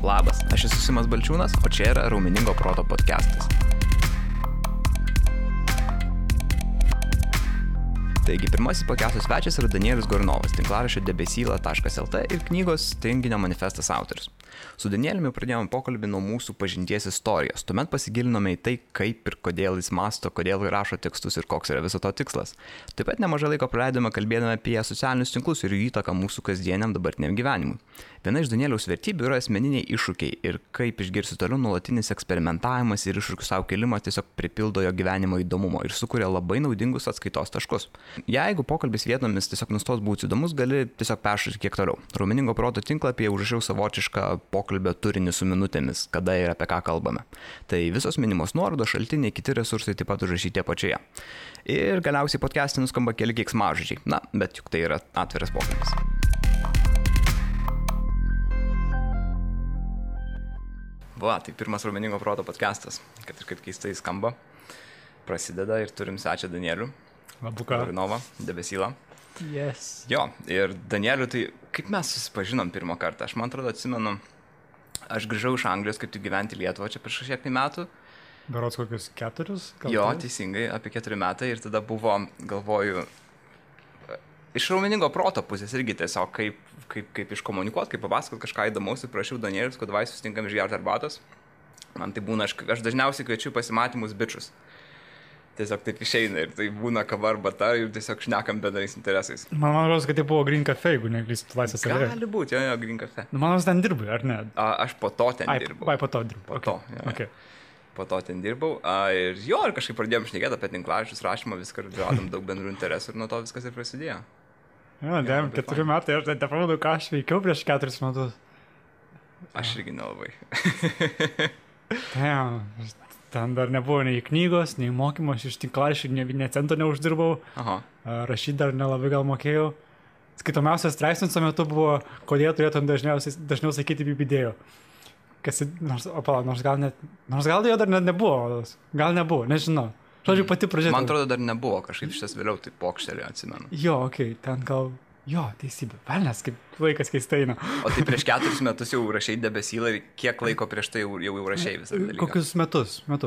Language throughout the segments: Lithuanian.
Labas, aš esu Simas Balčiūnas, o čia yra Raumeningo proto podcastas. Taigi, pirmasis podcastų svečias yra Danielius Gornovas, tinklaraščio debesyla.lt ir knygos Tinginio manifestas autorius. Su Danieliumi pradėjome pokalbį nuo mūsų pažinties istorijos. Tuomet pasigilinome į tai, kaip ir kodėl jis mąsto, kodėl rašo tekstus ir koks yra viso to tikslas. Taip pat nemažai laiko praleidome kalbėdami apie socialinius tinklus ir jų įtaką mūsų kasdieniam dabartiniam gyvenimui. Viena iš Danieliaus vertybių yra asmeniniai iššūkiai ir kaip išgirsi toliau nuolatinis eksperimentavimas ir iššūkių savo kėlimas tiesiog pripildo jo gyvenimo įdomumo ir sukuria labai naudingus atskaitos taškus. Jeigu pokalbis vietomis tiesiog nustos būti įdomus, gali tiesiog peršyti kiek toliau. Raumeningo proto tinklapyje užrašiau savotišką pokalbio turinį su minutėmis, kada ir apie ką kalbame. Tai visos minimos nuorodos, šaltiniai, kiti resursai taip pat užrašyti apačioje. Ir galiausiai podcast'e nuskamba keli keiksmažodžiai. Na, bet juk tai yra atviras pokalbis. Va, tai pirmas Raumeningo proto podcastas, kad ir kaip keistai skamba, prasideda ir turim svečią Danielių. Labuka. Gornovą, debesylą. Yes. Jo, ir Danielių, tai kaip mes susipažinom pirmą kartą? Aš man atrodo atsimenu, aš grįžau iš Anglijos kaip tik gyventi Lietuvą čia prieš kažkiek metų. Berods kokius 4? Jo, teisingai, apie 4 metai ir tada buvo, galvoju, iš Raumeningo proto pusės irgi tiesiog kaip iškomunikuoti, kaip papasakoti kažką įdomaus ir prašiau Danielius, kad vai susitinkam išgerti arbatos. Man tai būna, aš dažniausiai kviečiu pasimatymus bičius. Tiesiog taip išeina ir tai būna kava arbata ir tiesiog šnekam bendrais interesais. Man rodos, kad tai buvo Green Cafe, jeigu neklystu laisvės alėja. Gali būti, jo, Green Cafe. Man rodos, ten dirbai, ar ne? Aš po to ten dirbau. Po to dirbau. Po to, jo. Okay. Po to ten dirbau. Ir jo, ir kažkaip pradėjom šnekėti apie tinklaraščius, rašymą, viską, radom daug bendrų interesų ir nuo to viskas ir prasidėjo. Jo, 4 metai, aš tai pamenu, ką aš veikiau prieš 4 metus. Aš irgi nelabai. Ten dar nebuvo nei knygos, nei mokymo, aš iš tinklaraščių ne cento neuždirbau. Aha. Rašyti dar nelabai gal mokėjau. Skaitomiausias straipsnis tuo metu buvo, kodėl turėtum dažniau sakyti bibidėjo. Nors gal jo dar nebuvo, gal nebuvo, nežinau. Žodžiu, pati pradžia. Man atrodo, dar nebuvo, kažkaip šitas vėliau tai pokštelį atsimenu. Jo, ten gal, teisybė, velnės, kaip laikas keistai eina. O tai prieš 4 metus jau rašai debesylą ir kiek laiko prieš tai jau rašai visą dalyką? Kokius metus. Man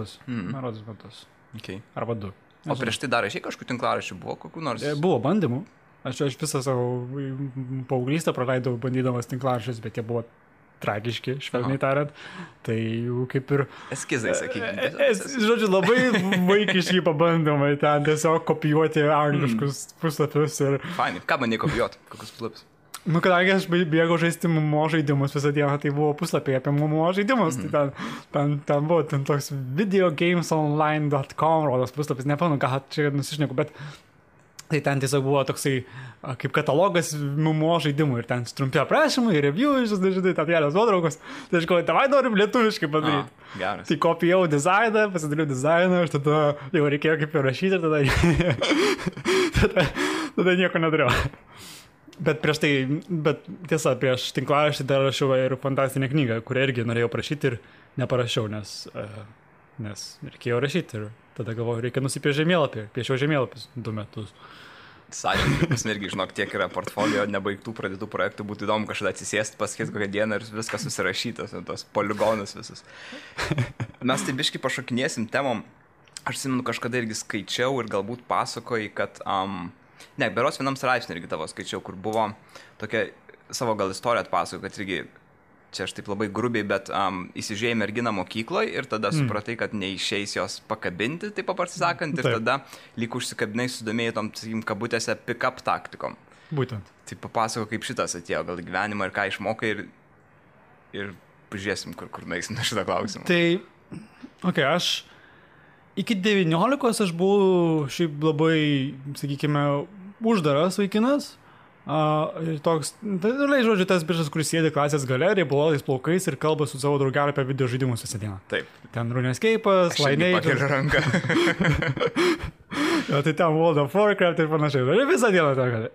rodos metus. Okay. Arba 2. O prieš tai dar rašai kažkokių tinklaraščių, buvo kokių nors? Buvo bandymų. Aš visą savo paauglystę praleidau bandydamas tinklaraščius, bet jie buvo tragiški, švelniai tariant. Tai jau kaip ir... Eskizai, sakykime. Žodžiu, labai vaikiški pabandymai ten tiesiog kopijuoti angliškus puslapius ir... Fainai. Ką bandai kopijuoti? Kokius puslapius? Kadangi aš bėgau žaisti MMO žaidimus visą dieną, tai buvo puslapiai apie MMO žaidimus. Tai ten buvo toks videogamesonline.com rodos puslapis, nepamenu, ką čia nusišneku, bet... Tai ten tiesiog buvo toksai kaip katalogas MMO žaidimų ir ten trumpi aprašymai, review, žinai, ten kelios nuotraukos. Tai aš galvoju, tavai norim lietuviškai padaryti. Geras. Tai kopijau dizainą, pasidariau dizainą, ir tada jau reikėjo kaip ir rašyti ir tada nieko nedariau. Bet tiesa, prieš tinklaraštį dar rašiau ir fantastinę knygą, kurią irgi norėjau prašyti ir neparašiau, nes reikėjo rašyti ir tada galvoju, reikia nusipiešti žemėlapį. Piešiau žemėlapius 2 metus. Sąžininkai, pas irgi, žinok, tiek yra portfolio nebaigtų pradėtų projektų, būtų įdomu kažkada atsisėsti, pasakyti kokią dieną ir viskas susirašytas, tos poligonus visus. Mes tai biškai pašokinėsim temom. Aš atsimenu, kažkada irgi skaičiau ir galbūt pasakoji, kad... berods vienam straipsnį irgi tavo skaičiau, kur buvo tokia savo gal istoriją atpasakoju, kad irgi... Čia aš taip labai grubiai, bet įsižiūrėjai merginą mokykloje ir tada supratai, kad neišeis jos pakabinti, taip paprastai sakant, ir tada lyg užsikabinai sudomėjai tom, sakykim, kabutėse pick-up taktikom. Būtent. Tai papasako, kaip šitas atėjo gal gyvenimą ir ką išmokai ir pažiūrėsim, kur nueisim na šitą klausimą. Tai, aš iki 19 aš buvau šiaip labai, sakykime, uždaras vaikinas. Toks, žodžiu, tas biržas, kuris sėdi klasės gale, riebalais plaukais ir kalba su savo draugeliu apie video žaidimus visą dieną. Taip. Ten RuneScape'as, Lineage. Aš pakeliu ranką. Tai ten World of Warcraft ir panašiai. Visą dieną tą gali.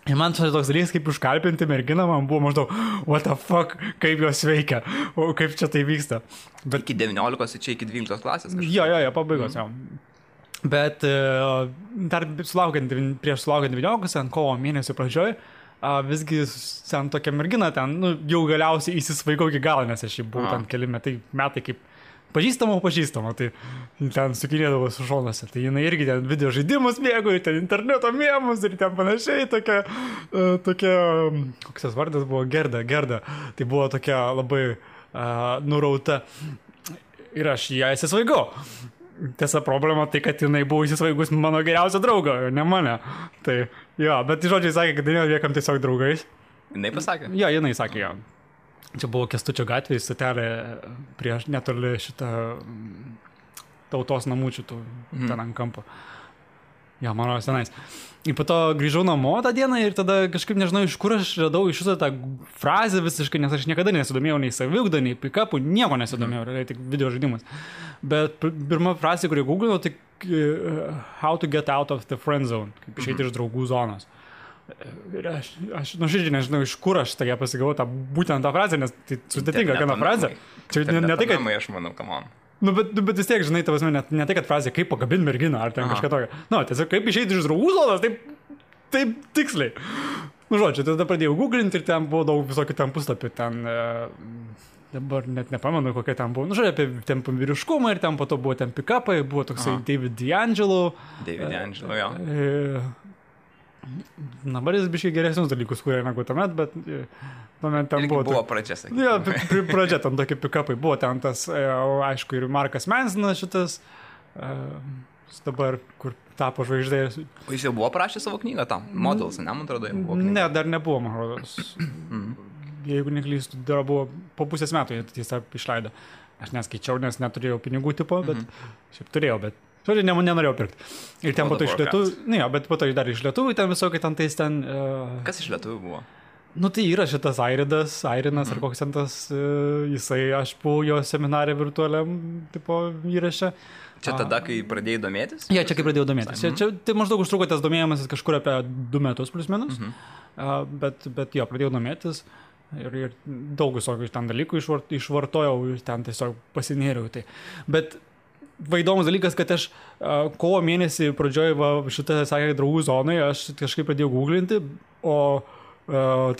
Ir man čia toks dalykas, kaip užkalbinti merginą, man buvo maždaug, what the fuck, kaip jos veikia, kaip čia tai vyksta. Bet iki 19, čia iki 12 klasės kažkas? Jo, pabaigos, jau. Bet dar prieš sulaukiant 19, ant kovo mėnesio pradžioj, visgi ten tokia mergina ten, nu, jau galiausiai įsisvaigau iki galo, nes aš jau buvau ten keli metai kaip pažįstama, tai ten sukinėdavo su šonuose. Tai jinai irgi ten video žaidimus mėgo, ir ten interneto mėmus, ir ten panašiai tokia, koks tas vardas buvo, Gerda. Tai buvo tokia labai nurauta. Ir aš ją įsisvaigau. Tiesa, problema tai, kad jinai buvo įsisvaigus mano geriausio draugo, ne mane. Tai jo, bet žodžiai sakė, kad liekam tiesiog draugais. Jinai pasakė? Jo, jinai sakė, jo. Čia buvo Kęstučio gatvėje, stotelė prieš netoli šitą tautos namučių, ten ant kampo. Jo, mano senais. Ir po to grįžau namo tą dieną ir tada kažkaip nežinau, iš kur aš radau iš šitą tą frazę visiškai, nes aš niekada nesidomėjau nei saviugdą, nei pick-upų, nieko nesidomėjau, tik video žaidimus. Bet pirma frazė, kurį googlinau, tai how to get out of the friend zone, kaip išeiti iš draugų zonos. Ir aš nuoširdžiai nežinau, iš kur aš tokia pasigavau būtent tą frazę, nes tai sudėtinga gana frazė. Čia ne tai, kad... aš manau, come on. Nu, bet vis tiek, žinai, tavas ne tai, kad frazė, kaip pagabinti merginą, ar ten kažką tokio. Nu, tiesiog kaip išeiti iš draugų zonos, taip tiksliai. Nu, žodžiu, tada pradėjau googlinti ir ten buvo daug visokių ten puslapių, ten... Dabar net nepamenu, kokia ten buvo. Nu, žodžiu, apie ten vyriškumą ir ten po to buvo ten pick-upai, buvo toksai David D'Angelo, jo. Dabar jis biškai geresnius dalykus kūrė negu tuomet, bet tuomet ten buvo pradžia, sakykime. Jo, pradžia ten tokie pick-upai. Buvo ten tas, aišku, ir Markas Mansonas šitas, dabar, kur tapo žvaigždės. O jis jau buvo parašęs savo knygą tam? Models, ne, man atrodo, jau buvo knyga. Ne, dar nebuvo, man rodos. Jeigu neklystu, dar buvo po pusės metų, jis tą išleido. Aš neskaičiau, nes neturėjau pinigų tipo, bet šiaip turėjau, bet žodžiai, nenorėjau pirkti. Ir ten po to iš lietuvių, ne, bet po to dar iš lietuvių, ten visokai ten tais ten... Kas iš lietuvių buvo? Nu, tai yra šitas Airinas, ar koks ten tas, jisai, aš buvau jo seminarė virtualiam, tipo, įraše. Čia tada, kai pradėjai domėtis? Ja, čia kai pradėjau domėtis. Čia tai maždaug užtruko tas domėjimasis kažkur apie 2 metus plus minus, bet jo, pradėjau domėtis. Ir daug visokių ten dalykų išvartojau ir ten tiesiog pasinėriau. Tai. Bet įdomus dalykas, kad aš kovo mėnesį pradžioj šitą, sakė, draugų zonai, aš kažkaip pradėjau googlinti, o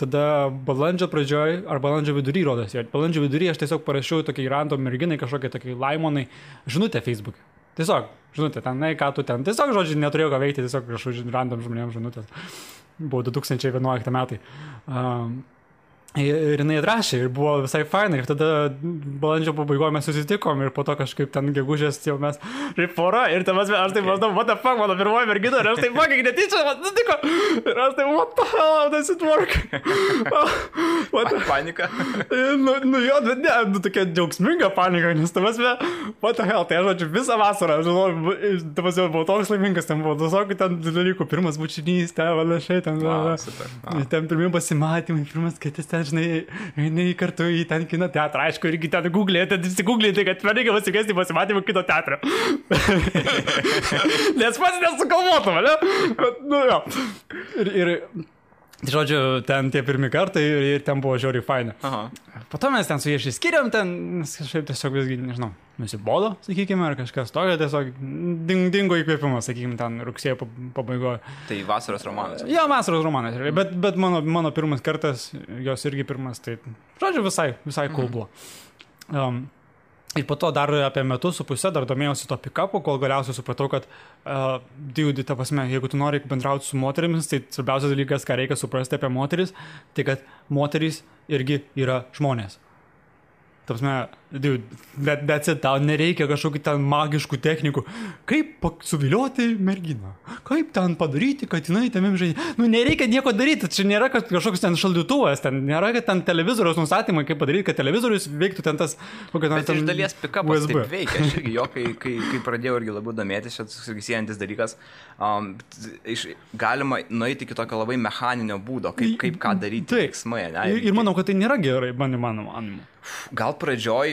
tada balandžio pradžioj, ar balandžio vidury rodos. Balandžio vidury aš tiesiog parašiau tokiai random merginai, kažkokiai Laimonai, žinutę Facebook'e. Tiesiog, žinutė, ten, ką tu ten, tiesiog, žodžiu, neturėjau ką veikti, tiesiog kažkokiu random žmonėms žinutės. Buvo 2011 metai. Ir jinai atrašė ir buvo visai fainai ir tada balandžio pabaigoje mes susitikom ir po to kažkaip ten gegužės jau mes pora ir ten aš taip maždaug, what the fuck, mano pirmoji mergina ir aš taip fucking netyčia, man nutiko ir aš taip, what the hell, how does it work? Panika. Nu jo, bet ne, tokia džiaugsminga panika, nes what the hell, tai aš žodžiu visą vasarą, žinau, buvau toks laimingas, ten buvo visokių ten dalykų, pirmas bučinys, ten panašiai, ten pirmi pasimatymai, pirmas skaitis ten, žinai, eini kartu į ten kino teatrą, aišku, irgi ten googlėti, kad reikia pasikviesti pasimatymą kino teatrą. Nes pats nesukalvotum, ne? Nu jo. Ir žodžiu, ten tie pirmi kartai ir ten buvo žiauriai faina. Po to mes ten su jie išsiskiriam, ten kažkaip tiesiog visgi, nežinau, nusibodo, sakykime, ar kažkas tokio, tiesiog dingo įkvėpimas, sakykime, ten rugsėjo pabaigoje. Tai vasaros romanas? Jo, vasaros romanas, bet mano pirmas kartas, jos irgi pirmas, tai, žodžiu, visai cool buvo. Ir po to dar apie metus su pusę dar domėjausi to pick-upu, kol galiausiai supratau, kad ta prasme, jeigu tu nori bendrauti su moterimis, tai svarbiausias dalykas, ką reikia suprasti apie moteris, tai kad moterys irgi yra žmonės. Ta prasme, that's it, tau nereikia kažkokių ten magiškų technikų. Kaip suvilioti merginą? Kaip ten padaryti, kad jinai tamim žaidė? Nu, nereikia nieko daryti, čia nėra kažkoks ten šaldytuvas, ten nėra ten televizoriaus nustatymai, kaip padaryti, kad televizorius veiktų ten tas... Bet iš dalies pick-upas taip veikia, aš irgi jo, kai pradėjau irgi labiau domėtis, šitas siejantis dalykas, galima nueiti iki tokio labai mechaninio būdo, kaip ką daryti veiksmai. Ir manau, kad tai nėra gerai, mano. Gal pradžioj,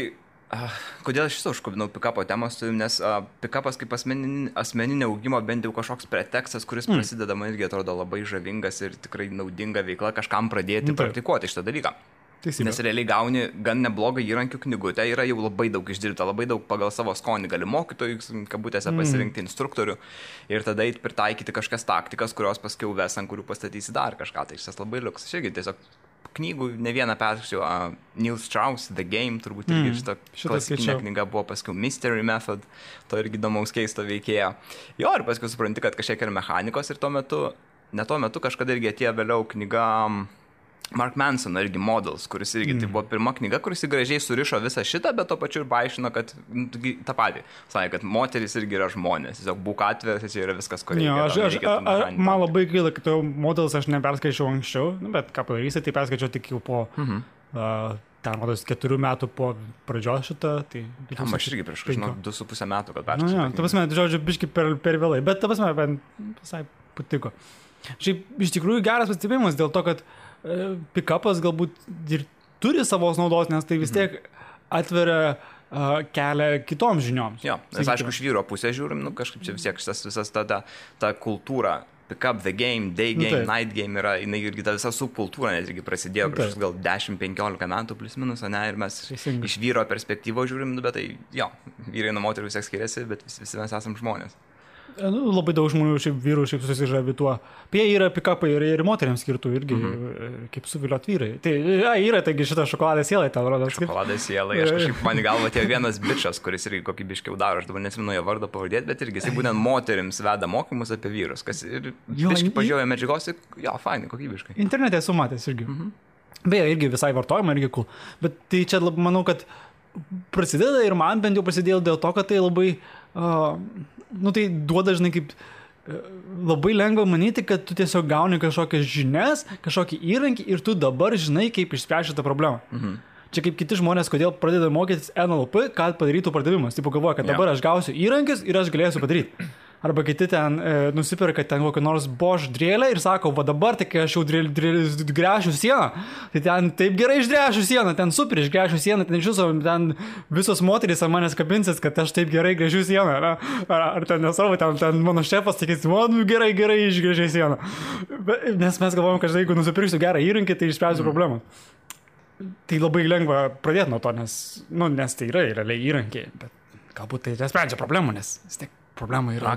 kodėl aš šitą užkabinau pick-upo temos, nes pick-upas kaip asmeninė augimo bent jau kažkoks pretekstas, kuris prasideda, man irgi atrodo labai žavingas ir tikrai naudinga veikla kažkam pradėti praktikuoti šitą dalyką. Teisybė. Nes realiai gauni gan neblogą įrankių knygutę, yra jau labai daug išdirbta, labai daug pagal savo skonį gali mokytojų, kabutėse pasirinkti instruktorių ir tada eit pritaikyti kažkas taktikas, kurios paskiau ves, ant kurių pastatysi dar kažką. Tai šis labai liuks. Aš irgi tiesiog knygų ne vieną perskaičiau, Neil Strauss, The Game, turbūt irgi šitą klasikinę knygą buvo paskiau Mystery Method, to irgi įdomaus keisto veikėjo. Jo, ir paskiau supranti, kad kažkiek yra mechanikos ir tuo metu kažkada irgi atėjo vėliau knyga Mark Mansono irgi Models, kuris irgi tai buvo pirma knyga, kuris gražiai surišo visą šitą, bet to pačiu ir paaiškino, kad tą patį. Sakė, kad moteris irgi yra žmonės. Tiesiog būk atviras, čia yra viskas, ko reikia. Man labai gaila, kad Models aš neperskaičiau anksčiau, bet ką padarysi, tai perskaičiau tik jau po... ten, rodos, 4 metų po pradžios šitą, tai... Aš irgi prieš 2,5 metų, kad perskaičiau. Ta prasme, žodžiu, biški per vėlai, bet ta prasme, visai patiko. Šiaip, iš tikrųjų geras pastebėjimas dėl to, kad pick-upas galbūt ir turi savos naudos, nes tai vis tiek atveria kelią kitoms žinioms. Jo, nes aišku, iš vyro pusės žiūrim, kažkaip čia vis tiek visas ta kultūra, pick-up, the game, day game, night game yra, jinai irgi ta visa subkultūra net irgi prasidėjo prieš gal 10-15 metų plus minus, ne, ir mes iš vyro perspektyvos žiūrim, bet tai jo, vyrai nuo moterų vis tiek skiriasi, bet visi mes esam žmonės. Labai daug žmonių, šiaip vyrų, šiaip susižavi tuo. Apie yra pick-upai ir moteriams skirtų irgi, kaip suviliot vyrai. Tai yra, taigi šitą šokoladą sielai tau rodo. Šokoladą sielai, aš kažkaip man į galvą atėjo vienas bičas, kuris irgi kokybiškiau daro, aš dabar nesimenu jo vardą pavardėti, bet irgi jisai būtent moterims veda mokymus apie vyrus, kas ir biškai pažiūrėjo medžiagos, jo, fainai, kokybiškai. Internete esu matęs irgi. Beje, irgi visai vartojama, irgi cool. Bet tai čia manau, kad prasideda ir man bent jau prasidėjo dėl to, kad tai labai... tai duoda, žinai, kaip labai lengva manyti, kad tu tiesiog gauni kažkokias žinias, kažkokį įrankį ir tu dabar žinai, kaip išspręsti tą problemą. Čia kaip kiti žmonės, kodėl pradeda mokytis NLP, kad padarytų pardavimas. Taip galvoja, kad dabar aš gausiu įrankius ir aš galėsiu padaryti. Arba kiti ten nusipirka ten kokį nors Bosch drėlę ir sako, va dabar, tai kai aš jau gręšiu sieną, tai ten taip gerai išgręšiu sieną, ten super išgręšiu sieną, ten visos moterys ant manęs kabinsis, kad aš taip gerai gręžiu sieną. Ar ten nesvarbu, ten mano šefas sakys, man gerai išgręžiu sieną. Nes mes galvojam, kad jeigu nusipirksiu gerą įrankį, tai išspręsiu problemą. Tai labai lengva pradėti nuo to, nes tai yra realiai įrankiai, bet galbūt tai nesprendžia problemų, nes vis tiek problema yra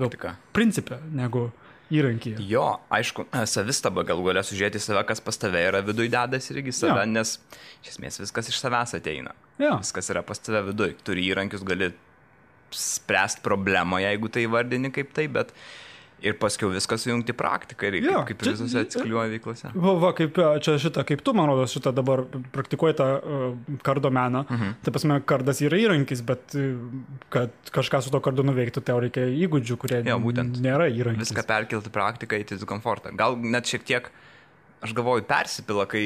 principė negu įrankyje. Jo, aišku, savistaba galų galia sužiūrėti save, kas pas tave yra viduj dedas irgi save, nes iš esmės viskas iš savęs ateina. Viskas yra pas tave viduj. Turi įrankius, gali spręsti problemą, jeigu tai vardini kaip tai, bet ir paskiau viskas sujungti praktiką ir kaip visose atsikliuoja veiklose. Kaip čia šitą, kaip tu, man rodos, šitą dabar praktikuoji tą kardo meną. Tai pasme, kardas yra įrankis, bet kad kažką su to kardu nuveiktų, tai reikia įgūdžių, kurie nėra įrankis. Viską perkelti praktiką į komfortą. Gal net šiek tiek, aš galvoju, persipila, kai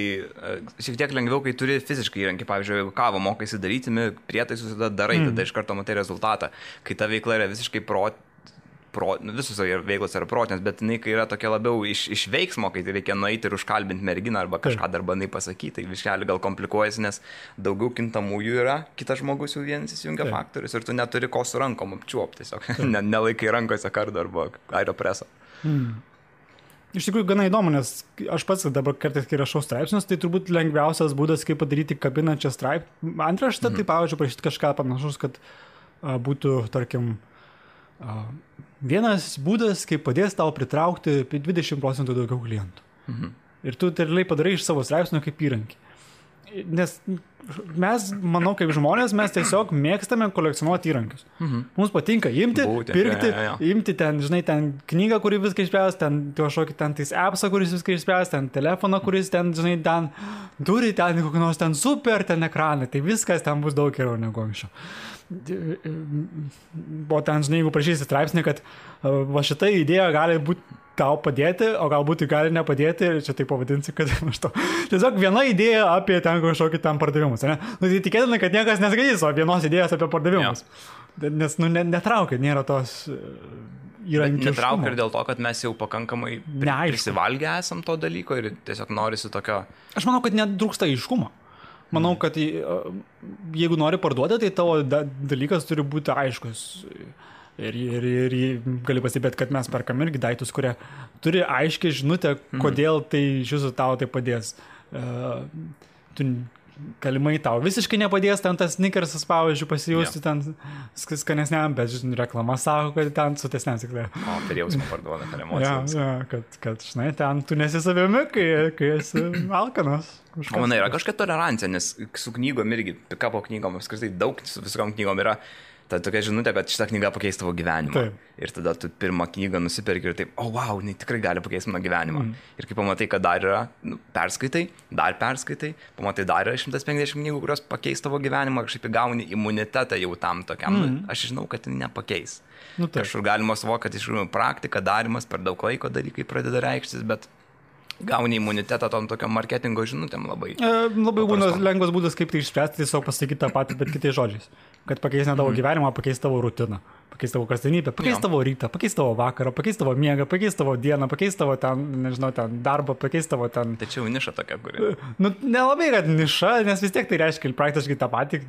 šiek tiek lengviau, kai turi fiziškai įrankį. Pavyzdžiui, jeigu kavą mokaisi daryti, prietaisus tada darai, tada iš karto matai rezultatą. Kai ta veikla yra visiškai visos veiklos yra protinės, bet jinai, kai yra tokia labiau iš veiksmo, kai reikia nueiti ir užkalbinti merginą arba kažką dar bandai pasakyti, tai viškelį gal komplikuojasi, nes daugiau kintamųjų yra, kitas žmogus jau vienas įsijungia faktorius ir tu neturi ko su rankom apčiuopti, tiesiog nelaikai rankose kardo arba aeropreso. Iš tikrųjų gana įdomu, nes aš pats dabar kartais, kai rašau straipsnius, tai turbūt lengviausias būdas, kaip padaryti kabinančią antraštę, tai pavyzdžiui, prašyti kažką panašus, kad būtų, tarkim, vienas būdas, kaip padės tau pritraukti 20% daugiau klientų. Ir tu realiai padarai iš savo straipsnio kaip įrankį. Nes mes, manau, kaip žmonės, mes tiesiog mėgstame kolekcionuoti įrankius. Mums patinka imti, pirkti, imti ten, žinai, ten knygą, kuri viską išspręs, ten kažkokį ten tais appsą, kuris viską išspręs, ten telefoną, kuris ten, žinai, ten turi ten kokį nors ten super ten ekraną, tai viskas ten bus daug geriau negu anksčiau. O ten, žinai, jeigu prašysi straipsnį, kad va šita idėja gali būti tau padėti, o galbūt gali nepadėti, ir čia taip pavadinsi, kad aš to. Tiesiog viena idėja apie ten kažkokį ten pardavimus, ne? Tai tikėtina, kad niekas neskaitys, o vienos idėjos apie pardavimus. Nes, netraukia, nėra tos įrankiškumo. Netraukia ir dėl to, kad mes jau pakankamai prisivalgę esam to dalyko ir tiesiog norisi tokio... Aš manau, kad netrūksta aiškumo. Manau, kad jeigu nori parduoti, tai tavo dalykas turi būti aiškus. Ir gali pasibėti, kad mes perkam irgi daiktus, kurie turi aiškiai žinutę, kodėl tai iš jūsų tau tai padės. Tu galimai tau visiškai nepadės ten tas snickersas, pavyzdžiui, pasijausti ten skanesniam, bet reklama sako, kad ten sutesniam tikrai. O, per jausmą parduoda, per emocijas. Kad, žinai, ten tu nesi savimi, kai esi alkanas. O manai, yra kažkokia tolerancija, nes su knygom irgi, pikapo knygom, apskritai daug su visom knygom yra ta tokia žinutė, kad šitą knygą pakeis tavo gyvenimą. Taip. Ir tada tu pirmą knygą nusiperki ir taip, wow, jinai tikrai gali pakeisti mano gyvenimą. Ir kai pamatai, kad dar yra, perskaitai, pamatai dar yra 150 knygų, kurios pakeis tavo gyvenimą, kažkaip gauni imunitetą jau tam tokiam. Aš žinau, kad tai nepakeis. Kažkur galima suvokti, kad iš tikrųjų praktika, darimas, per daug laiko dalykai pradeda reikštis, bet gauni imunitetą tom tokiam marketingo žinutėm labai. Labai būna lengvas būdas, kaip tai išspręsti, tiesiog pasakyti tą patį, bet kitais žodžiais. Kad pakeis ne tavo gyvenimą, pakeis tavo rutiną, pakeis tavo kasdienybę, pakeis tavo rytą, pakeis tavo vakarą, pakeis tavo miegą, pakeis tavo dieną, pakeis tavo ten, nežinau, ten darbą, pakeis tavo ten... Tačiau niša tokia, kuri... Nelabai, kad niša, nes vis tiek tai reiškia praktiškai tą patį,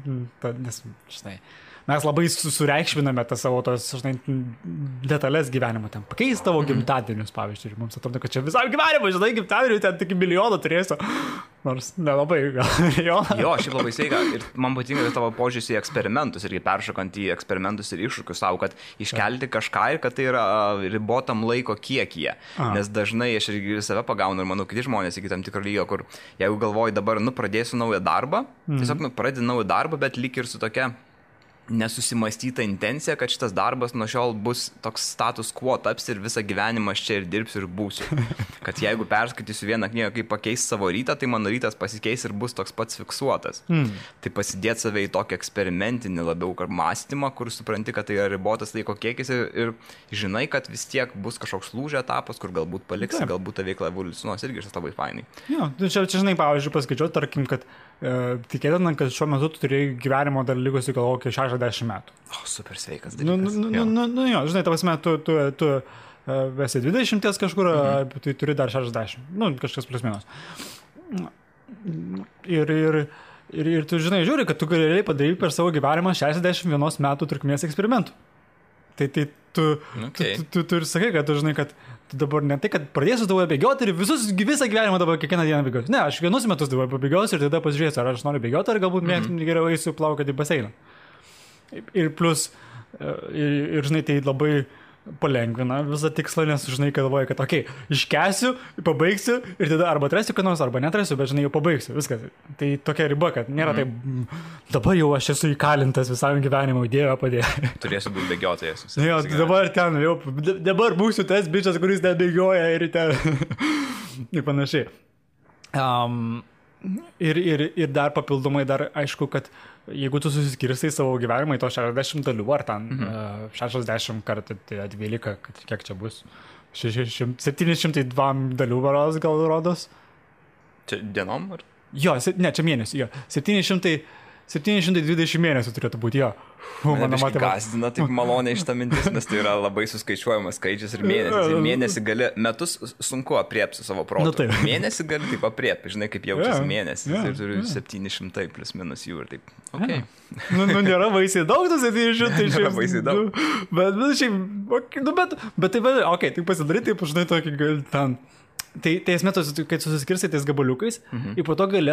nes, žinai... Mes labai sureikšminame tą savo tos, žinai, detalės gyvenimo ten. Pakeis tavo gimtadienius, pavyzdžiui, ir mums atrodo, kad čia visam gyvenimui, žinai, gimtadienių ten tik milijoną turėsiu. Nors nelabai gal milijoną. Jo, šiaip labai sveika. Ir man patinka tavo požiūris į eksperimentus irgi peršokant į eksperimentus ir iššūkius savo, kad iškelti kažką ir kad tai yra ribotam laiko kiekyje. Nes dažnai aš irgi save pagaunu ir manau, kiti žmonės iki tam tikro lygio, kur jeigu galvoju dabar, pradėsiu naują darbą, tiesiog pradedi naują darbą, bet lyg ir su tokia nesusimastyta intencija, kad šitas darbas nuo šiol bus toks status quo taps ir visą gyvenimą aš čia ir dirbsiu ir būsiu. Kad jeigu perskaitysiu vieną knygą, kaip pakeis savo rytą, tai mano rytas pasikeis ir bus toks pats fiksuotas. Tai pasidėti save į tokį eksperimentinį labiau mąstymą, kur supranti, kad tai yra ribotas laiko kiekis ir žinai, kad vis tiek bus kažkoks lūžio etapas, kur galbūt paliksi, galbūt ta veikla evoliucionuos irgi šitas labai fainai. Jo, čia žinai, pavyzdžiui, paskaičiau, tarkim, kad tikėtina, kad šiuo metu tu turėjai gyvenimo dar likusi gal kokie 60 metų. O, super sveikas dalykas. Jo, žinai, ta prasme, tu esi 20 kažkur, tai turi dar 60. Kažkas plius minus. Ir tu, žinai, žiūri, kad tu galėjai padaryti per savo gyvenimą 61 metų trukmės eksperimentų. Tai tu ir sakai, kad tu žinai, kad tu dabar ne tai, kad pradėsiu dabar bėgioti ir visą gyvenimą dabar kiekvieną dieną bėgioti. Ne, aš vienus metus dabar pabėgiosiu ir tada pasižiūrėsiu, ar aš noriu bėgioti, ar galbūt geriau eisiu plaukioti į baseiną. Ir plus, ir žinai, tai labai palengvina visą tikslą, nes žinai, galvoju, kad okei, iškęsiu, pabaigsiu ir tada arba atrasiu, kad nors, arba netrasiu, bet žinai, jau pabaigsiu, viskas. Tai tokia riba, kad nėra taip, dabar jau aš esu įkalintas visam gyvenimui, Dieve padėjo. Turėsiu būti bėgiotojas. Jo, dabar ten, jau, dabar būsiu tas bičas, kuris ten bėgioja ir ten ir panašiai. Ir dar papildomai, aišku, kad jeigu tu susiskirstai savo gyvenimą į to 60 dalių, ar ten 60 kartų 12, kiek čia bus? 702 dalių varos gal rodos? Čia dienom? Ar? Jo, ne, čia mėnesių, jo. 720 mėnesių turėtų būti, jo. Mane biškai gazdina taip maloniai šitą mintis, nes tai yra labai suskaičiuojamas skaičius ir mėnesis. Ir mėnesį gali, metus sunku apriepti savo protų. Mėnesį gali taip apriepti, žinai, kaip jaučiasi mėnesis. Ir turiu 700 plus minus jų ir taip. Okay. Nėra baisiai daug, tu 700. Nėra baisiai daug. Bet tai, okei, tai pasidaryti, taip, žinai, tokį gali ten... Tai esmė, kai susiskirstai tais gabaliukais, ir po to gali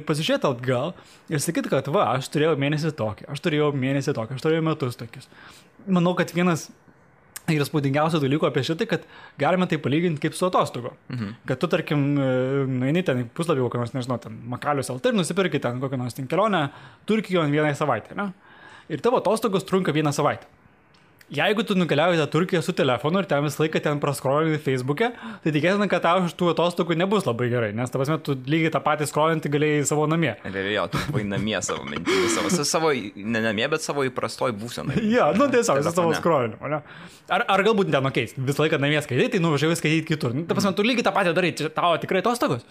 pasižiūrėti atgal ir sakyti, kad aš turėjau mėnesį tokį, aš turėjau metus tokius. Manau, kad vienas ir spūdingiausių dalykų apie šitai, kad galime tai palyginti kaip su atostogo. Kad tu, tarkim, nueini ten puslapį kokią nors, nežinau, ten Makalius LT ir nusipirki ten kokią nors kelionę Turkijoje vieną savaitę, ne? Ir tavo atostogos trunka 1 savaitę. Jeigu tu nukeliauji į Turkiją su telefonu ir ten visą laiką ten praskrolini Facebook'e, tai tikėtina, kad tau iš tų atostogų nebus labai gerai, nes ta prasme, tu lygiai tą patį skrolinti galėjai savo namie. Jo, tu buvai namie savo mintimis, savo, ne namie, bet savo įprastoj būsenai. Jo, tiesiog, savo skrolinimu, ne? Ar galbūt ten, visą laiką namie skaitai, tai nuvažiavai skaityti kitur. Ta prasme, tu lygiai tą patį darai, tavo tikrai atostogos.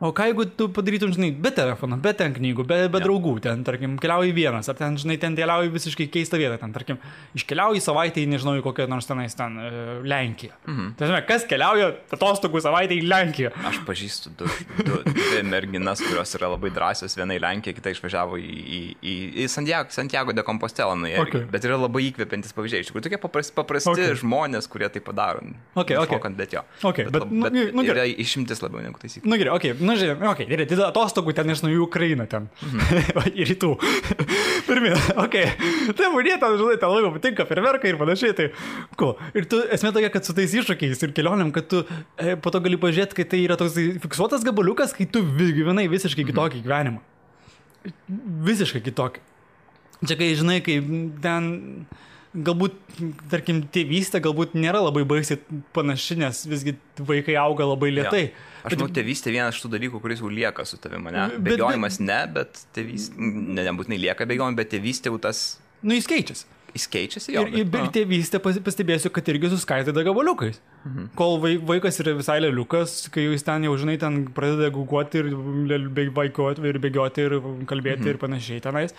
O ką jeigu tu padarytum, žinai, be telefono, be ten knygų, be draugų, ten, tarkim, keliauji vienas, ar ten, žinai, ten keliauji visiškai keistą vietą, ten, tarkim, iškeliauji savaitę į, nežinau, į kokią nors tenais ten Lenkiją. Tai, žinai, kas keliauja atostogų savaitę į Lenkiją? Aš pažįstu dvi merginas, kurios yra labai drąsios, viena į Lenkiją, kita išvažiavo į Santiago de Compostela, bet yra labai įkvepiantis pavyzdžiai. Iš tikrųjų, tokie paprasti žmonės, kurie tai padaro. Bet yra išimtis labiau negu taisyklė. nu žiūrėjau, okei, gerai, tai atostogų ten iš naujų Ukrainą ten. Į rytų. Pirmin, okei. Tai būnė ten, žinai, ten labiau patinka ferverkai ir panašiai, tai cool. Ir tu, esmė tokia, kad su tais iššūkiais ir kelionėm, kad tu po to gali pažiūrėti, kai tai yra toks fiksuotas gabaliukas, kai tu gyvenai visiškai kitokį gyvenimą. Visiškai kitokį. Čia kai, žinai, kai ten galbūt, tarkim, tėvystė galbūt nėra labai baisiai panaši, nes visgi vaikai auga labai lėtai. Ja. Aš manau, tėvystė vienas iš tų dalykų, kuris jau lieka su tavimi, ne? Bėgiojimas ne, bet tėvystė, nebūtinai lieka bėgiojimai, bet tėvystė jau tas... Nu, jis keičiasi. Jis keičiasi jau. Ir tėvystė pastebėsiu, kad irgi suskaidyta gabaliukais. Kol vaikas yra visai leliukas, kai jis ten jau, žinai, ten pradeda guguoti ir vaikoti ir bėgioti ir kalbėti ir panašiai tenais.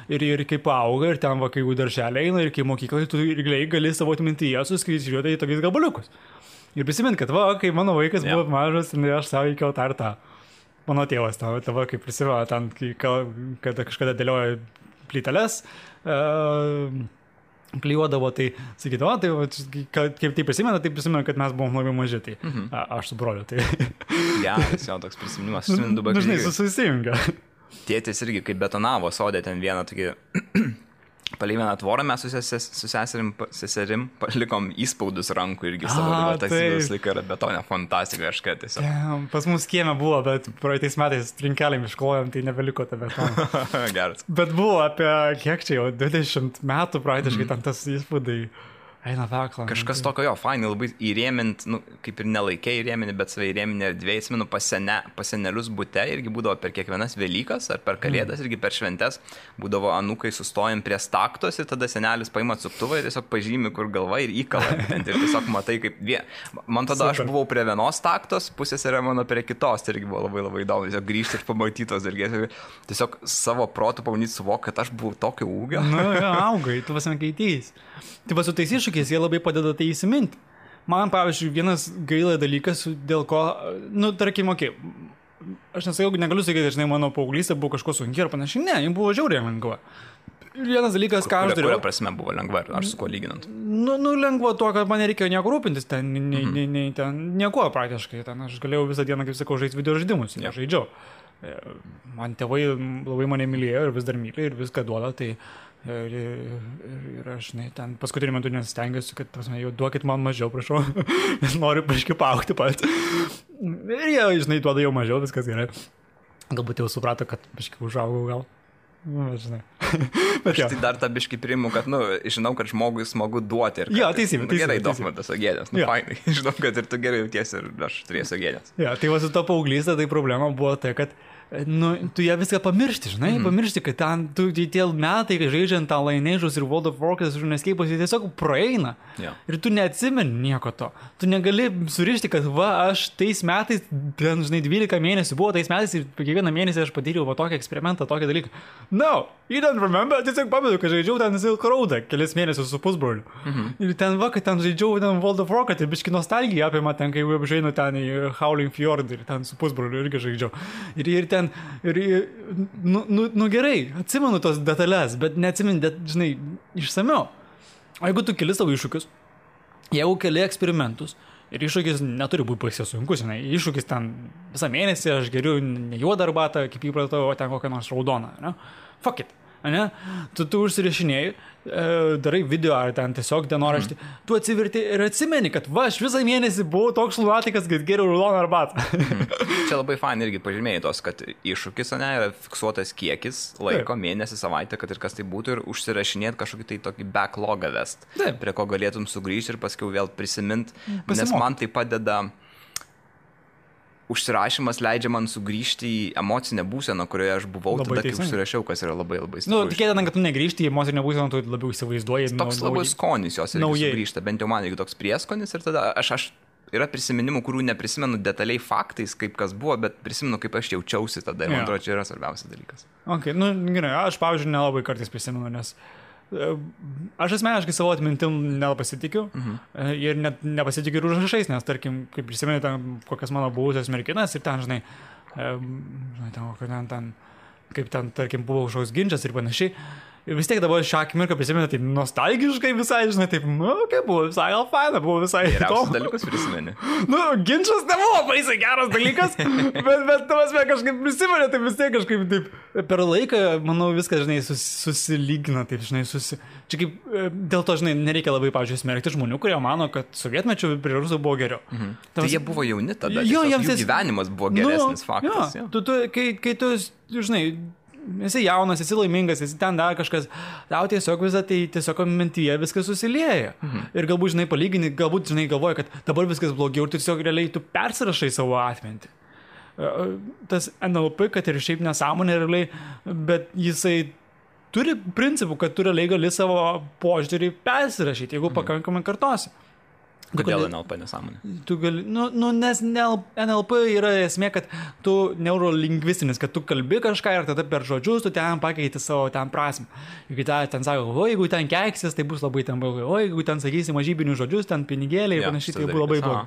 Ir kai paauga ir ten kai jau darželė eina ir kai mokyklai, tu irgi gali savo atmintyje suskaičiuoti į tokius gabaliukus. Ir prisimint, kad kai mano vaikas buvo mažas, aš savo įkiau tą ir tą. Mano tėvas tavo, kai prisimena ten, kad kažkada dėlioja plyteles, klijuodavo, tai sakydavo, tai kaip tai prisimena, kad mes buvom labai maži, tai aš su broliu, tai... Geras, jau toks prisiminimas, susimint du bakai. Dažnai susijungia. Tėtis irgi, kaip betonavo sodė ten vieną tokį... Palei vieną tvorą mes su seserim palikom įspaudus rankų irgi savo, tas įvaus laiką yra betonė fantastika kažką tiesiog. Pas mus kieme buvo, bet praeitais metais trinkelėm išklojom, tai nebeliko tą betoną. Geras. Bet buvo apie, kiek čia jau, 20 metų praktiškai ten tas įspaudai. Eina vekla. Kažkas tokio jo, fainai, labai įrėmint, nu, kaip ir nelaikiai įrėminti, bet savai įrėminti erdvėje, atsimenu, pas senelius bute irgi būdavo per kiekvienas Velykas ar per Kalėdas, irgi per šventes, būdavo anūkai sustojam prie staktos ir tada senelis paima atsuktuvą ir tiesiog pažymi, kur galva ir įkala. Ir tiesiog matai, kaip man tada aš buvau prie vienos staktos, pusės yra mano prie kitos, tai irgi buvo labai labai įdomu, tiesiog grįžti ir pamatytos ir tiesiog savo protų pamanyti suvok, kad aš buvau tokio ūgio. Nu, jo, augai, tu vasame keitys. Tai va su tais iššūkiais jie labai padeda tai įsiminti. Man, pavyzdžiui, vienas gaila dalykas, dėl ko, nu, tarkim, aš negaliu sakyti, žinai, mano paauglystė buvo kažko sunki ar panašiai, ne, jums buvo žiauriai lengva. Ir vienas dalykas, ką aš dariau. Kuria prasme buvo lengva, ar su kuo lyginant? Nu, lengva tuo, kad man nereikėjo nieko rūpintis, ten nieko praktiškai, ten aš galėjau visą dieną, kaip sakau, žaisti video žaidimus, žaidžiau. Man tėvai labai mane mylėjo ir vis dar myli ir viską duoda, tai ir aš, žinai, ten paskutinį metu nesistengiuosi, kad, prasme, jau duokit man mažiau, prašau, nes noriu paškai paaugti pats. Ir jie, žinai, duoda jau mažiau, viskas gerai. Galbūt jau suprato, kad paškai užaugau gal. Nu, žinai. Bet aš tai dar tą biškį priimu, kad, nu, žinau, kad žmogui smagu duoti. Jo, teisybė. Gerai, duok tas ogėdės, nu, fainai. Žinau, kad ir tu gerai jautiesi ir aš turėsiu ogėdės. Jo, tai va su to paauglystė, tai problema buvo tai, kad nu, tu ją viską pamiršti, žinai, pamiršti, kad ten tie metai, kai žaidžiant tą Lineage'us ir World of Warcraft, Runescape'us, jie tiesiog praeina. Ir tu neatsimeni nieko to. Tu negali surišti, kad aš tais metais, ten, žinai, 12 mėnesių buvo tais metais ir kiekvieną mėnesį aš patyriau tokį eksperimentą, tokį dalyką. No, you don't remember, tiesiog pamenu, kad žaidžiau ten Silk Road'ą kelis mėnesius su pusbroliu. Ir ten kad ten žaidžiau ten World of Warcraft ir biški nostalgija apima ten, kai jau žaidžiau ten į Howling Fjord ir ten su pusbroliu irgi žaidžiau. Ir ten, nu gerai, atsimenu tos detalės, bet neatsimenu, žinai, išsamiau. O jeigu tu keli savo iššūkius, jeigu keli eksperimentus, ir iššūkis neturi būti baisiai sunkus, žinai, iššūkis ten visą mėnesį, aš geriu ne juodą arbatą, kaip įpratau, o ten kokią nors raudoną, ne? Fuck it. Ne? Tu užsirašinėjai, darai video ar ten tiesiog dienoraštį, tu atsiverti ir atsimeni, kad aš visą mėnesį buvau toks lunatikas, kad geriau raudoną arbatą. Čia labai fain irgi pažymėjai tos, kad iššūkis, ne, yra fiksuotas kiekis laiko, mėnesį, savaitę, kad ir kas tai būtų ir užsirašinėti kažkokį tai tokį backlogą vest, prie ko galėtum sugrįžti ir paskui vėl prisimint, nes man tai padeda. Užsirašymas leidžia man sugrįžti į emocinę būseną, kurioje aš buvau labai tada, kai užsirašiau, kas yra labai labai stiprus. Nu, tikėtina, kad tu negrįžti į emocinę būseną, tu labiau įsivaizduoji. Toks labai skonis jos irgi sugrįžta, bent jau man irgi toks prieskonis ir tada aš yra prisiminimų, kurių neprisimenu detaliai faktais, kaip kas buvo, bet prisimenu, kaip aš jaučiausi tada ir man atrodo, čia yra svarbiausias dalykas. Okay, nu, gerai, aš, pavyzdžiui, nelabai kartais prisimenu, nes aš asmeniškai savo atmintim nepasitikiu ir net nepasitikiu ir užrašais, nes tarkim, kaip prisimenu ten kokias mano buvusias merginas ir ten, žinai, kaip ten, tarkim, buvo kažkoks ginčas ir panašiai. Ir vis tiek dabar šią akimirką prisimenu taip nostalgiškai visai, žinai, taip, buvo visai gal faina, buvo visai Geriausias dalykas prisimeni. Ginčas nebuvo baisiai geras dalykas, bet tavas kažkaip prisimenu, tai vis tiek kažkaip taip per laiką, manau, viskas, žinai, susilygina, taip, žinai, Čia kaip, dėl to, žinai, nereikia labai, pavyzdžiui, smerkti žmonių, kurie mano, kad sovietmečiu prie rusų buvo geriau. Tai jie buvo jauni tada, jų gyvenimas buvo geresnis faktas. Kai tu, žinai, esi jaunas, esi laimingas, esi ten dar kažkas, tau tiesiog visą tai tiesiog mintyje viskas susilieja. Ir galbūt, žinai, palygini, galbūt, žinai, galvoja, kad dabar viskas blogiau ir tiesiog realiai tu persirašai savo atmintį. Tas NLP, kad ir šiaip nesąmonė realiai, bet jisai turi principų, kad tu realiai gali savo požiūrį persirašyti, jeigu pakankamai kartosi. Kodėl NLP nesąmonė? Tu gali, nes NLP yra esmė, kad tu neurolingvistinis, kad tu kalbi kažką ir tada per žodžius tu ten pakeiti savo ten prasmę. Jeigu ten sako, jeigu ten keiksis, tai bus labai ten blogai, jeigu ten sakysi mažybinius žodžius, ten pinigėliai ir panašiai, tai bus labai blogai.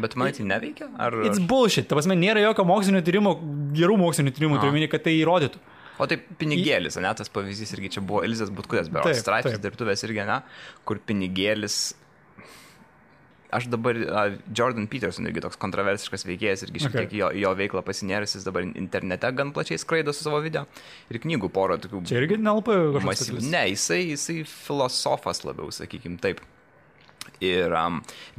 Bet man tai neveikia? It's bullshit. Ta prasme, nėra jokio mokslinio tyrimo, gerų mokslinio tyrimų, turiu, kad tai įrodytų. O tai pinigėlis, ne, tas pavyzdys irgi čia buvo Elizas Butkutės, berods straipsnis dirbtuvės irgi, ne, kur pinigėlis. Aš dabar, Jordan Peterson irgi toks kontroversiškas veikėjas, irgi šiek tiek jo veiklą pasinėręs, jis dabar internete gan plačiai skraido su savo video ir knygų porą tokių. Čia irgi NLP kažkas. Ne, jisai filosofas labiau, sakykim, taip. Ir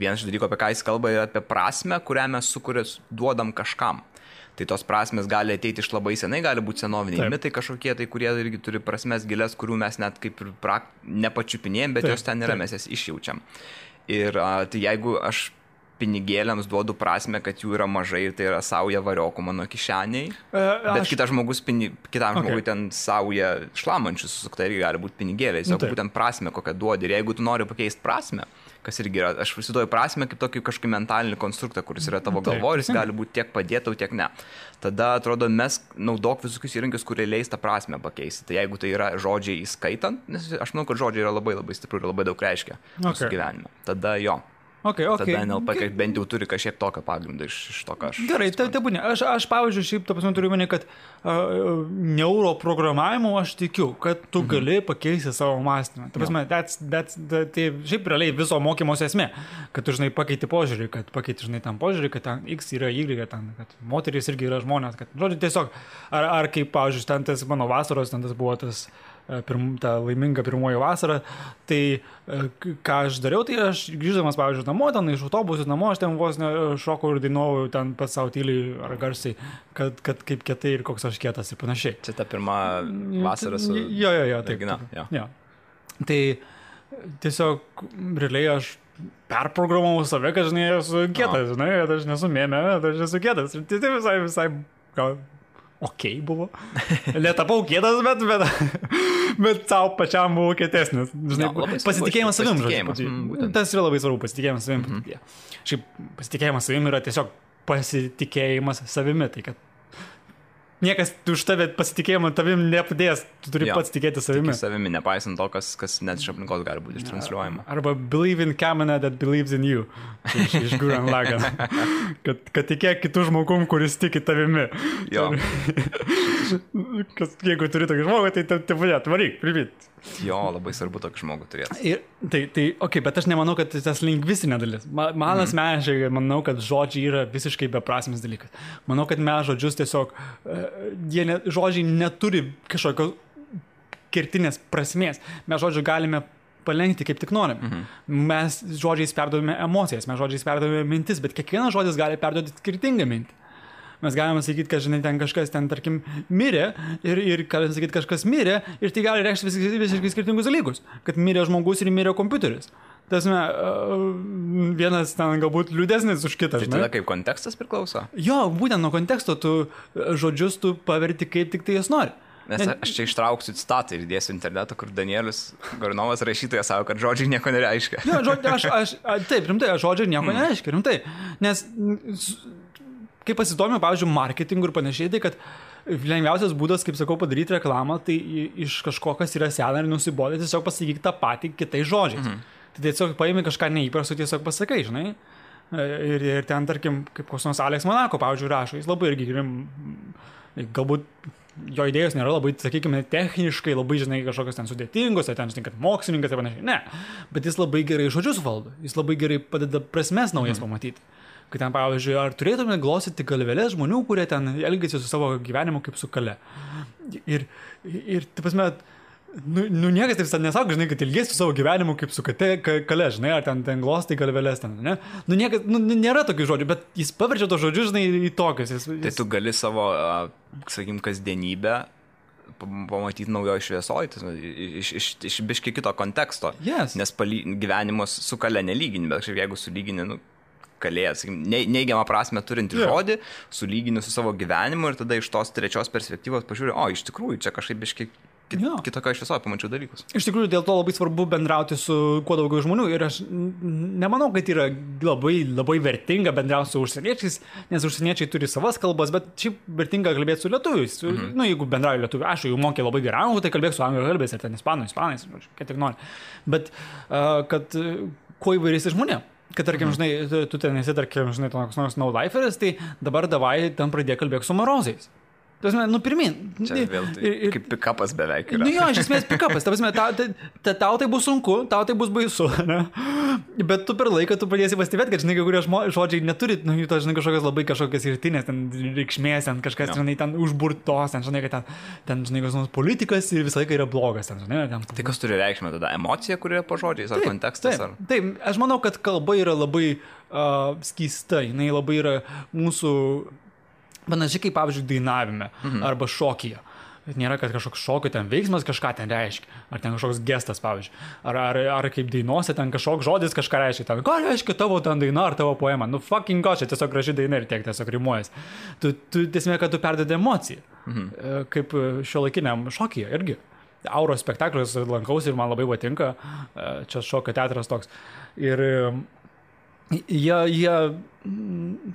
vienas iš dalykų, apie ką jis kalba, yra apie prasmę, kurią mes duodam kažkam. Tai tos prasmės gali ateiti iš labai senai, gali būti senoviniai mitai kažkokie, tai kurie irgi turi prasmės gilias, kurių mes net kaip ir nepačiupinėjom, bet jos ten yra, mes jas išjaučiam. Ir tai jeigu aš pinigėliams duodu prasme, kad jų yra mažai ir tai yra sauja variokų mano kišeniai, bet kitas žmogus, kitam žmogui ten sauja šlamančius susukta irgi gali būti pinigėliais, o būtent prasme kokią duodi. Ir jeigu tu nori pakeisti prasme, kas irgi yra, aš prisiduoju prasme kaip tokį kažkokį mentalinį konstruktą, kuris yra tavo galvoje ir jis gali būti tiek padėtau, tiek ne. Tada, atrodo, mes naudok visokius įrankius, kurie leis tą prasme pakeisti. Tai jeigu tai yra žodžiai įskaitant, nes aš manau, kad žodžiai yra labai labai stiprų ir labai daug reiškia mūsų gyvenime. Tada jo. Tada NLP bent jau turi kažkiek tokio pagrindo iš to, ką aš... Gerai, tai būnė. Aš pavyzdžiui, šiaip, ta prasme, turiu mane, kad neuroprogramavimu aš tikiu, kad tu gali pakeisti savo mąstymą. Ta prasme, tai šiaip realiai viso mokymosi esmė, kad tu, žinai, pakeiti požiūrį, kad pakeiti, žinai, tam požiūrį, kad ten X yra Y, kad moterys irgi yra žmonės, kad, žodžiu, tiesiog, ar kaip, pavyzdžiui, ten tas mano vasaros, ten tas buvo tas... ta laiminga pirmoji vasara, tai ką aš dariau, tai aš grįždamas, pavyzdžiui, namo, ten iš autobusų namo, aš ten vos šokau ir dainuoju ten pats savo tyliai ar garsiai, kad kaip kietai ir koks aš kietas ir panašiai. Čia ta pirma vasara su... Jo, taip. Jo. Tai tiesiog realiai aš perprogramavau save, kad, žinai, esu kietas, žinai, kad aš nesu mėmė, kad aš esu kietas. Ir tai visai gal... buvo. Netapau kietas, bet savo pačiam buvo kietesnis. Žinai, pasitikėjimas savim. Tas yra labai svarbu, pasitikėjimas savim. Šiaip pasitikėjimas savim yra tiesiog pasitikėjimas savimi. Tai kad niekas už tave pasitikėjimą tavim nepadės, tu turi pats tikėti savimi. Tiki savimi, nepaisant to, kas net iš aplinkos gali būti ištransliuojama. Arba believe in Kamina that believes in you. Iš Gurren Lagann. Kad tikėk kitų žmogum, kuris tiki tavimi. Jo. Jeigu turi tokį žmogų, tai varyk, primit. Jo, labai svarbu tokį žmogų turėti. Bet aš nemanau, kad tas lingvistinė dalis. Man asmeniškai manau, kad žodžiai yra visiškai beprasmis dalykas. Manau, kad mes žodžius tiesiog, žodžiai neturi kažkokios kertinės prasmės. Mes žodžių galime palenkti kaip tik norime. Mes žodžiais perduodame emocijas, mes žodžiais perduodame mintis, bet kiekvienas žodis gali perduoti skirtingą mintį. Mes galime sakyti, kad, žinai, ten kažkas ten, tarkim, mirė ir galime sakyti, kažkas mirė ir tai gali reikšti visiškai skirtingus dalykus. Kad mirė žmogus ir mirė kompiuteris. Tasme, vienas ten galbūt liūdesnis už kitą. Tai tada kaip kontekstas priklauso? Jo, būtent nuo konteksto tu žodžius tu paverti kaip tik tai jas nori. Nes aš čia ištrauksiu citatą ir dėsiu internetą, kur Danielius Gornovas rašytojas sako, kad žodžiai nieko nereiškia. Jo, taip, rimtai, žodžiai nieko nereiškia, rimtai. Nes... Kai pasidomėjau, pavyzdžiui, marketingų ir panašiai, tai kad lengviausias būdas, kaip sakau, padaryti reklamą, tai iš kažko, kas yra sena ir nusibodė, tiesiog pasakyk tą patį kitais žodžiais. Tai tiesiog paimi kažką neįprasto, tiesiog pasakai, žinai. Ir ten, tarkim, kaip koks nors Alex Manako, pavyzdžiui, rašo, jis labai irgi galbūt jo idėjos nėra labai, sakykime, techniškai, labai, žinai, kažkokios ten sudėtingos, ar ten, žinai, kad mokslininkas ir panašiai. Ne, bet jis labai gerai žodžius valdo, jis labai gerai padeda prasmes naujas pamatyti. Kai ten, pavyzdžiui, ar turėtume glostyti galvelės žmonių, kurie ten elgėsi su savo gyvenimu kaip su kale. Ir taip prasme, niekas taip nesako, žinai, kad ilgėsi su savo gyvenimu kaip su kale, žinai, ar ten glostai galvelės ten, ne? Niekas, nėra tokių žodžių, bet jis paverčia tos žodžius, žinai, į tokius. Tai tu gali savo, sakykim, kasdienybę pamatyti naujoje šviesoje, iš biškai kito konteksto. Yes. Nes gyvenimas su kale nelygini, bet jeigu sulygini, kalėjas, neigiamą prasme turinti žodį, sulygini su savo gyvenimu ir tada iš tos trečios perspektyvos pažiūrė, iš tikrųjų, čia kažkaip biškai kitokio šviesoje pamačiau dalykus. Iš tikrųjų, dėl to labai svarbu bendrauti su kuo daugiau žmonių ir aš nemanau, kad yra labai, labai vertinga bendrauti su užsieniečiais, nes užsieniečiai turi savas kalbas, bet šiaip vertinga kalbėti su lietuviais. Jeigu bendrauju lietuvių, aš jau mokė labai gerai, tai kalbėk su anglų kalbės ir ten ispanais, kad tik nori. Bet kad kuo įvairiais žmonėm. Kad, tarkim, žinai, tu ten esi, tarkim, žinai, toks nors no-liferis, tai dabar davai ten pradėk kalbėk su marozais. Pirmin. Čia vėl kaip pikapas beveik yra. Jo, iš esmės pikapas. Tau tai bus sunku, tau tai bus baisu, ne? Bet tu per laiką tu pradėsi pastebėti, kad, žinai, kai kurie žodžiai neturi, to, žinai, kažkokias irtinės, ten reikšmės, ten kažkas, žinai, ten užburtos, ten, žinai, kad ten, žinai, kas nors politikas ir visą laiką yra blogas, ten, žinai. Ten... Tai kas turi reikšmę tada? Emocija, kuri yra po žodžiais, ar kontekstas? Taip, aš manau, kad kalba yra labai skysta, jinai labai yra mūsų... Panašiai kaip, pavyzdžiui, dainavime arba šokyje. Nėra, kad kažkoks šokio ten veiksmas kažką ten reiškia. Ar ten kažkoks gestas, pavyzdžiui. Ar kaip dainuose ten kažkoks žodis kažką reiškia. Ten, ką reiškia tavo ten daina ar tavo poema? Fucking gosh, čia tiesiog graži daina ir tiek tiesiog rimuojas. Tu tiesiog, kad tu perdedi emociją. Kaip šiuolaikiniam šokyje irgi. Auro spektaklius lankausi ir man labai patinka. Čia šokio teatras toks. Ir... Jie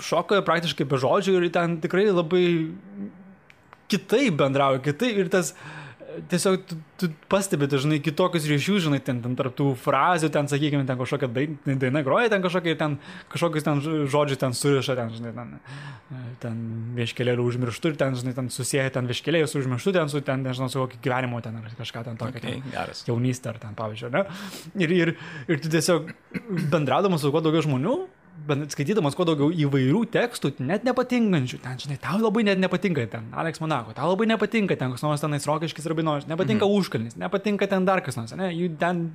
šoka praktiškai be žodžių ir ten tikrai labai kitaip bendrauja, ir tas tiesiog tu pastebi, žinai, kitokius ryšius, žinai, ten tarp tų frazių, ten, sakykime, ten kažkokia daina groja, ten kažkokius ten žodžius ten suriša, ten, žinai, ten vieškelėlių užmirštų ir ten, žinai, ten susieja ten vieškelėjus užmirštų, ten su, ten, nežinau, su kokį gyvenimo ten ar kažką ten tokio, jaunystę ar ten, pavyzdžiui, ne? Ir tu tiesiog bendraudamas su kuo daugiau žmonių, skaitydamas kuo daugiau įvairių tekstų, net nepatinkančių, ten, žinai, tau labai net nepatinka ten Alex Monako, tau labai nepatinka ten kas nors tenais Rokiškis Rabinovas, nepatinka Užkalnis, nepatinka ten dar kas nors, ne, jų ten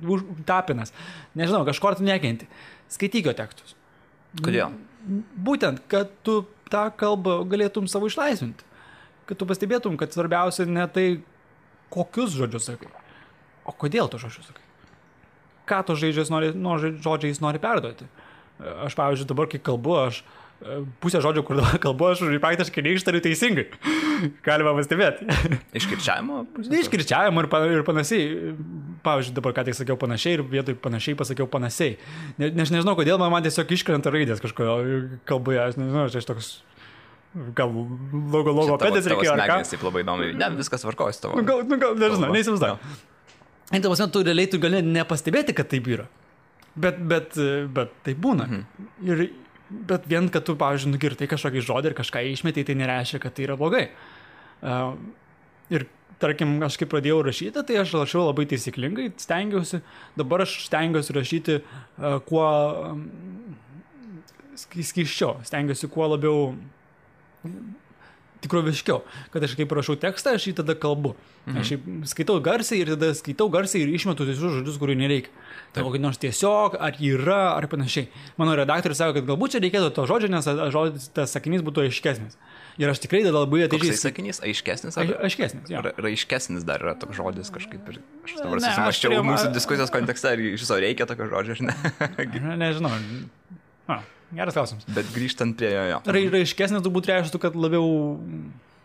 Tapinas, nežinau, kažkur tu nekenti. Skaityk jo tekstus. Kodėl? Būtent, kad tu tą kalbą galėtum savo išlaisvinti. Kad tu pastebėtum, kad svarbiausia ne tai, kokius žodžius sakai, o kodėl to žodžius sakai. Ką to žodžiais nori perduoti. Aš, pavyzdžiui, dabar, kai kalbu, aš pusę žodžių, kur dabar kalbu, aš praktiškai neištariu teisingai. Galima pastebėti. Iškirčiavimo? Iškirčiavimo ir panašiai. Pavyzdžiui, dabar ką tik sakiau panašiai ir vietoj panašiai pasakiau panašiai. Nežinau, kodėl man tiesiog iškrenta raidės kažko kalboje. Aš nežinau, aš toks... Gal logopedės reikėjo ar ką. Taip labai įdomu. Ne, viskas tvarkojas tavo. Gal, nežinau, neįsivaizduoju. Ir tu realiai tu gali nepastebėti, kad taip yra. Bet tai būna. Bet vien, kad tu, pavyzdžiui, nugirtai kažkokį žodį ir kažką išmetai, tai nereiškia, kad tai yra blogai. Ir, tarkim, aš kai pradėjau rašyti, tai aš rašiau labai taisyklingai, stengiausi. Dabar aš stengiausi rašyti kuo skysčiau, stengiausi kuo labiau tikroviškiau, kad aš kaip rašau tekstą, aš jį tada kalbu. Aš skaitau garsiai ir išmetu visus žodžius, kurių nereikia. Tai kokį nors tiesiog, ar yra, ar panašiai. Mano redaktorius sako, kad galbūt čia reikėtų to žodžio, nes tas sakinys būtų aiškesnis. Ir aš tikrai tada labai atidžiai... Koksai sakinys? Aiškesnis? Aiškesnis, jo. Raiškesnis dar yra toks žodis kažkaip. Aš dabar susimaščiau mūsų diskusijos kontekste, ar iš viso reikia tokio žodžio, ar ne? Nežinau. Geras klausimas. Bet grįžtant prie jo. Raiškesnis turbūt reiškia, kad labiau...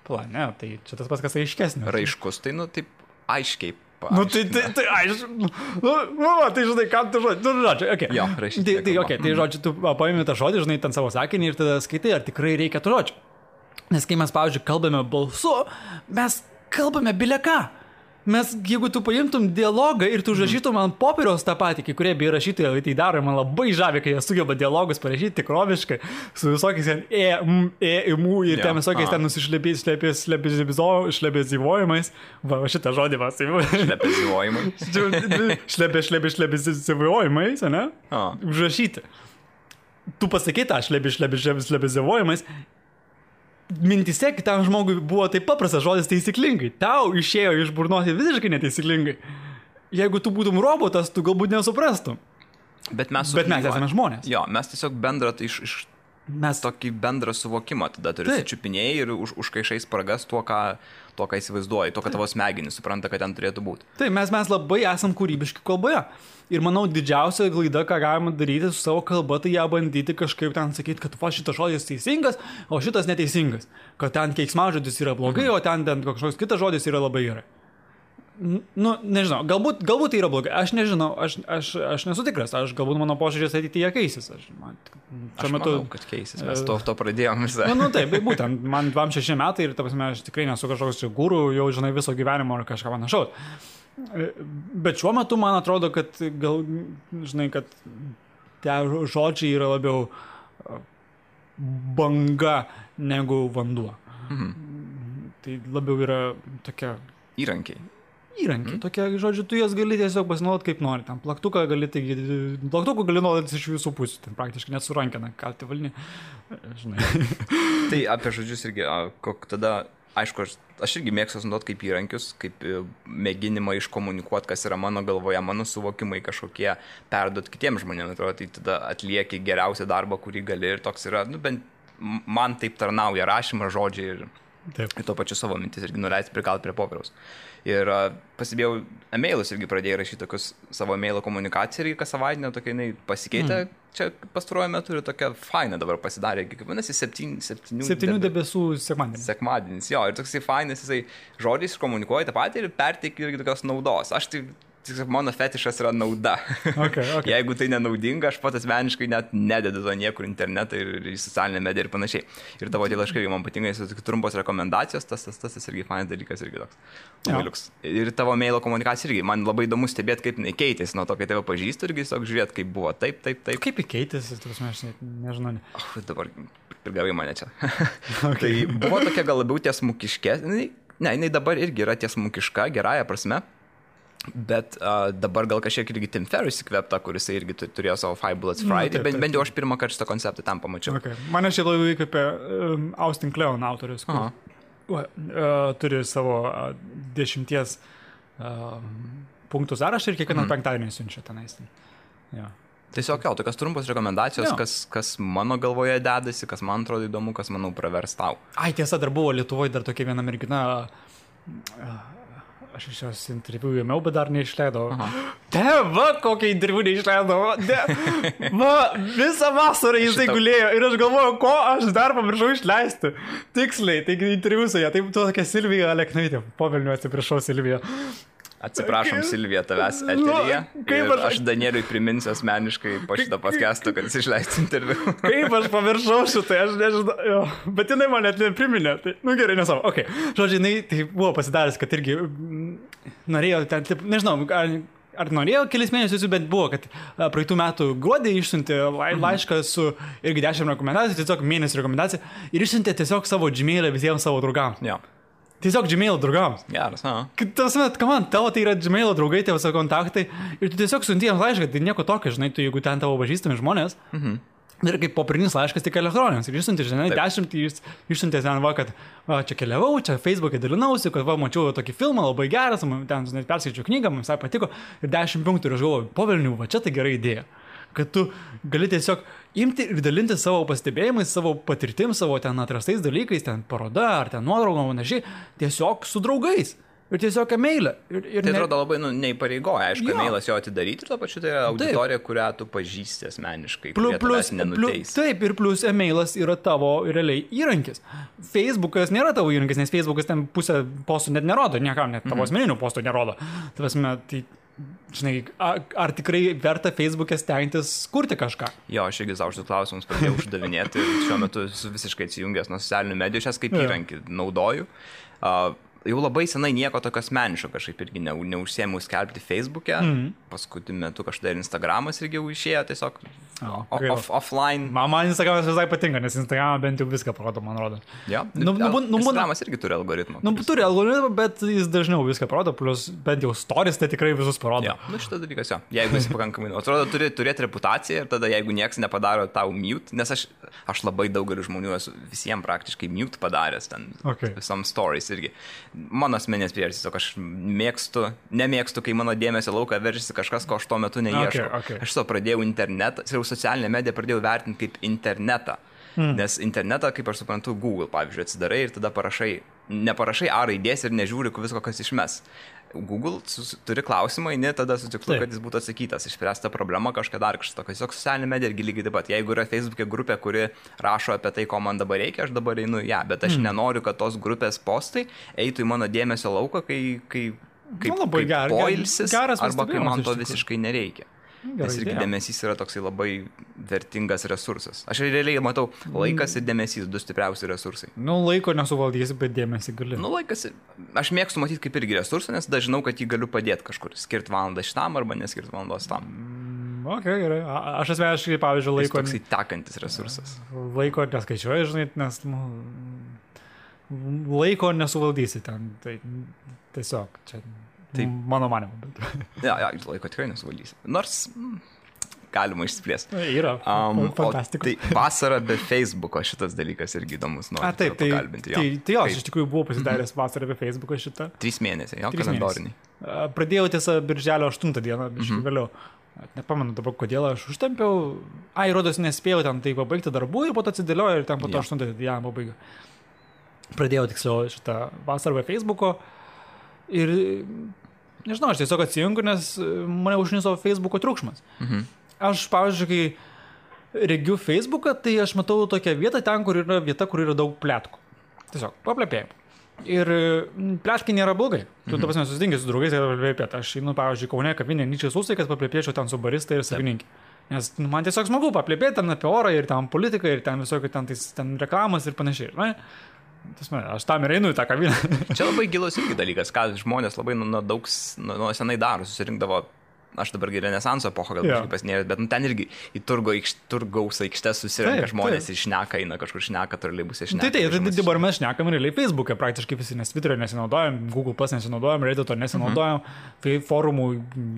Ne, tai čia tas pats, kas aiškesnis. Raiškus, tai, taip, aiškiai. Tai aišku. Tai žinai, kam tu žodžiu. Okay. Jo, rašyti. Tai žodžiu, tu paimi tą žodį, žinai, ten savo sakinį ir tada skaitai, ar tikrai reikia tų žodžių. Nes kai mes, pavyzdžiui, kalbame balsu, mes kalbame bile ką. mes, jeigu tu paimtum dialogą ir tu užrašytum ant popieriaus tą patį, kai kurie bei rašytojai tai daro, man labai žavi, kai jie sugeba dialogus parašyti tikroviškai, su visokiais ten ir ten visokiais ten šlepėzivojimais. Va, šitą žodį vas. Šlepėzivojimais, ne? Užrašyti. Tu pasakai tą šlepėzivojimais. Mintise kitam žmogui buvo taip paprastas žodis taisyklingai. Tau išėjo iš burnos visiškai netaisyklingai. Jeigu tu būtum robotas, tu galbūt nesuprastum. Bet mes esame žmonės. Jo, mes tiesiog bendrą mes tokį bendrą suvokimą tada turi sučiupinėjai ir užkaišai spragas tuo, ką įsivaizduoji, to, ką tavo smegenys supranta, kad ten turėtų būti. Taip, mes labai esam kūrybiški kalboje. Ir manau, didžiausia klaida, ką galima daryti su savo kalba, tai ją bandyti kažkaip ten sakyti, kad šitas žodis teisingas, o šitas neteisingas. Kad ten keiksmažodis yra blogai, o ten kažkoks kitas žodis yra labai gerai. Nu, nežinau, galbūt tai yra blogai. Aš nežinau, aš nesu tikras. Galbūt mano požiūrės ateityje keisis. Aš manau, kad keisis. Mes to pradėjom visą. Nu, taip, būtent. Man 26 metai ir, ta prasme, aš tikrai nesu kažkoks guru, jau žinai viso gyvenimo ar kažką panašaus. Bet šiuo metu man atrodo, kad kad tie žodžiai yra labiau banga negu vanduo. Tai labiau yra tokia... Įrankiai, tokie, žodžiu, tu jas gali tiesiog pasinaudoti kaip nori. Ten plaktuką gali naudoti iš visų pusių, ten praktiškai net su rankena kalti valni. Žinai. Tai apie žodžius irgi, tada... Aišku, aš irgi mėgstu naudoti kaip įrankius, kaip mėginimą iškomunikuoti, kas yra mano galvoje, mano suvokimai kažkokie, perduoti kitiems žmonėms, atrodo, tai tada atlieki geriausią darbą, kurį gali ir toks yra, bent man taip tarnauja rašymas, žodžiai ir to pačiu savo mintis irgi nuleisti prikalti prie popieriaus. Ir pasibėjau, emailus irgi pradėjau rašyti tokius savo emailo komunikaciją ir kas savaitinę tokia jinai pasikeitė. Čia pastaruoju metu ir tokia faina dabar pasidarė, kaip vadinasi, 7 debesų sekmadienis. Sekmadienis, jo, ir toksai fainas, jisai žodžiais komunikuoja tą patį ir perteikia irgi tokios naudos. Aš tai mano fetišas yra nauda. Okay. Jeigu tai nenaudinga, aš pat asmeniškai net nededu to niekur internetą ir į socialinę mediją ir panašiai. Ir tavo tie laiškai, man patinka, jis trumpos rekomendacijos, tas irgi fainas dalykas irgi toks. Ir tavo mailo komunikacija irgi, man labai įdomu stebėti, kaip jinai keitėsi nuo to, kai tave pažįstu irgi, tiesiog žiūrėti, kaip buvo, taip. Kaip keitėsi, aš nežinau. Dabar prigavai mane čia. Tai buvo tokia gal labiau tiesmukiškė, jinai dabar irgi yra tiesmukiška, gerąja prasme. Bet dabar gal kažkiek irgi Tim Ferriss įkvėpta, kuris irgi turėjo savo Five Bullets Friday, bent jau aš pirmą kartą šitą konceptą tam pamačiau. Okay. Mane šiaip labai įkvėpė Austin Kleon autorius, turi savo 10 punktų sąrašą ir kiekvieną penktadienį siunčia tenais. Ja. Tiesiog tokios trumpos rekomendacijos, kas mano galvoje dedasi, kas man atrodo įdomu, kas manau pravers tau. Ai, tiesa, dar buvo Lietuvoje dar tokia viena mergina... Aš iš jos interviu ėmiau, bet dar neišleidau. Kokią interviu neišleidau. Visą vasarą jisai gulėjo ir aš galvoju, ko aš dar pamiršau išleisti. Tiksliai, taigi interviu su ją. Tai tokia Silvija Aleknaitė. Povelniu atsiprašau, Silvija. Atsiprašom, Silvija, tavęs eteryje. Aš Danieliui priminsiu asmeniškai po šitą podcastą, kad jis išleistų interviu. Kaip aš pamiršau šitai, aš nežinau. Bet jinai man net nepriminė. Tai, gerai, nesavo. Okay. Žodžiu, jinai tai buvo pasidaręs, kad irgi norėjo ten, nežinau, ar norėjo kelis mėnesius, bet buvo, kad praeitų metų gruodį išsiuntė laišką su irgi 10 rekomendacijų, tiesiog mėnesį rekomendaciją ir išsiuntė tiesiog savo Gmail'ą visiems savo draugams. Ja. Tiesiog Gmail'o draugams. Geras, tavo tai yra Gmail'o draugai, tavo savo kontaktai ir tu tiesiog siunti jiems laišką, tai nieko tokio, žinai, tu jeigu ten tavo pažįstami žmonės, ir kaip popierinis laiškas tik elektroninis, ir išsiunti, žinai, 10, išsiuntė ten, kad čia keliavau, čia Facebook'e dalinausi, kad mačiau tokį filmą, labai geras, ten, žinai, perskaičiau knygą, man visai patiko, ir 10 punktų, ir aš galvoju, povelnių, čia tai gera idėja. Kad tu gali tiesiog imti ir dalinti savo pastebėjimais, savo patirtim, savo ten atrastais dalykais, ten paroda ar ten nuotraugom, panašiai, tiesiog su draugais. Ir tiesiog emailą. Tai atrodo labai neįpareigoja, aišku, emailas jo atidaryti ir to pačiu tai yra auditorija, kurią tu pažįsti asmeniškai, kurie tavęs nenuteis. Taip, ir plus emailas yra tavo realiai įrankis. Facebookas nėra tavo įrankis, nes Facebookas ten pusę postų net nerodo, niekam net tavo asmeninių postų nerodo. Tai žinai, ar tikrai verta Facebook'e stengtis kurti kažką? Jo, aš irgi savo šitus klausimus pradėjau uždavinėti ir šiuo metu esu visiškai atsijungęs nuo socialinių medijų, šias kaip įrankį naudoju. jau labai senai nieko tokio asmeniško kažkaip irgi neužsiėmiau skelbti Facebook'e. Paskutiniu metu kažkada ir Instagramas irgi jau išėjo tiesiog offline. Man Instagramas visai patinka, nes Instagramą bent jau viską parodo, man rodo. Ja. Instagramas irgi turi algoritmą. Turi algoritmą, bet jis dažniau viską parodo, plus bent jau stories tai tikrai visus parodo. Ja. Šitas dalykas, jo. Jeigu esi pakankamai, atrodo, turi turėti reputaciją ir tada jeigu nieks nepadaro tau mute, nes aš labai daugeliu žmonių esu visiems praktiškai mute padaręs ten visom stories irgi. Mano asmenės priežastys, tiesiog aš nemėgstu, kai mano dėmesio lauką veržiasi kažkas, ko aš tuo metu neieškau. Aš pradėjau internetą, socialinę mediją pradėjau vertinti kaip internetą. Nes internetą, kaip aš suprantu, Google, pavyzdžiui, atsidarai ir tada neparašai A raidės ir nežiūri visko, kas išmes. Google turi klausimą, tada su tikslu, kad jis būtų atsakytas, išspręsta problema kažką dar kažkas tokio. Tiesiog socialinė medija irgi lygiai taip pat. Jeigu yra Facebook'e grupė, kuri rašo apie tai, ko man dabar reikia, aš dabar einu ją, bet aš nenoriu, kad tos grupės postai eitų į mano dėmesio lauką, kai poilsis, arba kai man to visiškai nereikia. Nes irgi dėmesys yra toksai labai vertingas resursas. Aš realiai matau, laikas ir dėmesys, du stipriausi resursai. Laiko nesuvaldysi, bet dėmesį gali. Laikas, aš mėgstu matyti kaip irgi resursą, nes dažnau, kad jį galiu padėti kažkur. Skirti valandą šitam arba neskirti valandos tam. Gerai. Aš asmeniškai, pavyzdžiui, laiko... Jis toksai tekantis resursas. Laiko neskaičiuoju, žinai, nes laiko nesuvaldysi ten. Tai tiesiog čia... Taip. Mano manimu. Ja, laiko tikrai nesuvaldysi. Nors galima išsiplėsti. Yra. Fantastika. Tai vasara be Facebooko šitas dalykas irgi įdomus. Taip, pakalbinti. Tai jo, aš iš tikrųjų buvau pasidaręs vasarą be Facebooko šitą. 3 mėnesiai, jo, kalendoriniai. Pradėjau tiesą birželio 8 dieną, biškai vėliau. Nepamenu dabar, kodėl aš užtempiau. Rodos nespėjau ten tai pabaigti darbų ir po to atsidėlioju ir ten po to 8 dieną pabaigiau. Pradėjau tiksliau šitą vasarą be Facebooko. Ir, nežinau, aš tiesiog atsijungiu, nes mane užniso Facebooko triukšmas. Aš, pavyzdžiui, kai regiu Facebooką, tai aš matau tokią vietą ten, kur yra daug pletkų. Tiesiog, paplepėjimų. Ir pleškai nėra blogai. Tu, ta prasme, susitinki su draugais ir paplepėt. Aš, pavyzdžiui, Kaune kavinė Nyčės Ūsai, kad paplepėčiau ten su barista ir savininkė. Nes man tiesiog smagu paplepėti ten apie orą ir ten politiką ir ten visokių ten reklamas ir panašiai. Aš tam ir einu į tą kavinę. Čia labai gilus irgi dalykas, ką žmonės labai nuo senai daro, susirinkdavo. Aš dabar Renesanso epochą gal kažkaip pasinėjęs, bet ten irgi į turgaus aikštės susirenka žmonės ir šneka, eina kažkur šneka, troleibuse šneka. Tai dabar mes šnekam realiai Facebook'e praktiškai visi, nes Twitter'e nesinaudojam, Google Plus nesinaudojam, Reddit'o nesinaudojam, forumų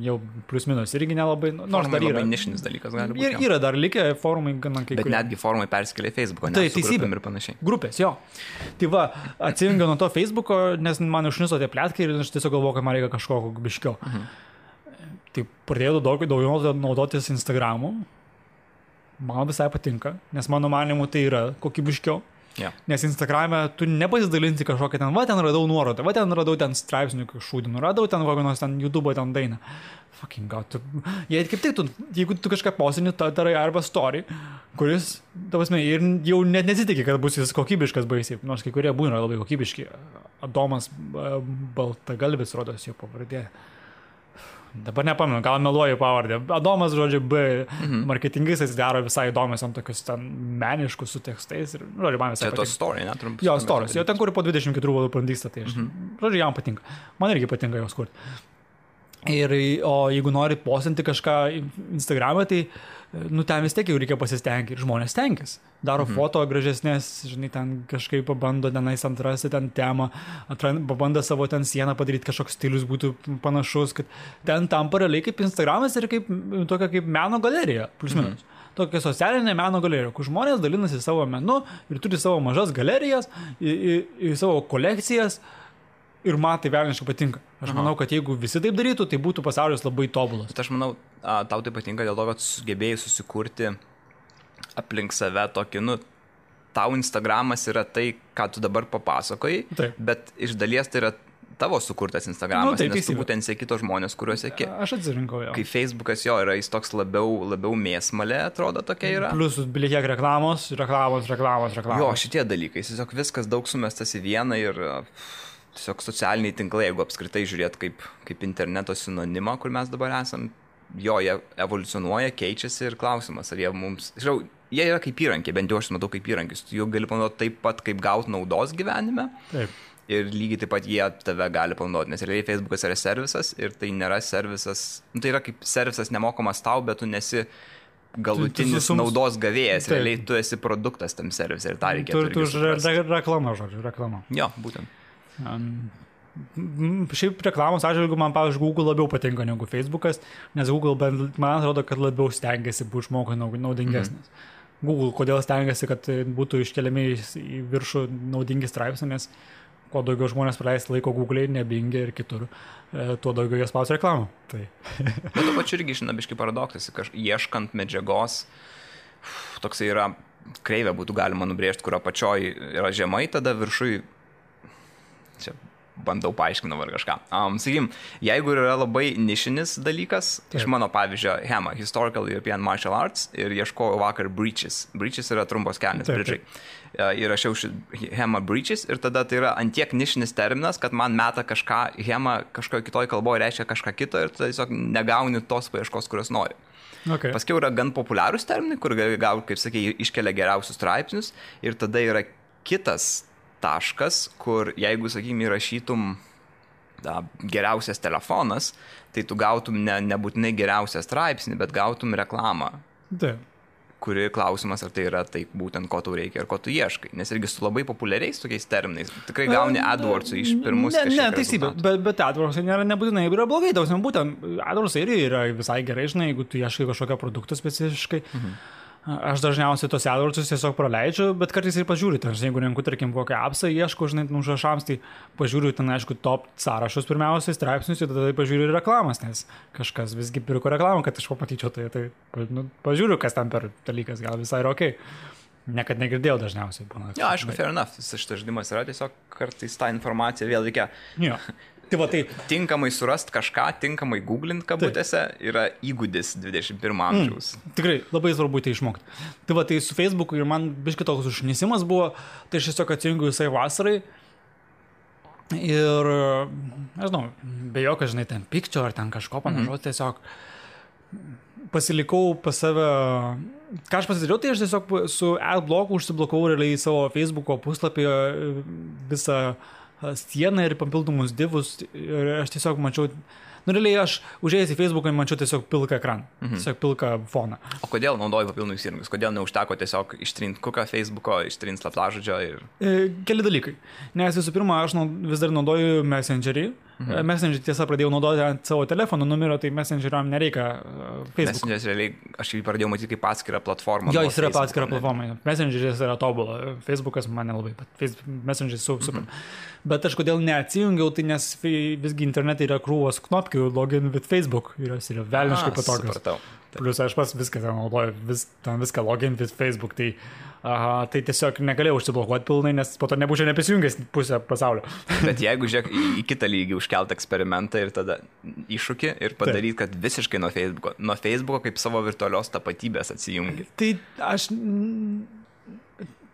jau plius minus irgi nelabai, nors dar yra. Labai nišinis dalykas gali būti. Yra dar likę forumai gana kai kurie. Bet netgi forumai persikėlė į Facebook'o, nes su grupėm ir panašiai. Grupės, jo. Tai va, atsijungiau nuo to Facebook'o, nes man užniso tie pletkai ir aš tiesiog galvoju, kad man reikia kažko biškiau. Tai pradėjau daugiau naudotis Instagramu. Man visai patinka, nes mano manimu tai yra kokybiškiau. Yeah. Nes Instagrame tu nepasidalinti kažkokią ten, ten radau nuorodą, ten radau ten straipsnių šūdinų, radau ten kokios ten YouTube ten dainą. Fucking god. Kaip tik jeigu tu kažką posini, darai arba story, kuris, tavasme, ir jau net nesitikė, kad bus jis kokybiškas baisiai, nors kai kurie būna labai kokybiški. Adomas Baltagalvis rodos jo pavardė. Dabar nepamenu, gal meluoju pavardę. Adomas, žodžiu, marketingais daro visai įdomias ant tokius ten meniškus su tekstais. Ir, žodžiu, man visai patinka. Tai to story, ne? Trumpas. Jo, stories. Jo, ten, kur po 24 valandų prandyksta, tai aš, žodžiu, jam patinka. Man irgi patinka jos kurti. O jeigu nori postinti kažką Instagram'e, tai ten vis tiek jau reikia pasistengti ir žmonės tenkis. Daro foto gražesnės, žinai, ten kažkaip pabando tenais atrasti ten temą, pabando savo ten sieną padaryti, kažkoks stilius būtų panašus, kad ten tampa realiai kaip Instagramas ir tokia kaip meno galerija, plus minus. Tokia socialinė meno galerija, kur žmonės dalinasi savo menu ir turi savo mažas galerijas, į savo kolekcijas. Ir man tai velniškai patinka. Aš manau, kad jeigu visi taip darytų, tai būtų pasaulis labai tobulas. Bet aš manau, tau tai patinka dėl to, kad sugebėjai susikurti aplink save tokį, tau Instagramas yra tai, ką tu dabar papasakojai, bet iš dalies tai yra tavo sukurtas Instagramas, nes tu būtent seki tos žmonės, kuriuos seki. Aš atsirinkau jo. Kai Facebookas jo yra, jis toks labiau mėsmalė, atrodo, tokia yra. Plus bilikiek reklamos. Jo, šitie dalykai, tiesiog viskas daug sumestas į vieną ir... Tiesiog socialiniai tinklai, jeigu apskritai žiūrėt kaip interneto sinonimą, kur mes dabar esam, jie evoliucionuoja, keičiasi ir klausimas, ar jie mums... Žinau, jie yra kaip įrankiai, bent jau aš matau kaip įrankis, tu jų gali panaudoti taip pat, kaip gauti naudos gyvenime. Taip. ir lygiai taip pat jie tave gali panaudoti, nes realiai Facebookas yra servisas ir tai nėra servisas, tai yra kaip servisas nemokamas tau, bet tu nesi galutinis naudos gavėjas, realiai tu esi produktas tam servisui ir tą reikėtų. Tu reklama, žodžiu, reklama. Jo, būtent. Šiaip reklamos atžvilgiu man, pavyzdžiui, Google labiau patinka negu Facebookas, nes Google, man atrodo, kad labiau stengiasi būti žmogui naudingesnis. Google, kodėl stengiasi, kad būtų iškeliami į viršų naudingi straipsniai, nes kuo daugiau žmonės praleis laiko Google, nebingia ir kitur, tuo daugiau jie spaus reklamą. Tai. Bet to pačiu irgi išnabiškai paradoksas, ieškant medžiagos, toksai yra kreivė būtų galima nubrėžti, kurio apačioj yra žemai, tada viršui, čia bandau paaiškinau ar kažką. Sakykim, jeigu yra labai nišinis dalykas, iš mano pavyzdžio HEMA, Historical European Martial Arts, ir ieškojau vakar Breaches. Breaches yra trumpos kelnės, bridžai. Ir rašiau HEMA Breaches ir tada tai yra antiek nišinis terminas, kad man meta kažką, HEMA kažkoje kitoje kalboje reiškia kažką kito ir tiesiog negauni tos paieškos, kurios nori. Okay. Paskiau yra gan populiarūs terminai, kur gal, kaip sakė, iškelia geriausius straipsnius ir tada yra kitas taškas, kur jeigu, sakykime, įrašytum geriausias telefonas, tai tu gautum nebūtinai geriausią straipsnį, bet gautum reklamą. Taip. Kuri klausimas, ar tai yra tai būtent, ko tau reikia ir ko tu ieškai. Nes irgi su labai populiariais tokiais terminais. Tikrai gauni AdWords'ų iš pirmus kažkiek rezultatų. Teisybė, bet AdWords'ai nebūtinai yra blogai. Būtent AdWords'ai yra visai gerai, žinai, jeigu tu ieškai kažkokio produkto specifiškai. Aš dažniausiai tos AdWords'us tiesiog praleidžiu, bet kartais ir pažiūriu. Jeigu renku, tarkim, kokią appsą ieško, žinai, užrašams, tai pažiūriu ten, aišku, top sąrašus pirmiausiai, straipsnius ir tada pažiūriu ir reklamas, nes kažkas visgi pirko reklamą, kad aš pamatyčiau, tai pažiūriu, kas tam per dalykas, gal visai yra okei. Niekad negirdėjau dažniausiai. Ja, aišku, fair enough. Šitas žaidimas yra tiesiog kartais tą informaciją vėl reikia. Jo. Tai tinkamai surast kažką, tinkamai googlint kabutėse yra įgūdis 21 amžiaus. Tikrai, labai svarbu tai išmokti. Tai su Facebooku ir man biškai toks užnisimas buvo, tai aš tiesiog atsijungiu visai vasarai ir, nežinau, be jokio, žinai, ten pykčio ar ten kažko panašaus, tiesiog pasilikau pas save, ką aš pasidariau, tai aš tiesiog su adblocku užsiblokavau realiai savo Facebooko puslapį visą sieną ir papildomus divus ir aš tiesiog mačiau, realiai aš užėjęs į Facebooką mačiau tiesiog pilką ekraną, tiesiog pilką foną. O kodėl naudoji papildomus įrankius? Kodėl neužteko tiesiog ištrinti kuką Facebooko, ištrinti slaptažodžio ir... Keli dalykai. Nes visų pirma, aš vis dar naudoju Messengerį. Messengerį tiesa pradėjau naudoti ant savo telefono numerio, tai Messengeriam nereikia Facebook. Messengeris realiai, aš jį pradėjau matyti kaip atskirą platformą. Jo, jis yra atskira platforma. Messengeris yra tobula. Facebookas man nelabai, bet Messengeris super. Bet aš kodėl neatsijungiau, tai nes visgi internete yra krūvos knopkių login with Facebook. Ir jos yra velniškai patogios. Plius aš pas viską ten naudoju, viską login with Facebook. Tai tiesiog negalėjau užsiblokuoti pilnai, nes po to nebūčiau neprisijungęs pusę pasaulio. Bet jeigu žiūrėk į kitą lygį užkelt eksperimentą ir tada iššūkį ir padaryti, kad visiškai nuo Facebooko kaip savo virtualios tapatybės atsijungi. Tai aš...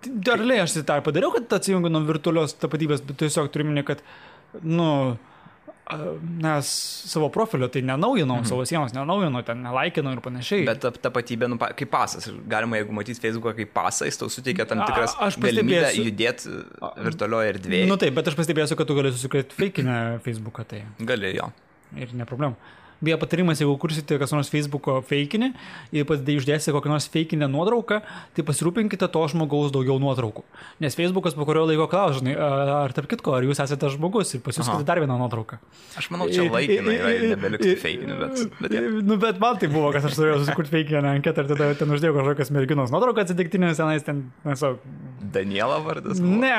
Darliai aš tai padariau, kad atsijungiu nuo virtualios tapatybės, bet tiesiog turiu minėti, kad, nes savo profilio tai nenaujinau, savo sienos nenaujinau, ten nelaikinau ir panašiai. Bet tapatybė, kaip pasas, galima, jeigu matyti Facebooką kaip pasą, jis tau suteikia tam tikras galimybę judėti virtualioje erdvėje. Taip, bet aš pastebėsiu, kad tu gali susikrėti fakinę Facebooką, tai... Gali, jo. Ir ne problema. Beje, patarimas, jeigu kursite kas nors Facebooko fakinį ir uždėsite kokią nors fakinę nuotrauką, tai pasirūpinkite to žmogaus daugiau nuotraukų. Nes Facebookas po kurio laiko klaus, žinai, ar tarp kitko, ar jūs esate žmogus ir pasiūskite dar vieną nuotrauką. Aš manau, čia laikinai yra nebeliks fakinių, bet... Bet man tai buvo, kad aš turėjau susikurti fakinę anketą ir tada ten uždėjau kažkokias merginos nuotrauką atsitiktinės, tenais ten, nežinau... Daniela vardas? Ne,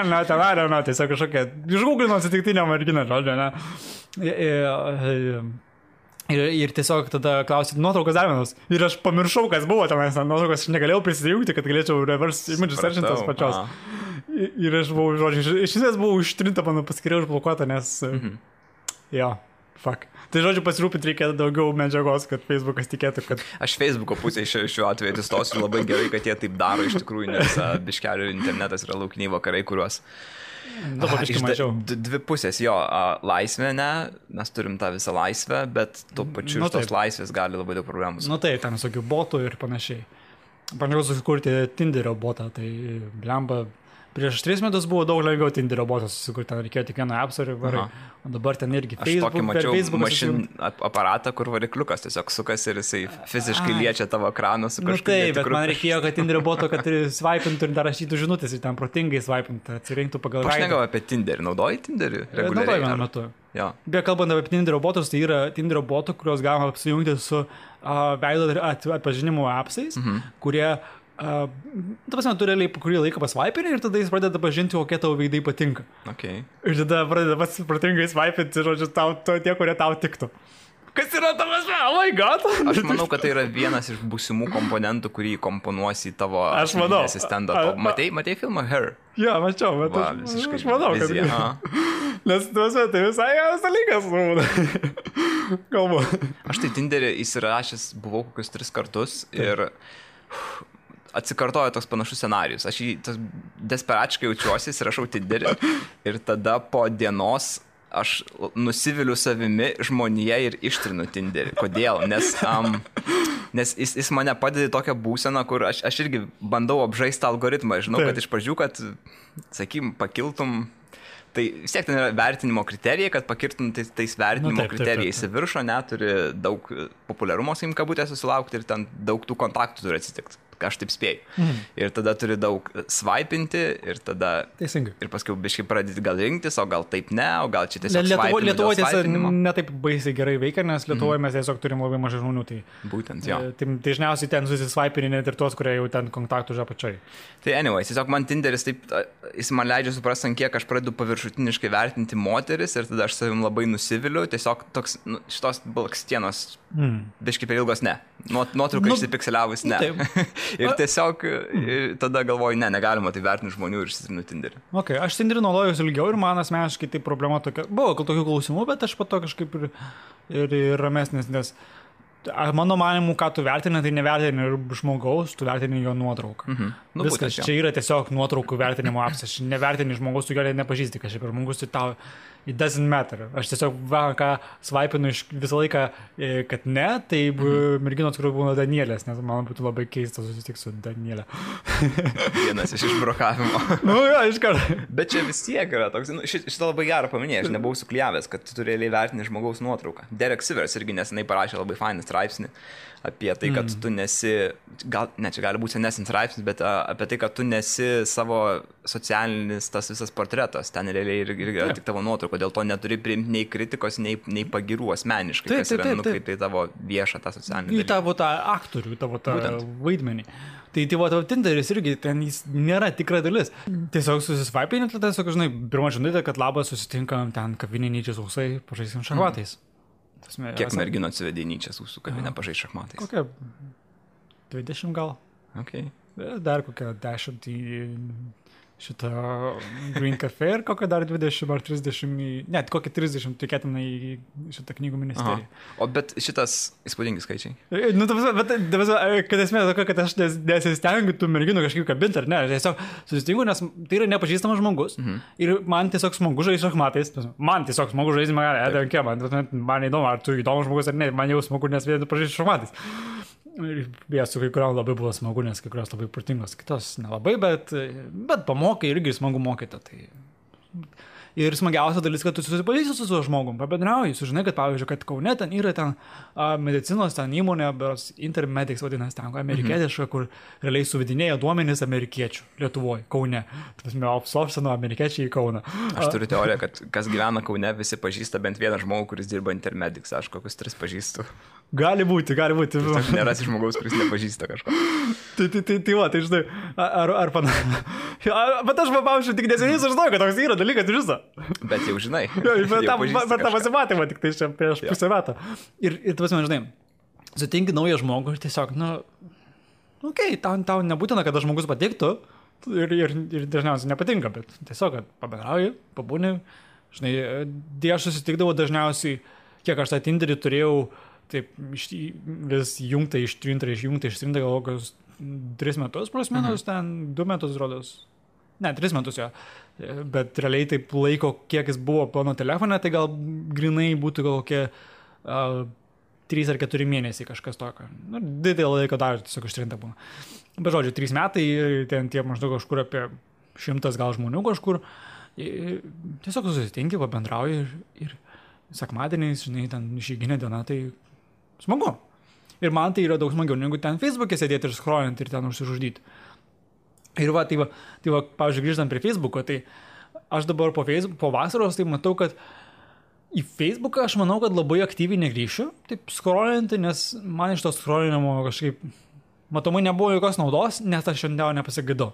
tiesiog kažkokia, išgūglino atsitiktinę merginą, žodžiu, ne. Ir tiesiog tada klausyti nuotraukos dar vienos. Ir aš pamiršau, kas buvo tenais nuotraukos, aš negalėjau prisijungti, kad galėčiau reverse image searchintas pačios. Ir aš buvau, žodžiu, iš esmės buvau ištrinta, mano paskiriau užblokuota, nes... Fuck. Tai žodžiu, pasirūpinti reikia daugiau medžiagos, kad Facebookas tikėtų, kad... Aš Facebooko pusėje šiuo atveju atsistosiu labai gerai, kad jie taip daro iš tikrųjų, nes biškelių internetas yra laukiniai vakarai, kuriuos... Dvi pusės, jo, laisvė, ne, mes turim tą visą laisvę, bet tuo pačiu iš tos laisvės gali labai daug problemų. Taip, ten visokių botų ir panašiai. Bandžiau susikurti Tinderio botą, tai blemba Prieš 3 metus buvo daug lengviau Tinderio botas susikurti, ten reikėjo tik vieną appsą ir varai. O dabar ten irgi Facebook, per Facebook aparatą, kur varikliukas tiesiog sukasi ir jisai fiziškai liečia tavo ekraną su kažkokiu. Taip, bet man reikėjo, kad Tinderio boto, kad swipe'intų ir dar rašytų žinutės ir ten protingai swipe'intų, atsirinktų pagal raidę. Aš negalvoju apie Tinderį. Naudoji Tinderį reguliariai? Naudoju vienu metu. Jo. Beje, kalbant apie Tinderio botus, tai yra Tinderio botų, kuriuos galima apsijungti su veido atpažinimo appsais, kurie ta prasme, tu realiai kurį laiką pasvaipini ir tada jis pradeda pažinti, kokie tavo veidai patinka. Okay. Ir tada pradeda pats protingai svaipinti, žodžiu, tie, kurie tau tiktų. Kas yra tavas, oh my god? Aš manau, kad tai yra vienas iš būsimų komponentų, kurį komponuosi į tavo asistentą. Matei filmą Her? Jo, mačiau, bet aš manau, kad... Nes tai visai geras dalykas. Kalbu. Aš tai Tinderį įsirašęs buvau kokius 3 kartus ir... atsikartojo toks panašus scenarijus. Aš jį desperačiai jaučiuosi, rašau Tinderį ir tada po dienos aš nusiviliu savimi žmonėje ir ištrinu Tinderį. Kodėl? Nes jis mane padeda į tokią būseną, kur aš irgi bandau apžaisti algoritmą. Žinau, kad iš pradžių, kad, sakykim, pakiltum. Tai vis tiek ten yra vertinimo kriterijai, kad pakirtum tais vertinimo kriterijais į viršų, neturi daug populiarumo, sakykim, kabutės susilaukti ir ten daug tų kontaktų turi atsitikti. Aš taip spėju. Ir tada turi daug swipe'inti ir tada... Teisingai. Ir paskui biškai pradėti gal rinktis, o gal taip ne, o gal čia tiesiog Lietuvoje tiesiog netaip baisiai gerai veikia, nes Lietuvoje mes tiesiog turim labai mažai žmonių. Tai, būtent, jo. Tai dažniausiai ten susiswipe'ini net ir tuos, kurie jau ten kontaktų už apačiai. Tai anyway, tiesiog man Tinderis taip, jis man leidžia suprasti, kiek aš pradedu paviršutiniškai vertinti moteris ir tada aš savim labai nusiviliu, tiesiog toks, šitos blakstienos biškai per ilgos ne. Nuotrauka išsipikseliavus ne. Ir tiesiog tada galvoju, negalima tai vertinti žmonių ir išsitrinu Tinderį. Okay, aš Tinderį naudojuosi ilgiau ir man asmeniškai tai problema tokia. Buvo tokių klausimų, bet aš po to kažkaip ir ramesnis, nes mano manimu, ką tu vertini, tai nevertini žmogaus, tu vertini jo nuotrauką. Viskas, čia yra tiesiog nuotraukų vertinimo apps. Aš nevertini žmogaus, tu gerai nepažįsti, kažkaip ir žmogus tai tau it doesn't matter. Aš tiesiog ką svaipinu visą laiką, kad ne, tai merginos, kurių būna Danielės, nes man būtų labai keista susitikti su Danielė. Vienas iš išbrokavimo. Jo, iškart. Bet čia vis tiek yra toks, šitą labai gerą paminėjai, aš nebuvau sukliavęs, kad tu realiai vertini žmogaus nuotrauką. Derek Sivers irgi nesenai parašė labai fainą straipsnį apie tai, kad tu nesi, čia gali būti senesnis straipsnis, bet apie tai, kad tu nesi savo socialinis tas visas portretas, ten realiai yra tik tavo nuotrauka, dėl to neturi priimti nei kritikos, nei pagirų asmeniškai, kas yra nukreipta į tavo viešą tą socialinį dalyką. Į tavo tą aktorių, tavo tą vaidmenį. Tai tavo Tinderis irgi, ten jis nėra tikra dalis. Tiesiog susisvaipini, tada tiesiog, žinai, pirmą žinutę, kad labas, susitinkam ten kavinėnyčiai sausai, pažaisim šachmatais. Kiek merginų atsivedė Nyčias jūsų kabinę pažaisti šachmatais? Kokia 20 gal. Okay. Dar kokia 10 į šitą Green Cafe ir kokia dar 20 ar 30, net kokia 30 tikėtina į šitą knygų ministeriją. O bet šitas įspūdingi skaičiai? Nu, bet kad esmė tokia, kad aš nesistengiu tų merginų kažkaip kabinti, ar ne, aš tiesiog susitinku, nes tai yra nepažįstamas žmogus ir man tiesiog smagu žaisti šachmatais, man tiesiog smagu žaisti, man įdomu, ar tu įdomus žmogus ar ne, man jau smagu, nes vien pažaisti šachmatais. Ir su kai kuriam labai buvo smagu, nes kai kurios labai protingos, kitos nelabai, bet pamokai irgi smagu mokyti. Tai... Ir smagiausia dalis, kad tu susipažįsti su tuo žmogum, pabendrauji, sužinai, kad pavyzdžiui, kad Kaune ten yra ten medicinos ten įmonė, beros Intermedics vadinasi ten, amerikietiška, kur realiai suvedinėja duomenys amerikiečių Lietuvoje, Kaune. Outsourcino amerikiečiai į Kauną. Aš turiu teoriją, kad kas gyvena Kaune, visi pažįsta bent vieną žmogų, kuris dirba Intermedics, aš kokius 3 pažįstu. Gali būti. Nerasi žmogaus, kuris nepažįsta kažko. Tai žinai, ar bet aš pavyzdžiui, tik neseniai sužinojau, kad toks yra dalykas iš viso. Bet jau žinai. Bet tą pasimatymą tik tai čia prieš pusę metų. Ir tu pasime, žinai, sutinki naują žmogų ir tiesiog, tau nebūtina, kad tas žmogus patiktų ir dažniausiai nepatinka, bet tiesiog, kad pabendrauji, pabūni. Žinai, aš susitikdavau dažniausiai, kiek aš tą Tinderį turėjau, taip, vis jungta, ištrinta, gal kokius 3 metus, plus minus, ten 2 metus rodos. Ne, 3 metus jo. Bet realiai taip laiko, kiek jis buvo mano telefone, tai gal grinai būtų gal kokie 3 ar 4 mėnesiai kažkas tokio. Didelį laiko dar tiesiog ištrinta būna. Bet žodžiu, 3 metai, ten tie maždaug kažkur apie 100 gal žmonių kažkur. Ir tiesiog susitinki, pabendrauji ir sekmadieniais, žinai, ten išeiginė diena, tai smagu. Ir man tai yra daug smagiau, negu ten Facebook'e sėdėti ir scrollint ir ten užsižudyti. Ir tai va, pavyzdžiui, grįžtant prie Facebook'o, tai aš dabar po vasaros tai matau, kad į Facebook'ą aš manau, kad labai aktyviai negrįšiu, taip scrollinti, nes man iš to scrollinimo kažkaip matomai nebuvo jokios naudos, nes aš šiandien nepasigėdau.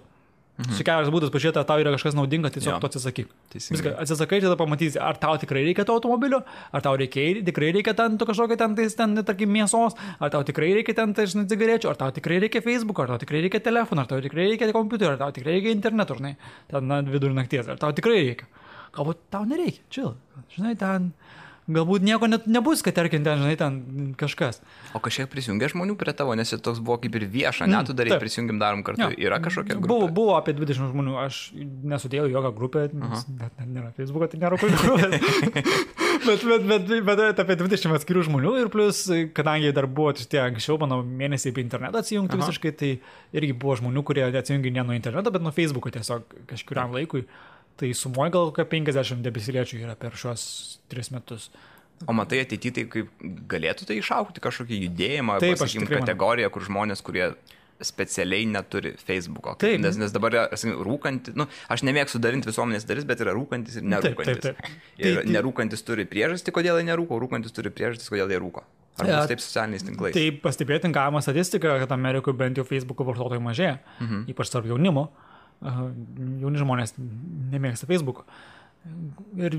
Kelias būdas pažiūrėti, ar tau yra kažkas naudinga, tiesiog to atsisakyk. Viską atsisakai, tada pamatysi, ar tau tikrai reikia to automobilio, ar tau tikrai reikia ten kažkokio ten, tarkim, mėsos, ar tau tikrai reikia ten, žinai, cigarečių, ar tau tikrai reikia Facebook, ar tau tikrai reikia telefoną, ar tau tikrai reikia kompiuterio, ar tau tikrai reikia interneto, žinai, ten vidurį nakties, ar tau tikrai reikia. Galbūt tau nereikia, chill, žinai, ten... Galbūt nieko net nebus, kad tarkim ten, žinai, ten kažkas. O kažkiek prisijungia žmonių prie tavo, nes toks buvo kaip ir vieša, net tu darai, prisijungiam darom kartu. Ja. Yra kažkokia grupė? Buvo apie 20 žmonių, aš nesudėjau jokią grupę, net nėra Facebook'o, tai nėra grupės. bet apie 20 atskirų žmonių ir plus, kadangi dar buvo tie anksčiau, mano mėnesiai apie internetą atsijungti visiškai, tai irgi buvo žmonių, kurie atsijungi ne nuo interneto, bet nuo Facebook'o tiesiog kažkuriam laikui. Tai sumoja gal kokia 50 debesiliečių yra per šios 3 metus. O matai ateityje, tai kaip galėtų tai išaukti kažkokį judėjimą, pasakykim, kategoriją, kur žmonės, kurie specialiai neturi Facebook'o. Nes dabar rūkantis, aš nemėgstu dalinti visuomenės dalis, bet yra rūkantis ir nerūkantis. Ir nerūkantis turi priežastį, kodėl jie nerūko, rūkantis turi priežastį, kodėl jie rūko. Ar bus taip socialiniais tinklais? Tai pastebėti galima statistiką, kad Amerikoje bent jau Facebook'o vartotojų mažėja, ypač tarp jaunimo. Jauni žmonės nemėgsta Facebook'o. Ir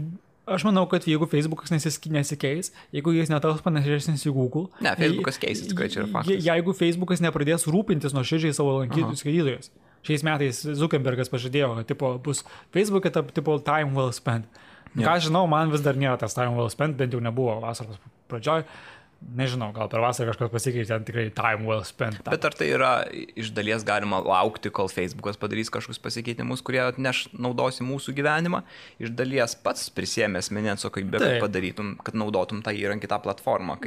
aš manau, kad jeigu Facebook'as nesikeis, jeigu jis netaus panašesnis į Google... Ne, Facebook'as keisis, tikrai čia yra faktas. Jeigu Facebook'as nepradės rūpintis nuoširdžiai savo lankytojų skaitytojais. Šiais metais Zuckerbergas pažadėjo, kad bus Facebook'e time well spent. Ką žinau, man vis dar nėra tas time well spent, bent jau nebuvo vasaros pradžioj. Nežinau, gal per vasarą kažkas pasikeitė, ten tikrai time well spent. Bet ar tai yra iš dalies galima laukti, kol Facebook'as padarys kažkokius pasikeitimus, kurie atneš naudos į mūsų gyvenimą, iš dalies pats prisėmė asmeninę atsakomybę, kad padarytum, kad naudotum tą įrankį, tą platformą.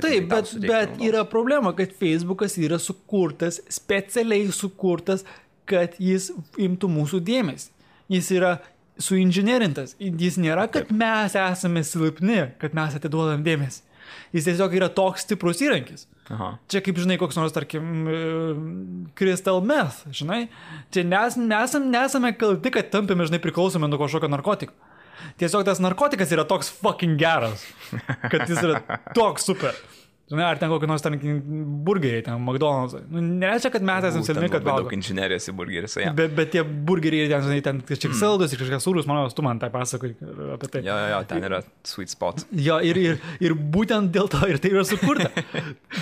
Taip, bet yra problema, kad Facebook'as yra sukurtas, specialiai sukurtas, kad jis imtų mūsų dėmesį. Jis yra suinžinerintas. Jis nėra, kad mes esame silpni, kad mes atiduodam dėmesį. Jis tiesiog yra toks stiprus įrankis. Čia kaip, žinai, koks nors, tarkim, crystal meth, žinai. Čia nesame kalti, kad tampėme, žinai, priklausomi nuo kažkokio narkotiko. Tiesiog tas narkotikas yra toks fucking geras, kad jis yra toks super. Žinai, ar ten kokį nors burgeriai, ten McDonald's. Nereiškia, kad mes esame silpni, kad valgo. Daug inžinerijos į burgeris, ja. Bet tie burgeriai, ten kažkiek saldus ir kažkiek sūrus, manau, tu man tai pasakai apie tai. Jo, ten yra sweet spot. Jo, ir būtent dėl to ir tai yra sukurta.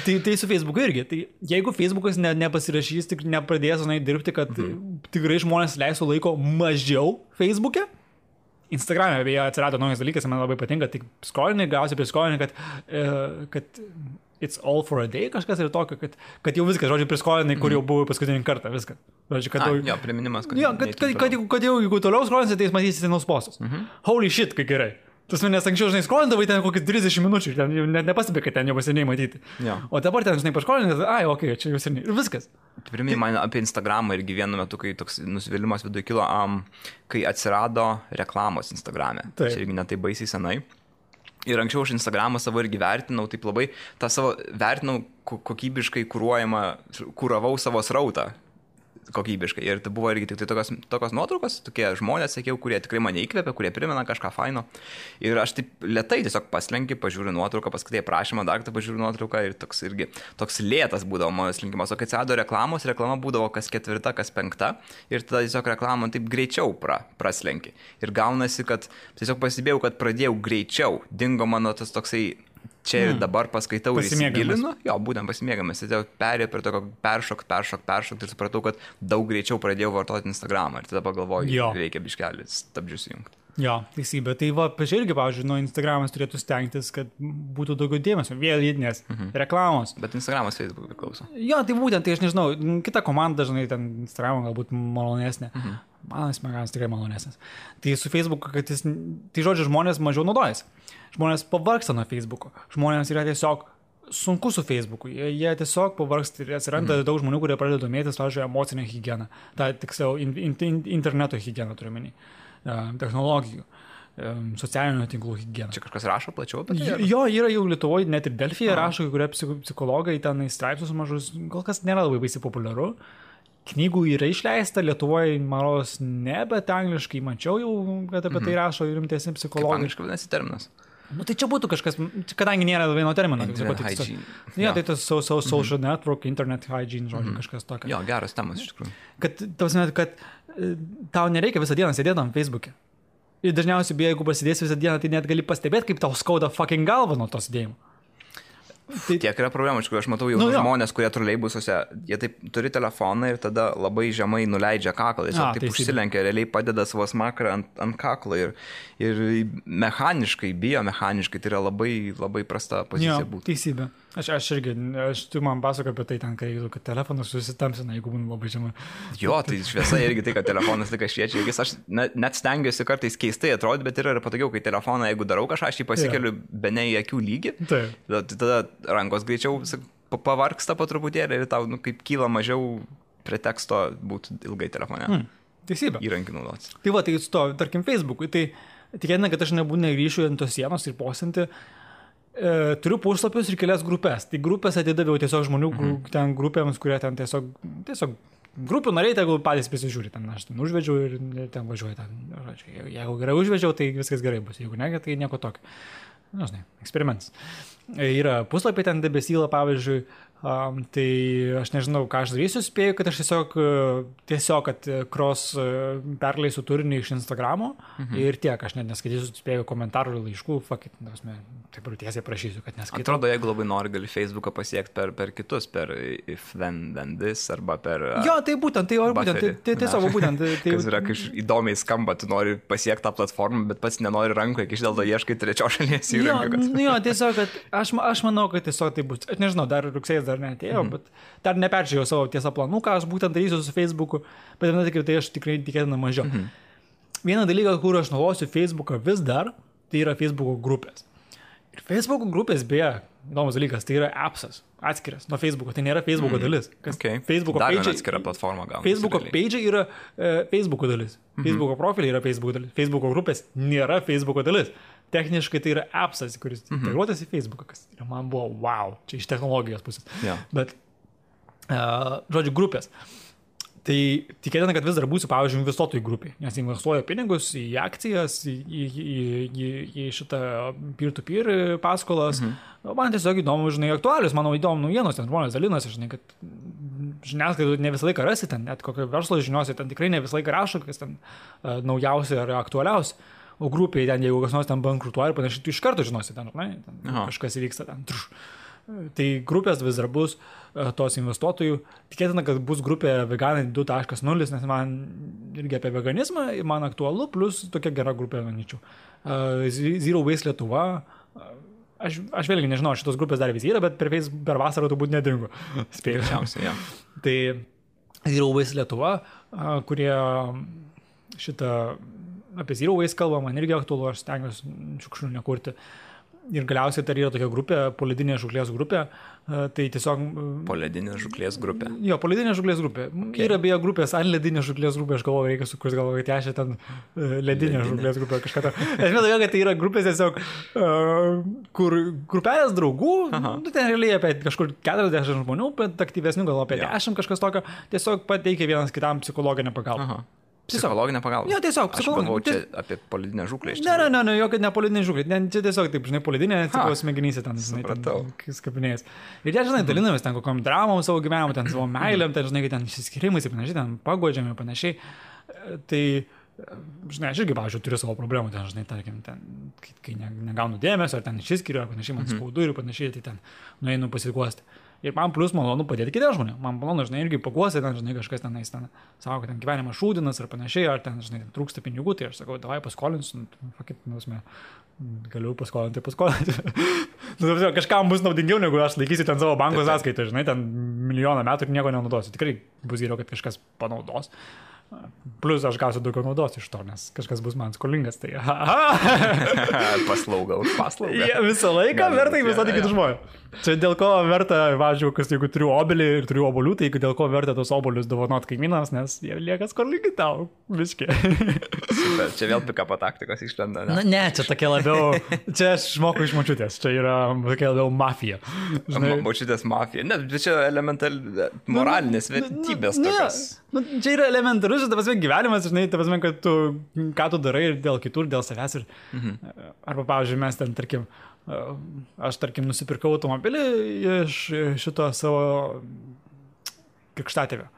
tai su Facebook'u irgi. Tai jeigu Facebook'as nepasirašys, tik nepradės, žinai, dirbti, kad tikrai žmonės leisų laiko mažiau Facebook'e, Instagram'e beje atsirado naujas dalykas, man labai patinka, tik scrollinai, gausi prie scrollinai, kad it's all for a day, kažkas ir tokio, kad jau viskas, žodžiu, prie scrollinai, kur jau buvo paskutinį kartą, viskas. Žodžiu, kad jo, priminimas, kad... Jo, kad jau, jeigu toliau scrollinsi, tai jūs matysite naus postus. Holy shit, kaip gerai. Tas manęs anksčiau, žinai, skrolindavai ten kokį 30 minučių, ten net nepastebė, kad ten jau seniai matyti. Ja. O dabar ten, žinai, paškolinai, čia jau seniai. Ir viskas. Priminiai man apie Instagramą irgi vienu metu, kai toks nusivylimas viduje kilo, kai atsirado reklamos Instagram'e. Tai irgi netai baisiai senai. Ir anksčiau aš Instagramą savo irgi vertinau, taip labai, tą savo vertinau kokybiškai kuravau savo srautą. Kokybiškai. Ir tai buvo irgi tik tai tokios nuotraukos, tokie žmonės, sakiau, kurie tikrai mane įkvėpia, kurie primena kažką faino. Ir aš taip lėtai tiesiog paslenkiu, pažiūriu nuotrauką, paskaitai prašymą, dar kartą pažiūriu nuotrauką ir toks lėtas būdavo mano slinkimas. O kai atsirado reklama būdavo kas 4, kas 5 ir tada tiesiog reklamą taip greičiau praslenki. Ir gaunasi, kad tiesiog pasibėjau, kad pradėjau greičiau, dingo mano tas toksai čia ir dabar paskaitau ir įsigilinu. Jo, būtent pasimėgamas. Tai perėjau prie tokio peršok ir supratau, kad daug greičiau pradėjau vartoti Instagramą. Ir tada pagalvoju, reikia biškelį stabdžius įjungti. Jo, teisybė. Tai va, irgi, pavyzdžiui, nuo Instagramas turėtų stengtis, kad būtų daugiau dėmesio. Vėlydinės reklamos. Bet Instagramas Facebook priklauso. Jo, tai būtent, tai aš nežinau, kita komanda dažnai ten Instagram galbūt malonesnė. Man Instagramas tikrai malonesnis. Tai su Facebook, kad tai žodžiu, žmonės mažiau naudojasi. Žmonės pavargsta nuo Facebooko. Žmonės yra tiesiog sunku su Facebook'u. Jie tiesiog pavargsta ir atsiranda daug žmonių, kurie pradeda domėtis, pavyzdžiui, emocinę higieną. Ta tiksliau, interneto higieną turiu menį, technologijų, socialinių tinklų higieną. Čia kažkas rašo plačiau apie tai? Jo, yra jau Lietuvoje, net ir Delfyje rašo, kai kurie psichologai ten į straipsnius mažus, kol kas nėra labai baisiai populiaru. Knygų yra išleista, Lietuvoje, maros, ne, bet angliškai mačiau jau, kad apie tai rašo rimtesni psichologai. Kaip angliškai vadinasi terminas? Nu, tai čia būtų kažkas, kadangi nėra vieno termino. Internet hygiene. Ja, tai tas social network, internet hygiene, žodžiu, kažkas tokio. Jo, geras temas iš tikrųjų. Kad tau nereikia visą dieną sėdėti ant Facebook'e. Ir dažniausiai, jeigu pasidėsi visą dieną, tai net gali pastebėti, kaip tau skauda fucking galva nuo to sėdėjimo. Tai tiek yra problemų, aš matau jau žmonės, kurie troleibusuose, jie taip turi telefoną ir tada labai žemai nuleidžia kaklą, jis taip užsilenkia, realiai padeda savo smakrą ant kaklo ir mechaniškai, biomechaniškai tai yra labai, labai prasta pozicija būtų. Teisybė. Tu man pasakoju apie tai ten, kad telefonas susitamsina, jeigu būna labai žemai. Jo, tai šviesa irgi tai, kad telefonas tik šviečia, aš net stengiuosi kartais keistai atrodyti, bet yra patogiau, kai telefoną, jeigu darau kažką, aš jį pasikeliu bene į akių lygį, tada rankos greičiau pavarksta po truputėlį ir tau kaip kyla mažiau preteksto būti ilgai telefone. Teisybė. Įrankį naudotis. Tai va, tai su to, tarkim, Facebook'ui, tai tikėtina, kad aš negrįšiu ant tos sienos ir posinti. Turiu puslapius ir kelias grupės. Tai grupės atidaviau tiesiog žmonių ten grupėms, kurie ten tiesiog grupių nariai, tegul patys prisižiūri. Ten aš ten užvedžiau ir ten važiuoju. Jeigu gerai užvedžiau, tai viskas gerai bus. Jeigu ne, tai nieko tokio. Žinai, eksperimentas. Yra puslapiai ten debesyla, pavyzdžiui, tai aš nežinau, ką aš darysiu, spėju, kad aš tiesiog kad cross perleisiu turinį iš Instagramo ir tiek, aš net neskaitysiu, spėju komentarų ir laiškų, taip ir tiesiai prašysiu, kad neskaitau. Atrodo, jeigu labai nori, gali Facebooką pasiekti per kitus, per if then this arba per... Jo, tai būtent, tai tiesiog būtent. Kas yra, kai įdomiai skamba, tu nori pasiekti tą platformą, bet pats nenori rankoje, kai iš dėl to ieškai trečios šalies įrankio. Jo, tiesiog, kad aš manau, kad tiesiog tai bus. Aš nežinau, dar rugsėjas dar neatėjo, bet dar neperžiūrėjau savo tiesą planų, ką aš būtent darysiu su Facebook'u, bet tai aš tikrai tikėtina mažiau. Vieną dalyką, kur aš naudosiu Facebook'ą vis dar, tai yra Facebook'o grupės. Ir Facebook'o grupės, beje, įdomus dalykas, tai yra appsas, atskiras nuo Facebook'o, tai nėra Facebook'o dalis. Facebook'o page atskira platforma gal. Facebook'o page yra Facebook'o dalis. Facebook'o profiliai yra Facebook'o dalis. Facebook'o grupės nėra Facebook'o dalis. Techniškai tai yra appsas, kuris integruotas į Facebook'ą, kas man buvo wow, čia iš technologijos pusės. Bet, žodžiu, grupės. Tai tikėtina, kad vis dar būsiu, pavyzdžiui, investuotojų grupiai, nes investuoju pinigus į akcijas, į šitą peer-to-peer paskolas. Man tiesiog įdomu, žinai, aktualius, mano įdomu naujienos, ten žmonės dalinasi, žinai, kad žiniasklaidų ne visą laiką rasi ten, net kokio verslo žiniuosi, ten tikrai ne visą laiką rašo, kas ten naujausia ar aktualiausia. O grupiai ten, jeigu kas nors ten bankrutuoja ir panašiai, tu iš karto žinosi ten, ne? Kažkas įvyksta ten. Tai grupės vis dar bus tos investuotojų. Tikėtina, kad bus grupė veganai 2.0, nes man irgi apie veganizmą man aktualu, plus tokia gera grupė, manyčiau. Zero Waste Lietuva. Aš vėlgi nežinau, šitos grupės dar vis yra, bet per vasarą turbūt nedingo. Spėjusiausiai, Tai Zero Waste Lietuva, kurie šitą apie Zero Waste kalbą, man irgi aktualu, aš stengiuosi šiukšlių nekurti. Ir galiausiai tai yra tokia grupė, poledinė žuklės grupė, tai tiesiog... Poledinė žuklės grupė. Jo, poledinė žuklės grupė. Yra beje grupės ledinė žuklės grupė, aš galvoju, reikia sukurti, galvoju, kad aš ten ledinė žuklės grupė kažką to. Aš manau, kad tai yra grupės tiesiog, kur grupelės draugų, ten realiai apie kažkur 40 žmonių, bet aktyvesnių gal apie 10 kažkas tokio, tiesiog pateikia vienas kitam psichologinę pagalbą. Psichologinę pagalbą. Jo, tiesiog psichologinę. Aš galvoju, čia apie polidinę žuklę. Ne, jokia ne polidinė žuklė. Čia tiesiog, taip, žinai, polidinė, tipo smegenyse ten, žinai, skapinėjęs. Ir jie, žinai, dalinamės ten kokiam dramom savo gyvenimą, ten savo meilėm, ten, žinai, ten išsiskirimais ir panašiai, ten pagodžiam ir panašiai. Tai, žinai, aš irgi, pavyzdžiui, turiu savo problemų, ten, žinai, tarkim, ten, kai negaunu dėmesio, ar ten išsiskiriu, ar panašiai, man skaudu ir panašiai, tai ten nueinu pasiguosti. Ir man plus malonu padėti kitiems žmonėms. Man malonu, žinai, irgi paguosi, ten, žinai, kažkas ten sako, kad ten gyvenimas šūdinas ar panašiai, ar ten, žinai, trūksta pinigų, tai aš sakau, davai paskolinsiu, galiu paskolinti. Kažkam bus naudingiau, negu aš laikysiu ten savo banko sąskaitą, žinai, ten milijoną metų ir nieko nenaudosiu. Tikrai bus geriau, kad kažkas panaudos. Plus aš gausiu daugiau naudos iš to, nes kažkas bus man skolingas. Tai Paslauga už paslaugą. Visą laiką verta investuoti kitus žmonės. Čia dėl ko verta, važiuoju, jeigu turiu obelį ir turiu obolių, tai dėl ko verta tos obolius dovanot kaimynams, nes jie lieka skolingi tau. Viškai. Super, čia vėl pikapo taktikos išlenda. Ne, čia tokia labiau, čia aš moku iš močiutės, čia yra tokia labiau mafija. Močiutės mafija. Ne, čia elementali moralinės vertybės tokios. Čia yra elementarus, ta prasme, gyvenimas, žinai, ta prasme, kad tu, ką tu darai ir dėl kitų, ir dėl savęs. Arba, pavyzdžiui, mes ten, tarkim, aš, nusipirkau automobilį iš šito savo krikštatėvio.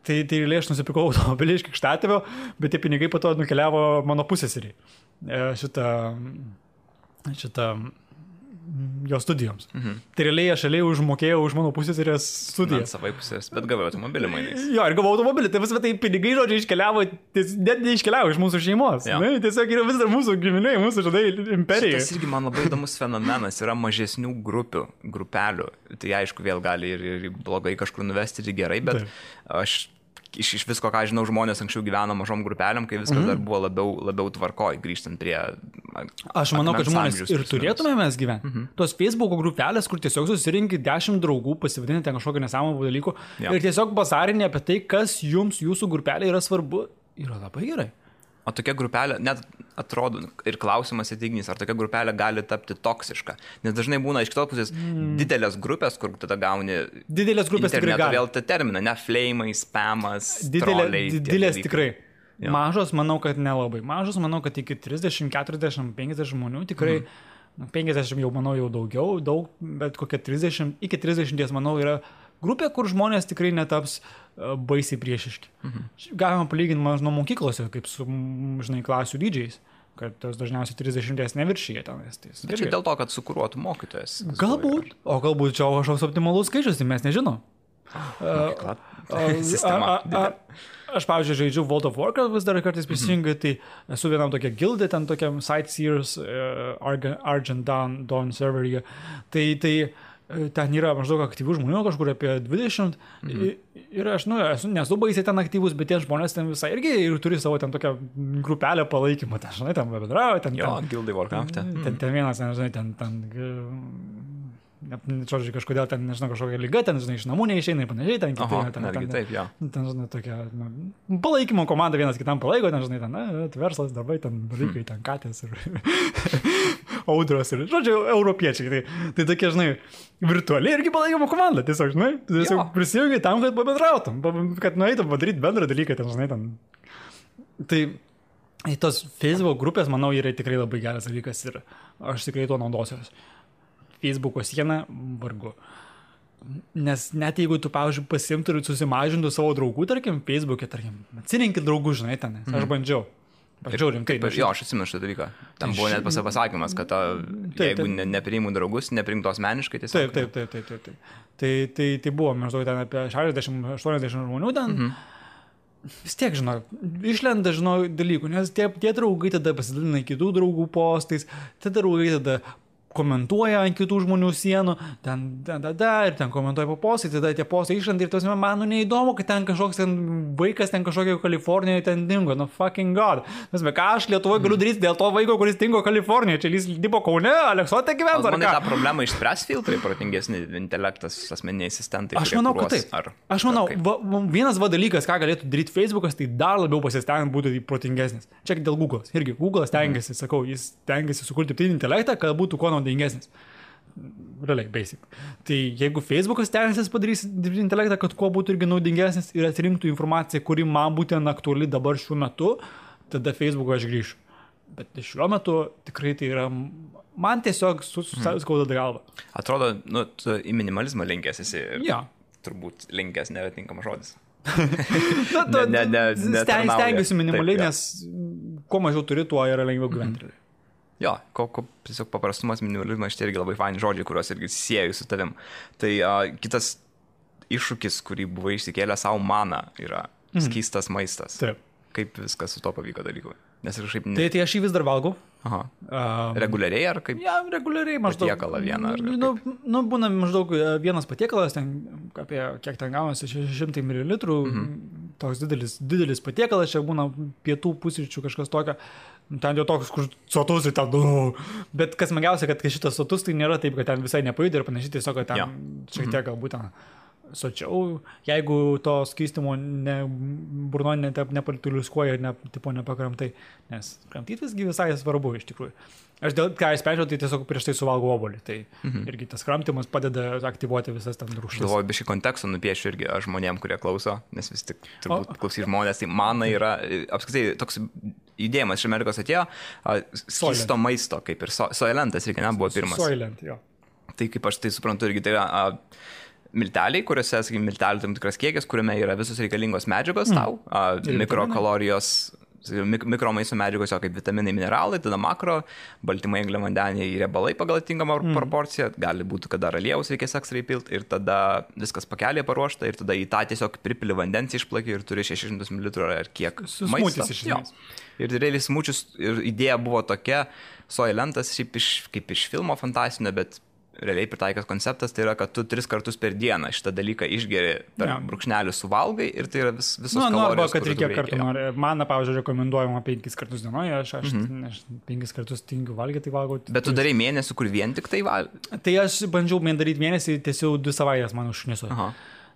Tai aš nusipirkau automobilį iš krikštatėvio, bet tie pinigai po to nukeliavo mano pusseserį. Šitą jo studijoms. Tai realiai aš užmokėjau už mano pusseserės studijas. Savai pusės, bet gavau automobilį mainais. Jo, ir gavau automobilį, tai pinigai, žodžiu, iškeliavo, net neiškeliavo iš mūsų šeimos. Ne, tiesiog yra vis dar mūsų giminiai, mūsų, žinai, imperija. Tas irgi man labai įdomus fenomenas, yra mažesnių grupelių. Tai aišku, vėl gali ir blogai kažkur nuvesti, ir gerai, bet aš iš visko, ką žinau, žmonės anksčiau gyveno mažom grupelėm, kai viskas dar buvo labiau tvarkoj, grįžtant prie... Aš manau, kad žmonės ir turėtume mes gyventi. Tos Facebook'o grupelės, kur tiesiog susirinkit 10 draugų, pasivadinti ten kažkokio nesąmonų dalykų ir tiesiog bazarinė apie tai, kas jums jūsų grupelė yra svarbu, yra labai gerai. O tokia grupelė, net atrodo, ir klausimas įtignys, ar tokia grupelė gali tapti toksiška. Nes dažnai būna iš kitos pusės didelės grupės, kur tada gauni... Didelės grupės tikrai gali. Vėl tą terminą, ne flamai, spamas, troliai. Didelės tikrai. Mažos, manau, kad nelabai. Mažos, manau, kad iki 30, 40, 50 žmonių tikrai... 50 jau, manau, jau daug, bet kokia 30, iki 30, manau, yra grupė, kur žmonės tikrai netaps baisiai priešiški. Galima palyginti nuo mokyklose, kaip su, žinai, klasių dydžiais, kad tos dažniausiai 30 neviršyje tenais. Bet čia dėl to, kad sukuruotų mokytojas. Galbūt, o galbūt čia kažkoks optimalus skaičius, tai mes nežinom. Aš, pavyzdžiui, žaidžiu World of Warcraft vis dar kartais prisijungiu, tai esu vienam tokia gildė, ten tokiam Sightseers Argent Dawn serveryje. Tai ten yra maždaug aktyvių žmonių, kažkur apie 20. Ir aš, nesu baisiai ten aktyvus, bet tie žmonės ten visai irgi ir turi savo ten tokią grupelę palaikymą. Ten, žinai, ten bedrauja. Jo, gildai Warcraft'e. Ten vienas, žinai, ten žodžiu, kažkodėl ten, nežinau, kažkokia lyga, ten, žinai, iš namų neišeina ir panašiai, ten kitai, taip, jo. Ten, žinai, tokia, palaikymo komanda vienas kitam palaiko, ten, žinai, ten, verslas, darbai, ten, dalykai, ten, katės ir audros ir, žodžiu, europiečiai. Tai tokie, žinai, virtualiai irgi palaikymo komanda, tiesiog, žinai, tiesiog prisijungi tam, kad pabendrautum, kad nueitum padaryti bendrą dalyką, ten, žinai, ten. Tai tos Facebook grupės, manau, yra tikrai labai geras dalykas ir aš tikrai tuo naudosiuos. Facebook'o sieną vargu. Nes net jeigu tu, pavyzdžiui, pasimtų ir susimažintų savo draugų, tarkim, Facebook'e, tarkim, atsirinkit draugų, žinai, ten. Aš bandžiau rimtai. Jo, aš atsimenu šitą dalyką. Tam buvo net pasakymas, kad jeigu nepriimu draugus, nepriimtų asmeniškai tiesiog. Taip. Tai buvo maždaug ten apie 60-80 žmonių ten. Vis tiek, žinau, išlenda, žinau, dalykų, nes tie draugai tada pasidalina kitų draugų postais, tie draugai tada komentuoja ant kitų žmonių sienų, ir ten komentuoja po postai, tada tie postai išlenda ir tos man neįdomu, kad ten kažkoks ten vaikas ten kažkokio Kalifornijoje ten dingo, fucking god. Nes ką aš Lietuvoje galiu daryti dėl to vaiko, kuris dingo Kalifornijoje, čia jis dirbo Kaune, Aleksote gyvens, ar ką? Tą problemą išspręs filtrai, protingesni intelektas, asmeniniai asistentai. Aš manau, kad taip. Aš manau, vienas dalykas, ką galėtų daryti Facebookas, tai dar labiau pasistengiant būti protingesnis. Čia dėl Google'as. Irgi Google stengiasi, sakau, jis stengiasi sukurti dirbtinį intelektą, kad būtų kuo naudingesnis. Realiai, basic. Tai jeigu Facebookas stengiasi padarys dirbtinį intelektą, kad kuo būtų irgi naudingesnis ir atsirinktų informaciją, kuri man būtent aktuali dabar šiuo metu, tada Facebook'o aš grįšiu. Bet šiuo metu tikrai tai yra, man tiesiog skauda galva. Atrodo, tu į minimalizmą linkęs esi. Ja. Turbūt linkęs netinkamas žodis. Stengiuosi minimaliai, nes kuo mažiau turi, tuo yra lengviau gyventi. Jo, tiesiog paprastumas, minimalizmas, šitie irgi labai faini žodžiai, kuriuos irgi sieju su tavim. Tai kitas iššūkis, kurį buvai išsikėlę savo maną, yra skystas maistas. Taip. Kaip viskas su to pavyko dalykui? Nes kažkaip... Tai aš jį vis dar valgau. Aha. Reguliariai ar kaip? Ja, reguliariai maždaug. Patiekalą vieną ar kaip? Būna maždaug vienas patiekalas, ten apie kiek ten gaunasi, 600 ml, toks didelis patiekalas, čia būna pietų pusryčių kažkas tokio, ten jau toks, kur sotus ir ten, bet kas smagiausia, kad šitas sotus tai nėra taip, kad ten visai nepajudė ir panašiai, tiesiog, kad ten šiek tiek galbūt ten sočiau, jeigu to skystimo burno nepalituliuskuoja ir nepakramtai, nes kramtyti visgi visai svarbu iš tikrųjų. Aš dėl ką įsprendžiau, tai tiesiog prieš tai suvalgau obuolį, tai irgi tas kramtimas padeda aktyvuoti visas tam rūgštis. Galvoju, biškį kontekstą nupiešiu irgi žmonėm, kurie klauso, nes vis tik turbūt klausys žmonės, tai mana yra, apskritai, toks judėjimas iš Amerikos atėjo, skysto maisto, kaip ir Soylentas, reikia, nebuvo pirmas. Soylent, jo. Tai kaip aš tai suprantu, irgi tai yra milteliai, kuriuose, sakykime, miltelių tam tikras kiekis, kuriame yra visos reikalingos medžiagos tau, mikrokalorijos, mikromaisto medžiagos, kaip vitaminai, mineralai, tada makro, baltymai, angliavandeniai ir riebalai pagal atitinkamą proporciją, gali būti, kad dar aliejaus reikės ekstra įpilti ir tada viskas pakelėje paruošta ir tada į tą tiesiog pripili vandens išplaki ir turi 600 ml ar kiek maisto. Ir realiai smučius ir idėja buvo tokia, Soylentas šiaip kaip iš filmo fantastinio, bet realiai pritaikas konceptas, tai yra, kad tu 3 kartus per dieną šitą dalyką išgeri per brūkšnelį suvalgai ir tai yra visos kalorijos. Arba, kad reikia kartų nori. Man, pavyzdžiui, rekomenduojama 5 kartus dienoje, aš 5 kartus tingiu valgyti, tai valgau. Bet tu darai mėnesį, kur vien tik tai valgai? Tai aš bandžiau daryti mėnesį, tiesiog 2 savaitės man užšniso.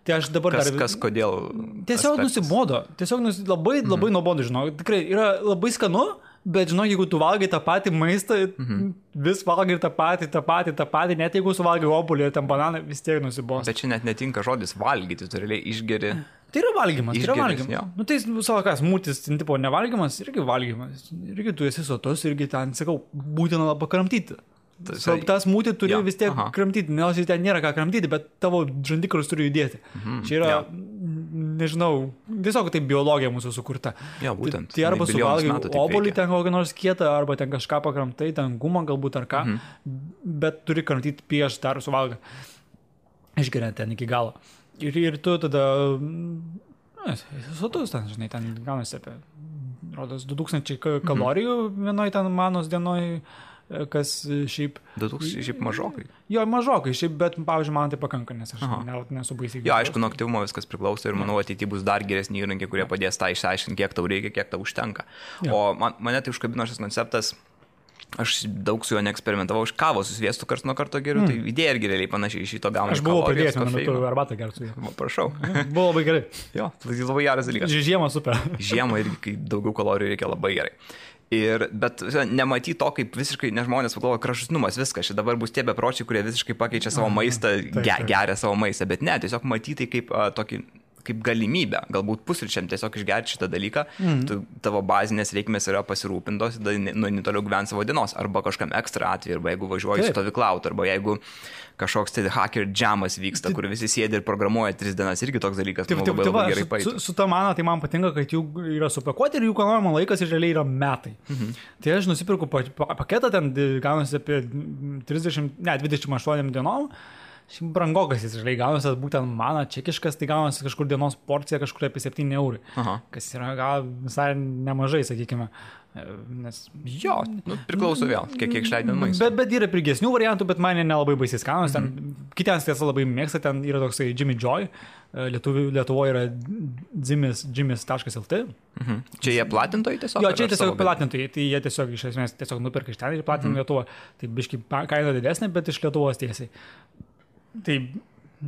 Tai aš dabar kodėl? Tiesiog nusibodo. Tiesiog labai nuobodu, žinau. Tikrai yra labai skanu. Bet žinok, jeigu tu valgai tą patį maistą, vis valgai tą patį, net jeigu suvalgai obuolį ir ten bananą, vis tiek nusibos. Bet čia net netinka žodis valgyti, tu realiai išgeri. Tai yra valgymas, Nu tai savo kas, mūtis, tipo nevalgymas, irgi valgymas. Irgi tu esi sotus, irgi ten, sakau, būtina pakramtyti. Tas mūtį turi vis tiek kramtyti, nes ten nėra ką kramtyti, bet tavo žandikaulis turi judėti. Čia yra, nežinau, tiesiog tai biologija mūsų sukurta. Ja, būtent. Tai arba suvalgai obuolį ten kokią nors kietą, arba ten kažką pakramtai, ten gumą galbūt ar ką, bet turi kramtyti prieš dar suvalgą. Išgeriant ten iki galo. Ir tu tada, sotus ten, žinai, ten gaunasi apie, rodos, 2000 kalorijų vienoj ten manos dienoj, kas šiaip... 2000 šiaip mažokai. Jo, mažokai, šiaip, bet, pavyzdžiui, man tai pakanka, nes aš nesu baisiai. Jo, aišku, nuo aktyvumo viskas priklauso ir manau, ateityje bus dar geresni įrankiai, kurie padės tą išsiaiškinti, kiek tau reikia, kiek tau užtenka. O mane tai užkabino šis konceptas, aš daug su juo neeksperimentavau, iš kavos su sviestu karts nuo karto geriu, tai idėja irgi realiai panašiai iš šito gauna. Aš buvau pradėjęs, man metu arbatą gerti su juo. Prašau. Buvo labai gerai. Jo, tai labai geras dalykas. Žiemą super. Žiemą irgi, kai daugiau kalorijų reikia, labai gerai. Bet nematyti to, kaip visiškai, nes žmonės pagalvoja, kraštutinumas, viskas, čia dabar bus tie bepročiai, kurie visiškai pakeičia savo maistą, geria savo maistą, bet ne, tiesiog matyti kaip tokį kaip galimybę, galbūt pusryčiam tiesiog išgerti šitą dalyką, tavo bazinės reikmės yra pasirūpintos, tada toliau gyventi savo dienos, arba kažkam ekstra atveju, arba jeigu važiuoji stovyklauti, arba jeigu kažkoks tai hacker jamas vyksta, kur visi sėdi ir programuoja 3 dienas, irgi toks dalykas, labai gerai pavyzdžiui. Su ta mana, tai man patinka, kad jų yra supakuoti ir jų kanojimo laikas ir realiai yra metai. Tai aš nusipirku paketą, ten gaunasi apie 28 dienom. Brangokas jis žaliai gaunasi, būtent mana čekiškas, tai gaunasi kažkur dienos porcija, kažkur apie 7 eurų, kas yra gal visai nemažai, sakykime. Nes... Jo, priklauso vėl, kiek išleidžiant maistą. Bet yra pigesnių variantų, bet man nelabai baisiai skanus. Kitiems tiesa labai mėgsta, ten yra toksai Jimmy Joy, Lietuvoje yra jimis.lt. Čia jie platintojai tiesiog? Jo, čia tiesiog platintojai, tai jie tiesiog iš esmės tiesiog nuperka iš ten ir platina Lietuvą. Tai biškai kaina didesnė, bet iš Lietuvos tiesiai. Tai,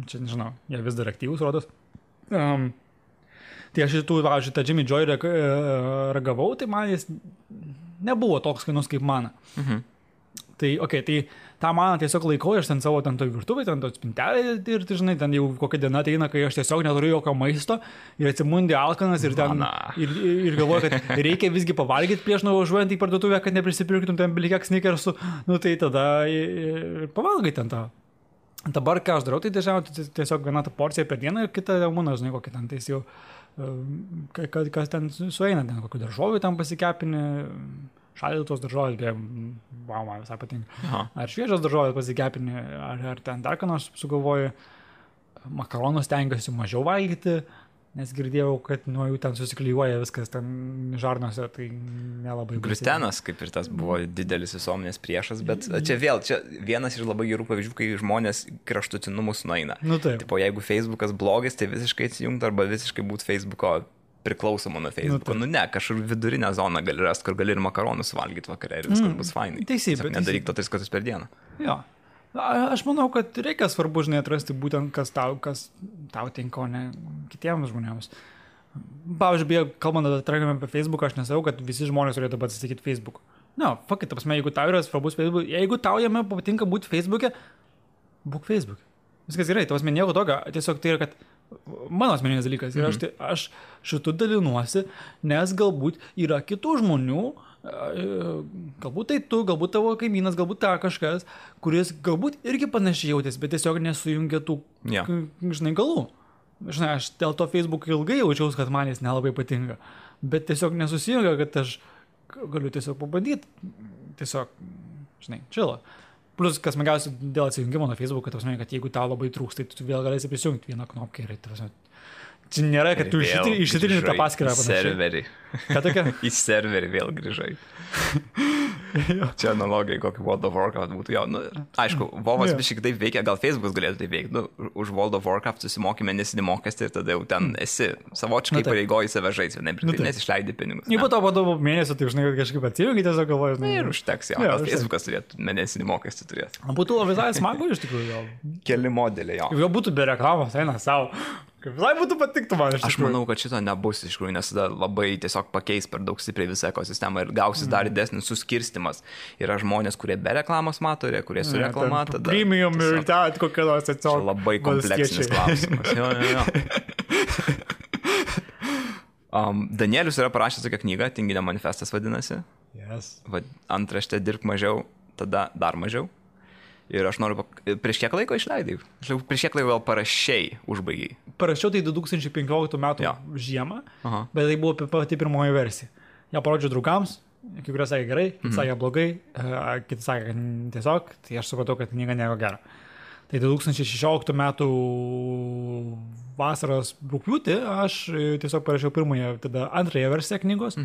čia nežinau, jie vis dar aktyvus, rodos. Tai aš šitą Jimmy Joy ragavau, tai man jis nebuvo toks skanus kaip mana. Tai, tai tą maną tiesiog laikau, aš ten savo toj virtuvai, ten to spintelė ir, žinai, ten jau kokia diena ateina, kai aš tiesiog neturiu jokio maisto ir atsimundi alkanas ir ten ir galvoju, kad reikia visgi pavalgyti prieš nuvažiuojant į parduotuvę, kad neprisipirktum ten bilikiek snickersų, tai tada pavalgai ten tą. Dabar, ką aš darau, tai dažniausiai tiesiog viena ta porcija per dieną ir kita būna, žinai, kokia ten, tai jau, kas ten sueina, ten kokių daržovių ten pasikepinį, šaldytos daržovės, man visai patinka. Ar šviežios daržovės pasikepinį, ar ten dar ką nors sugalvoju, makaronus stengiuosi mažiau valgyti, nes girdėjau, kad nuo jų ten susiklyjuoja viskas ten žarnose, tai nelabai... Gliutenas, kaip ir tas buvo didelis visuomenės priešas, bet čia vienas iš labai gerų pavyzdžių, kai žmonės kraštutinumus nueina. Taip. Tipo, jeigu Facebookas blogis, tai visiškai atsijungti arba visiškai būti Facebooko priklausoma nuo Facebook'o. Nu ne, kažkur vidurinę zoną gali rasti, kur gali ir makaronus valgyti vakare ir viskas bus fainai. Teisybė. Nedaryk to 3 kartus per dieną. Jo. Aš manau, kad reikia svarbu, žinai, atrasti būtent, kas tau tinka, o ne kitiems žmonėms. Pavyzdžiui, kalbant apie Facebooką, aš nesakau, kad visi žmonės turėtų atsisakyti Facebook'o. Ne, fuck it, jeigu tau yra svarbus Facebook, jeigu tau jame patinka būti Facebook'e, būk Facebook'e. Viskas gerai, nieko tokio, tiesiog tai yra, kad mano asmeninis dalykas ir aš šitų dalinuosi, nes galbūt yra kitų žmonių, galbūt tai tu, galbūt tavo kaimynas, galbūt ta kažkas, kuris galbūt irgi panašiai jautės, bet tiesiog nesujungia tų, žinai, galų. Žinai, aš dėl to Facebook ilgai jaučiaus, kad man jis nelabai patinka, bet tiesiog nesusijungia, kad aš galiu tiesiog pabandyti, tiesiog, žinai, čilo. Plus, kas smagiausia dėl atsijungimo nuo Facebook'o, kad jeigu tau labai trūks, tai tu vėl galėsi prisijungti vieną knopkę ir čia nėra, kad tu išsitrini tą paskyrą. Į serverį. Ką tokia? Į serverį vėl grįžai. Čia analogija, kokį World of Warcraft būtų. Jo, nu, aišku, Vovas biškai taip veikia, gal Facebook'as galėtų taip veikti. Nu, už World of Warcraft susimokė mėnesinį mokestį ir tada jau ten esi savočiai pareigoji save žaisti, nes išleidi pinigus. Jeigu to po mėnesio, tai žinai, kažkaip atsijungi tiesiog galvoju. Ir užteks, jo. Gal Facebook'as turėtų mėnesinį mokestį turėti. Būtų visai smagu iš tikrųjų. Keli modeliai, jo. Jau būtų be reklamos, eina savo. Visai būtų patiktų man iš tikrųjų. Aš manau, kad šito nebus iš tikrųjų, nes tada labai tiesiog pakeis per daug stipriai visą ekosistemą ir gausis dar didesnis suskirstimas. Yra žmonės, kurie be reklamos mato, kurie su reklama. Premium ir ten kokia nors atsiaugia. Labai kompleksinis klausimas. Jo. Danielius yra parašęs tokią knygą, Tinginio manifestas vadinasi. Yes. Antraštė dirbk mažiau, tada dar mažiau. Ir aš noriu, prieš kiek laiko išleidai? Prieš kiek laiko gal parašiai, užbaigiai? Parašiau tai 2015 metų žiemą, bet tai buvo pati pirmoji versija. Ja parodžiau draugams, kai kurie sakė gerai, kiti sakė blogai, kiti sakė tiesiog, tai aš supratau, kad knyga nieko gero. Tai 2016 metų vasaros rugpjūtį aš tiesiog parašiau pirmąją, tada antrąją versiją knygos,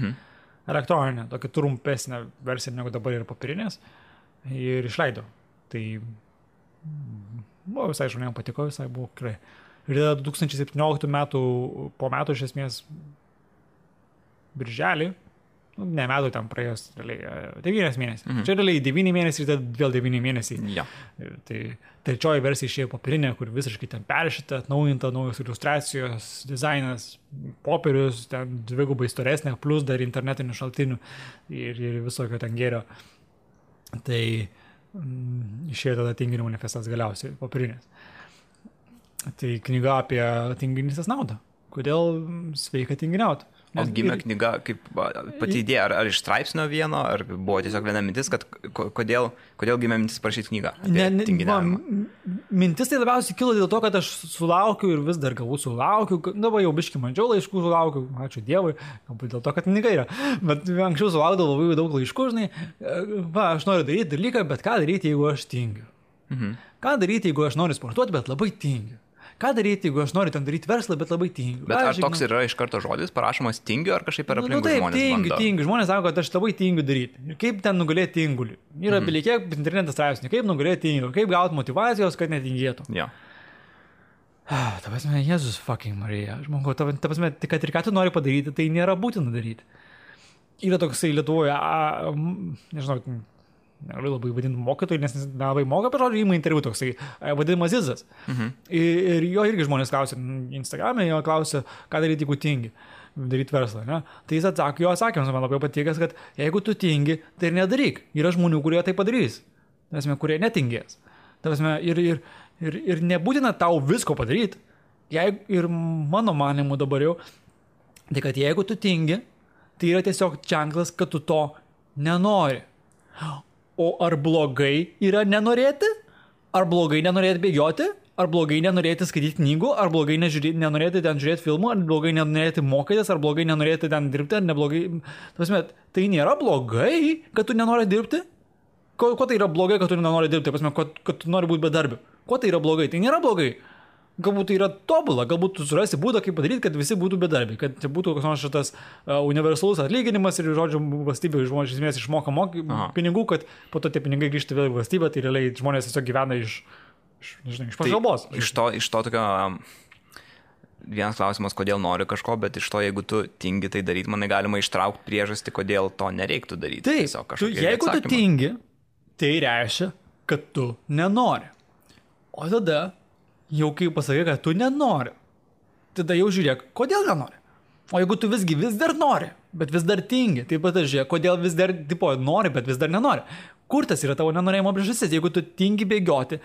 elektroninę, tokia trumpesnė versija negu dabar yra papirinės, ir išleidau. Tai buvo visai žmonėm patiko, visai buvo gerai. Ir tada 2017 metų, po metų iš esmės birželį, ne metų ten praėjus, realiai 9 mėnesiai. Čia realiai 9 mėnesiai ir tada vėl 9 mėnesiai. Ja. Tai trečioji versija išėjo papirinė, kur visiškai ten peršita, atnaujinta, naujos iliustracijos, dizainas, popierius, ten dvigubai storesnė, plus dar internetinių šaltinių ir visokio ten gėrio. Tai išėjo tada Tinginio manifestas galiausiai papirinės. Tai knyga apie tinginystės naudą. Kodėl sveika tinginiauti? O gimė knyga kaip pati idėja, ar iš straipsnio vieno, ar buvo tiesiog viena mintis, kad kodėl gimė mintis parašyti knygą apie tinginiavimą? Mintis tai labiausiai kilo dėl to, kad aš sulaukiu ir vis dar galbūt sulaukiu, dabar jau biškį mažiau laiškų sulaukiu, ačiū Dievui, galbūt dėl to, kad knyga yra, bet anksčiau sulaukdavau labai daug laiškų, žinai, aš noriu daryti dalyką, bet ką daryti, jeigu aš tingiu? Ką daryti, jeigu aš noriu sportuoti, bet labai tingiu? Ką daryti, jeigu aš noriu ten daryti verslą, bet labai tingiu? Bet ar toks yra iš karto žodis, parašomas tingiu, ar kažkaip per aplinkui žmonės bando? Tingiu. Žmonės sako, kad aš labai tingiu daryti. Ir kaip ten nugalėti tingulį? Yra bilikiek internetas straipsnių, kaip nugalėti tingiu, kaip gauti motivacijos, kad netingėtų. Jo. Ta prasme, Jėzus fucking Marija. Aš manau, ta prasme, kad ir ką tu nori padaryti, tai nėra būtina daryti. Yra toksai Lietuvoje, nežinau, negaliu labai vadinti mokytojų, nes nelabai moka, bet žodžiu, įma interviu toksai, vadinamas Zizas. Ir jo irgi žmonės klausia, Instagram'e jo klausia, ką daryti, jeigu tingi, daryti verslą, ne? Tai jis atsakė, jo atsakymas man labai patikęs, kad jeigu tu tingi, tai ir nedaryk. Yra žmonių, kurie tai padarys, kurie netingės. Ir nebūtina tau visko padaryti. Ir mano manimu dabar jau, tai kad jeigu tu tingi, tai yra tiesiog ženklas, kad tu to nenori. O ar blogai yra nenorėti? Ar blogai nenorėti bėgioti? Ar blogai nenorėti skaityti knygų? Ar blogai nenorėti ten žiūrėti filmų? Ar blogai nenorėti mokytis? Ar blogai nenorėti ten dirbti? Ar neblogai? Tai nėra blogai, kad tu nenori dirbti? Ko tai yra blogai, kad tu nenori dirbti? Kad tu nori būti bedarbiu? Ko tai yra blogai? Tai nėra blogai. Galbūt tai yra tobula, galbūt tu surasi būdą, kaip padaryti, kad visi būtų bedarbiai, kad būtų koks nors šitas universalus atlyginimas ir, žodžiu, valstybė žmonės iš esmės išmoka pinigų, kad po to tie pinigai grįžta vėl į valstybę, tai realiai žmonės tiesiog gyvena iš pašalbos. Tai iš to tokio vienas klausimas, kodėl nori kažko, bet iš to, jeigu tu tingi tai daryti, manai galima ištraukti priežastį, kodėl to nereiktų daryti. Taip, jeigu tu tingi, tai reiškia, kad tu nenori. O tada, jau kai pasakai, kad tu nenori, tada jau žiūrėk, kodėl nenori. O jeigu tu vis dar nori, bet vis dar tingi, tai pat žiūrėk, kodėl vis dar nori, bet vis dar nenori. Kur tas yra tavo nenorėjimo priežastis? Jeigu tu tingi bėgioti,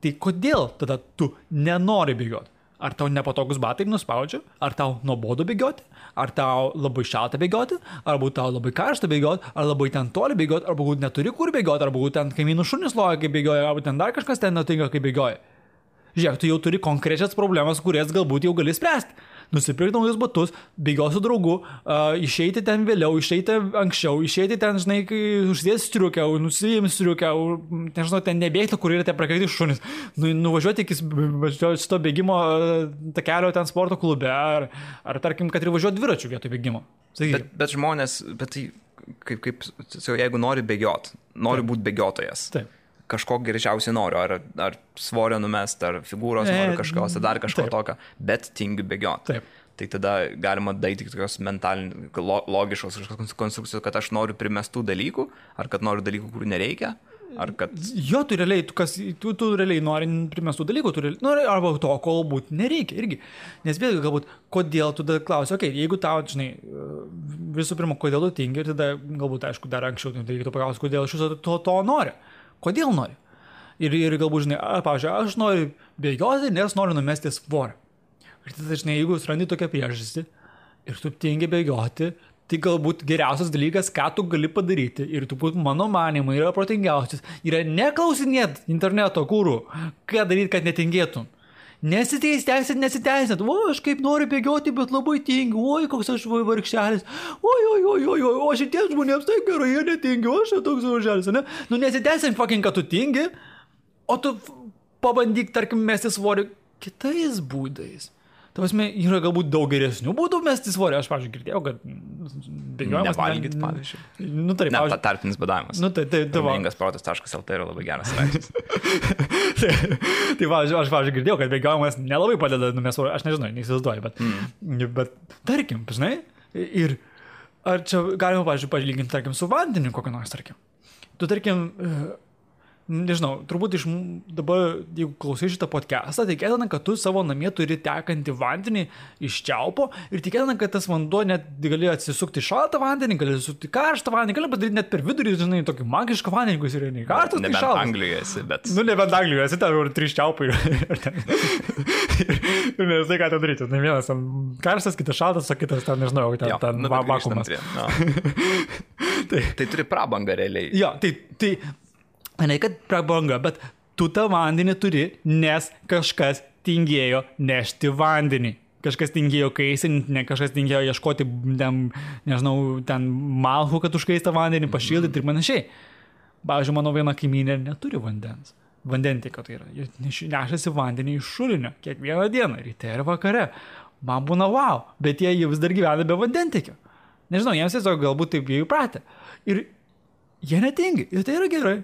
tai kodėl tada tu nenori bėgioti? Ar tau nepatogus batai nuspaudžia? Ar tau nuobodu bėgioti? Ar tau labai šalta bėgioti? Ar būt tau labai karšta bėgioti? Ar labai ten toli bėgioti? Ar būt neturi kur bėgioti? Ar būt ten kaimynų šunis loja, kai bėgioja? Ar būt ten dar kažkas ten nutinka, kai bėgioja? Žiūrėk, tu jau turi konkrečias problemas, kurias galbūt jau gali spręsti. Nusipirkti naujus batus, bėgioti su draugu, išeiti ten vėliau, išeiti anksčiau, išeiti ten, žinai, kai užsidės striukę, nusijimi striukę, nežinau, ten nebėgti, kur yra tie prakaiti šunis, nuvažiuoti iki šito bėgimo takelio ten sporto klube, ar tarkim, kad ir važiuoti dviračių vietoj bėgimo. Bet žmonės, tai kaip jeigu nori bėgioti, nori būti bėgiotojas. Taip. Kažko greičiausiai noriu, ar svorio numest, ar figūros noriu kažkos, ar dar kažko tokio, bet tingiu bėgioti. Taip. Tai tada galima daryti tokios logiškos konstrukcijos, kad aš noriu primestų dalykų, ar kad noriu dalykų, kurių nereikia, ar kad... Jo, tu realiai nori primestų dalykų, arba to, ko galbūt nereikia irgi. Nes vėlgi, galbūt, kodėl tu tada klausi, jeigu tau, žinai, visų pirma, kodėl tu tingi, ir tada galbūt, aišku, dar anksčiau, tai reikėtų paklausti, kodėl iš viso to nori. Kodėl nori? Ir galbūt, žinai, pavyzdžiui, aš noriu bėgioti, nes noriu numesti svorį. Ir tada, žinai, jeigu surandi tokią priežastį ir tu tingi bėgioti, tai galbūt geriausias dalykas, ką tu gali padaryti, ir tu mano manimu yra protingiausias, yra neklausinėt interneto kūrų, ką daryti, kad netingėtum. Nesiteisinat, aš kaip noriu bėgioti, bet labai tingiu, koks aš vargšelis, o šitiems žmonėms tai gerai, jie netingi, aš toks vargšelis, ne? Nesiteisin fucking, kad tu tingi, o tu pabandyk, tarkim, mesti svorį kitais būdais. Tavasme, yra galbūt daug geresnių būdų mesti svorį. Aš, pavyzdžiui, girdėjau, kad bėgiojimas... Nevalgyti, pavyzdžiui. Pavyzdžiui. Tarpinis badavimas. Mingasprotas.lt yra labai geras straipsnis. Tai, aš, pavyzdžiui, girdėjau, kad bėgiojimas nelabai padeda numesti svorį. Aš nežinau, neįsivaizduoju, bet tarkim, žinai, ir ar čia galima, pavyzdžiui, palyginti, tarkim, su vandeniu kokią nors, tarkim. Tu, tarkim... Nežinau, turbūt dabar, jeigu klausai šitą podcastą, tikėtina, kad tu savo namie turi tekantį vandenį iš čiaupo ir tikėtina, kad tas vanduo net gali atsisukti šaltą vandenį, gali atsisukti karštą vandenį, gali padaryti net per vidurį, žinai, tokį magišką vandenį, kuris yra nei karštas, nei šaltas. Nebent Anglijoje esi, bet... Nebent Anglijoje esi, ten yra 3 čiaupai ir nesai ką ten daryti. Vienas ten karštas, kitas šaltas, o kitas ten, nežinau, ten vakuumas. Tai turi prabangą realiai. Jo, tai ne, kad prabanga, bet tu tą vandenį turi, nes kažkas tingėjo nešti vandenį. Kažkas tingėjo kaisinti, kažkas tingėjo ieškoti, ten malhų, kad užkaistą vandenį, pašildyti ir panašiai. Pavyzdžiui, mano viena kaimynė neturi vandens. Vandentiekio tai yra. Jie nešasi vandenį iš šulinio kiekvieną dieną, ryte ir vakare. Man būna wow, bet jie vis dar gyvena be vandentiekio. Nežinau, jiems tiesiog galbūt taip jie įpratę. Ir jie netingi, ir tai yra gerai.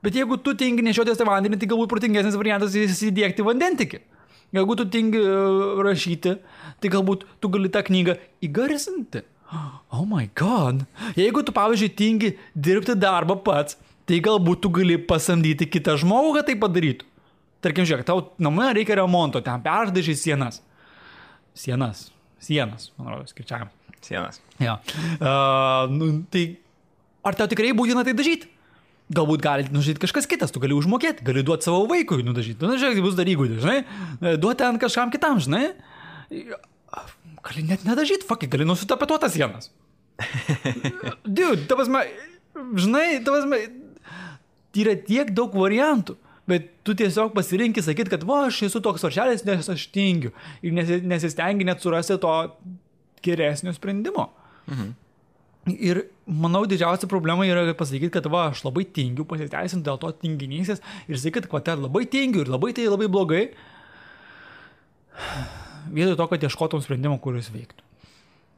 Bet jeigu tu tingi nešiotis tą vandenį, tai galbūt protingesnis variantas įsidiegti vandentiekį. Jeigu tu tingi rašyti, tai galbūt tu gali tą knygą įgarsinti. Oh my god. Jeigu tu, pavyzdžiui, tingi dirbti darbą pats, tai galbūt tu gali pasamdyti kitą žmogų, kad tai padarytų. Tarkim, žiūrėk, tau namai reikia remonto, ten perdažai sienas. Sienas, man rodos, skaičiavimas. Sienas. Ja. Tai ar tau tikrai būtina tai dažyti? Galbūt gali nužyti kažkas kitas, tu gali užmokėti, gali duoti savo vaikui nudažyti. Žiūrėk, tai bus dar įgūdį, žinai? Duoti ten kažkam kitam, žinai? Gali net nedažyti, gali nusitapetuotas sienas. Dude, žinai, yra tiek daug variantų, bet tu tiesiog pasirinkti sakyti, kad aš esu toks varšelis, nes aš tingiu. Ir nesistengi net surasti to geresnio sprendimo. Ir manau, didžiausia problema yra pasakyti, kad aš labai tingiu, pasiteisinti dėl to tinginysės ir sakyti, kad labai tingiu ir labai blogai, vietoj to, kad ieškotum sprendimo, kuris veiktų.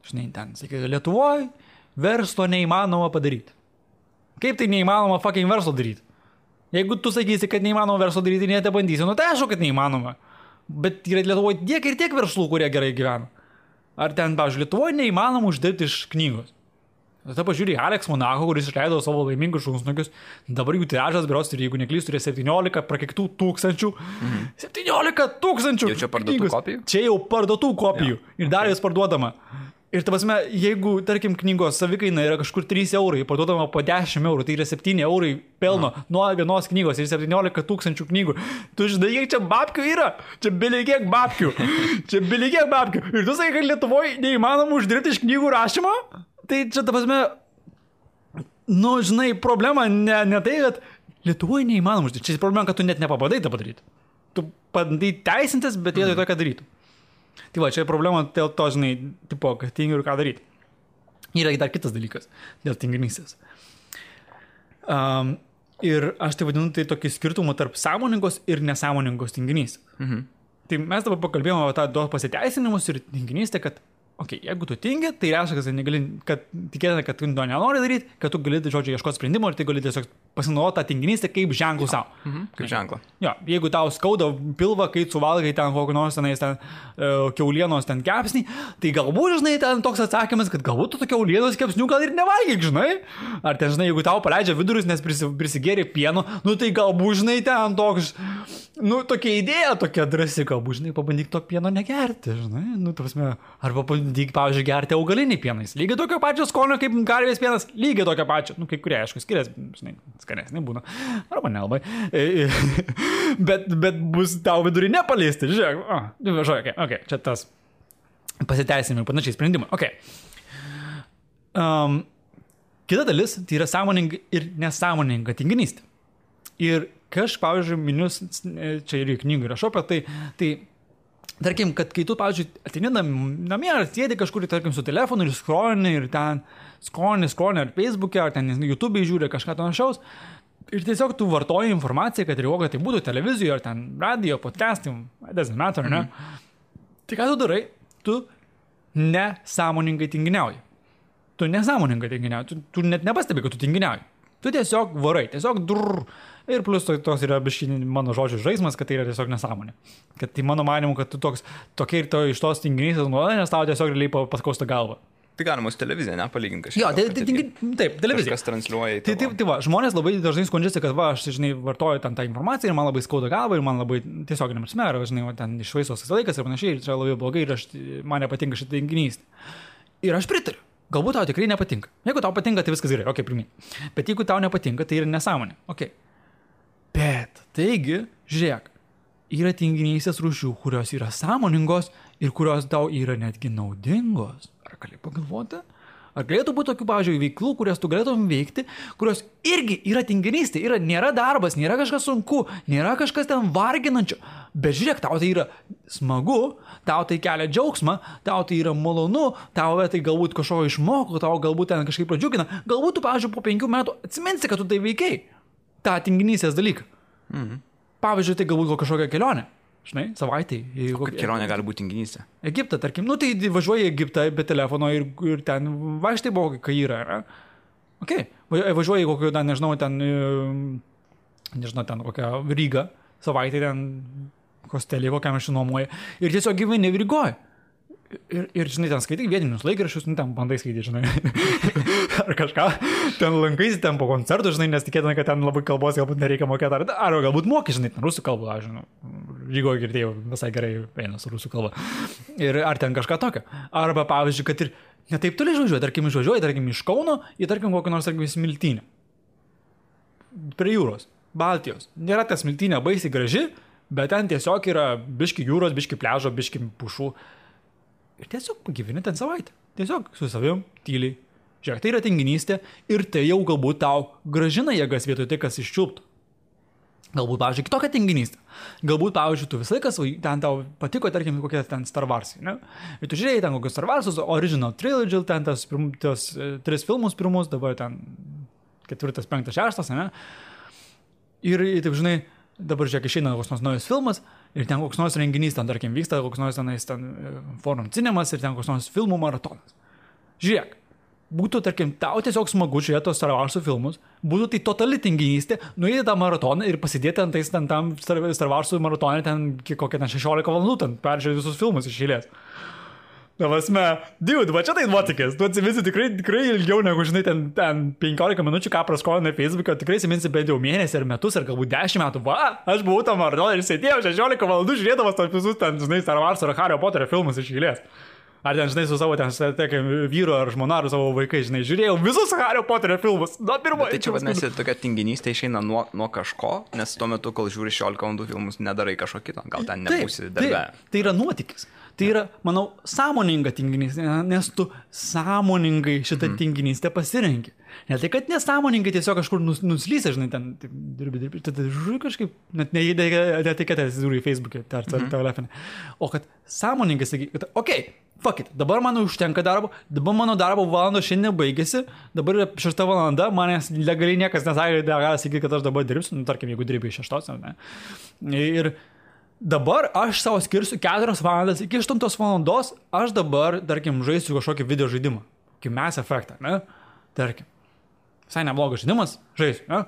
Žinai, ten, sakyti, Lietuvoje verslo neįmanoma padaryti. Kaip tai neįmanoma fucking verslo daryti? Jeigu tu sakysi, kad neįmanoma verslo daryti, net bandysi, tai aišku, kad neįmanoma. Bet yra Lietuvoje tiek ir tiek verslų, kurie gerai gyvena. Ar ten, pavyzdžiui, Lietuvoje neįmanoma uždirbti iš knygos. Tada pažiūrė Alex Monaco, kuris išleido savo laimingus šunsnukius. Dabar jų tiražas, berods, ir jeigu neklystu, yra 17 prakeitų tūkstančių. 17 tūkstančių! Jau čia parduotų kopijų? Čia jau parduotų kopijų. Ir dar jas parduodama. Ir ta prasme, jeigu, tarkim, knygos savikaina yra kažkur 3 eurai, parduodama po 10 eurų, tai yra 7 eurai pelno nuo vienos knygos ir 17 tūkstančių knygų. Tu žinai, kiek čia babkių yra? Čia bilikiek babkių. Ir tu sakai, kad Lietuvoje neįmanoma uždirbti iš knygų rašymo? Tai čia, ta prasme, nu, žinai, problema ne tai, kad Lietuvoje neįmanoma uždirbti. Čia problema, kad tu net nepabandai tą padaryti. Tu bandai teisintis, bet vietoj to, ką darytų. Tai va, čia problema dėl to, žinai, tipo, kad tingiu ir ką daryti. Yra dar kitas dalykas dėl tinginystės. Ir aš tai vadinu tai tokį skirtumą tarp sąmoningos ir nesąmoningos tinginystės. Tai mes dabar pakalbėjome apie tą pasiteisinimus ir tinginystę, kad jeigu tu tingi, tai reiškia, kad tikėtina, kad tu to nenori daryti, kad tu gali, žodžiu, ieškoti sprendimo ir tai gali tiesiog pasinaudoti tą tinginystę kaip ženklų savo. Kaip ženklą. Jo, jeigu tau skauda pilvą, kai suvalgai ten kokį nors tenais ten kiaulienos ten kepsnį, tai galbūt, žinai, ten toks atsakymas, kad galbūt tu to kiaulienos kepsnių gal ir nevalgyk, žinai. Ar ten, žinai, jeigu tau paleidžia vidurius, nes prisigėrė pieno, nu tai galbūt, žinai, ten toks, nu tokia idėja, tokia drąsi, galbūt, žinai, pabandyk to pieno negerti, žinai, nu, prasme, arba pabandyk, pavyzdžiui, gerti augalinį pienais. Lygiai tokio pačio skonio kaip karvės pienas, lygiai tokio pačio, nu, kai kurie, aišku, skiriasi, žinai, skanesnė būna, arba nelabai, bet bus tau vidurį nepaliesti, žiūrėk, čia tas pasiteisinimai, panašiai sprendimai, kita dalis, tai yra sąmoninga ir nesąmoninga tinginystė. Ir pavyzdžiui, minius, čia ir į knygų rašau apie tai, tarkim, kad kai tu, pavyzdžiui, ateini namie ar sėdi kažkur, tarkim, su telefonu ir skrolini ir ten skrolini ar Facebook'e, ar ten YouTube'e žiūri kažką panašaus ir tiesiog tu vartoji informaciją, kad ir kokia tai būtų televizijoje, ar ten radio, podcastai, doesn't matter, ne? Tai ką tu darai? Tu nesąmoningai tinginiauji. Tu net nepastebi, kad tu tinginiauji. Tu tiesiog varai, ir plus tos yra biškini mano žodžių žaismas, kad tai yra tiesiog nesąmonė. Kad tai mano manimu, kad tu tokia ir iš tos tinginystės nuolat, nes tau tiesiog realiai paskausta galva. Tai galima su televizija, nepalyginti kažką. Jo, taip, televizija. Kažkas transliuoja į tai. Tai va, žmonės labai dažnai skundžiasi, kad va, aš, žinai, vartoju ten tą informaciją ir man labai skauda galva ir man labai tiesiog nemrsmė, žinai, ten išvaistos laikas ir panašiai, ir čia labai blogai ir man nepatinka šitą tinginystę. Ir aš pritariu. Galbūt tau tikrai nepatinka. Jeigu tau patinka, tai viskas gerai, primink. Bet jeigu tau nepatinka, tai yra nesąmonė. Bet, taigi, žiūrėk, yra tinginystės rūšių, kurios yra sąmoningos ir kurios tau yra netgi naudingos. Ar gali pagalvoti? Ar galėtų būti tokių, pavyzdžiui, veiklų, kurias tu galėtum veikti, kurios irgi yra tinginystė, nėra darbas, nėra kažkas sunku, nėra kažkas ten varginančio, bet žiūrėk, tau tai yra smagu, tau tai kelia džiaugsmą, tau tai yra malonu, tau tai galbūt kažko išmoko, tau galbūt ten kažkaip pradžiugina, galbūt tu, pavyzdžiui, po 5 metų atsiminsi, kad tu tai veikiai, tą tinginystės dalyką. Pavyzdžiui, tai galbūt kažkokia kelionė. Žinai, savaitai. Kokia kelionė gali būti tinginystė? Egiptą, tarkim. Nu, tai važiuoji į Egiptą be telefono ir ten vaikštai buvo, kai yra. Važiuoji į kokį, nežinau, ten kokią Rygą, savaitę ten hostelį, kokiam aš nuomoju. Ir tiesiog gyveni Rygoje. Ir, žinai, ten skaitai vietinius laikraščius, ten bandai skaityti, žinai. Ar kažką, ten lankaisi ten po koncertų, žinai, nes tikėtina, kad ten labai kalbos galbūt nereikia mokėti, ar galbūt moki, žinai, ten rusų kalbą, aš žinau, Rygoje girdėjau visai gerai eina su rusų kalba. Ir ar ten kažką tokio. Arba, pavyzdžiui, kad ir netaip toli išvažiuoji, tarkim, iš Kauno, į, tarkim, kokį nors, tarkim, Smiltynę. Prie jūros, Baltijos. Nėra ta Smiltynė baisiai graži, bet ten tiesiog yra biški jūros, biški pliažo, biški pušų. Ir tiesiog pagyveni ten savaitę. Tiesiog su savim, tyliai. Žiūrėk, tai yra tinginystė ir tai jau galbūt tau gražina jėgas vietoj tai, kas iščiulptų. Galbūt, pavyzdžiui, kitokia tinginystė. Galbūt, pavyzdžiui, tu visą laiką ten tau patiko, tarkim, kokie ten Star Warsai, ne? Ir tu žiūrėjai ten kokius Star Warsus, Original Trilogy, ten tos 3 filmus pirmus, dabar ten 4, 5, 6, ne? Ir, taip žinai, dabar žiūrėk, išeina koks nors naujas filmas ir ten koks nors renginys, ten, tarkim, vyksta koks nors ten Forum Cinemas ir ten koks nors filmų maratonas. Žiūrėk, būtų, tarkim, tau tiesiog smagu žiūrėti tos Star Wars'ų filmus, būtų tai totali tinginystė, nuėti tą maratoną ir pasidėti ant tais tam Star Wars'ų maratonė ten kokią 16 valandų, ten peržiūrėti visus filmus iš eilės. Davasme, dude, va čia tai nuotykis, tu atsiminsi tikrai ilgiau negu, žinai, ten 15 minučių, ką praskolinai Facebook'o, tikrai atsiminsi bent jau mėnesį ar metus, ar galbūt 10 metų, va, aš buvau tam maratoną ir sėdėjau 16 valandų žiūrėdamas tos visus ten, žinai, Star Wars ar Harry Potterio filmus iš eilės. Ar ten, žinai, su savo ten, vyru ar žmona ar savo vaikai, žinai, žiūrėjau visus Harry Potterio filmus, nuo pirmo. Tai čia vadinasi, tokia tinginystė išeina nuo kažko, nes tuo metu, kol žiūri 16 valandų filmus, nedarai kažko kito, gal ten nebūsi darbe. Tai yra nuotykis. Tai yra, manau, sąmoninga tinginystė, nes tu sąmoningai šitą tinginystę pasirenki. Ne tai, kad nesąmoningai tiesiog kažkur nuslysė, žinai, ten dirbi, tada žiūri kažkaip, net netikėtė atsižiūri į Facebook'e ar telefonę. O kad sąmoningai sakai, kad okei, fuck it, dabar man užtenka darbo, dabar mano darbo valandos šiandien baigėsi, dabar yra 6 valanda, manęs legaliai niekas nesakė, gali sakyti, kad aš dabar dirbsiu, tarkim, jeigu dirbi iš 6, ar ne. Ir dabar aš savo skirsiu 4 valandas, iki 8 valandos aš dabar, tarkim, žaisiu kažkokį video žaidimą, kaip Mass Effect, ne? Tarkim, visai neblogas žaidimas, žaisiu, ne?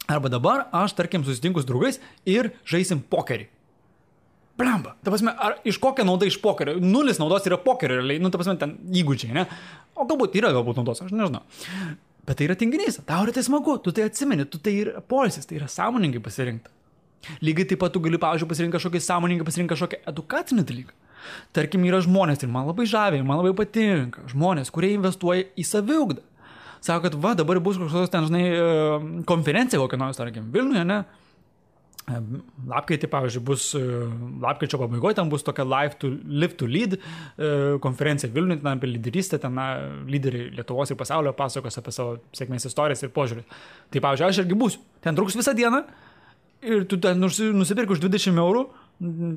Arba dabar aš, tarkim, susitinku su draugais ir žaisim pokerį. Blemba, ta prasme, ar iš kokia nauda iš pokerio? 0 naudos yra pokerio, realiai, ta prasme, ten įgūdžiai, ne? O galbūt naudos, aš nežinau. Bet tai yra tinginys, tau yra tai smagu, tu tai atsimeni, tu tai yra poilsis, tai yra sąmoningai pasirinkta. Lygiai taip pat tu gali, pavyzdžiui, pasirinkti kažkokį edukacinį dalyką. Tarkim, yra žmonės ir man labai žaviai, man labai patinka žmonės, kurie investuoja į saviugdą. Sako, kad va, dabar bus kažkokios ten, žinai, konferencija kokia nors, tarkim, Vilniuje, ne? Lapkritį, pavyzdžiui, lapkričio pabaigoje ten bus tokia Live to Lead konferencija Vilniuje, ten apie lyderystę, ten lyderiai Lietuvos ir pasaulio pasakos apie savo sėkmės istorijas ir požiūrį. Tai, pavyzdžiui, aš irgi būsiu. Ten truks visą dieną. Ir tu ten nusipirk už 20 eurų,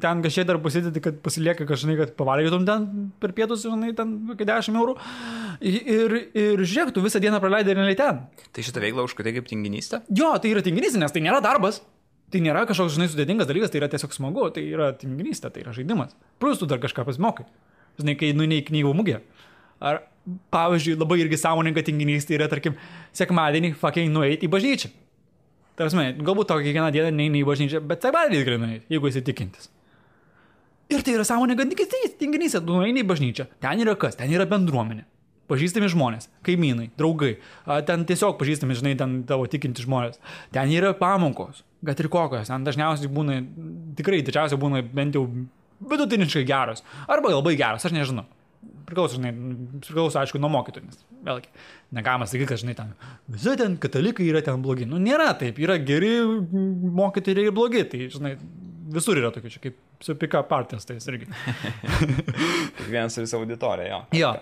ten kažkiek dar pasidėti, kad pasilieka kažkai, kad pavalgytum ten per pietus, žinai, ten 10 eurų. Ir žiūrėk, tu visą dieną praleidai realiai ten. Tai šitą veiklą užkaitai kaip tinginystė? Jo, tai yra tinginystė, nes tai nėra darbas. Tai nėra kažkoks, žinai, sudėtingas dalykas, tai yra tiesiog smagu, tai yra tinginystė, tai yra žaidimas. Plus tu dar kažką pasimokai. Žinai, kai nueini į knygų mugę. Ar, pavyzdžiui, labai irgi sąmoninga tinginystė yra, tarkim, sekmadienį fucking nueiti į bažnyčią. Tarasme, galbūt tau kiekvieną dieną neini į bažnyčią, bet sekmadienį tikrai nueiti, jeigu esi tikintis. Ir tai yra sąmoninga tinginystė, tu nueini į bažnyčią. Ten yra kas? Ten yra bendruomenė. Pažįstami žmonės, kaimynai, draugai. Ten tiesiog pažįstami, žinai, ten tavo tikinti žmonės. Ten yra pamokos, kad ir kokios. Ten dažniausiai būna, tikrai didžiausiai būna bent jau vidutiniškai geros. Arba labai geros, aš nežinau. Priklauso, aišku, nuo mokytojų, nes vėlgi, negalima sakyti, kad, žinai, ten visi ten katalikai yra ten blogi. Nu, nėra taip, yra geri mokytojai ir blogi, tai, žinai, visur yra tokių, čia kaip su pick-up partijas, tai irgi. Kiekvienas turi savo auditoriją, jo. Jo,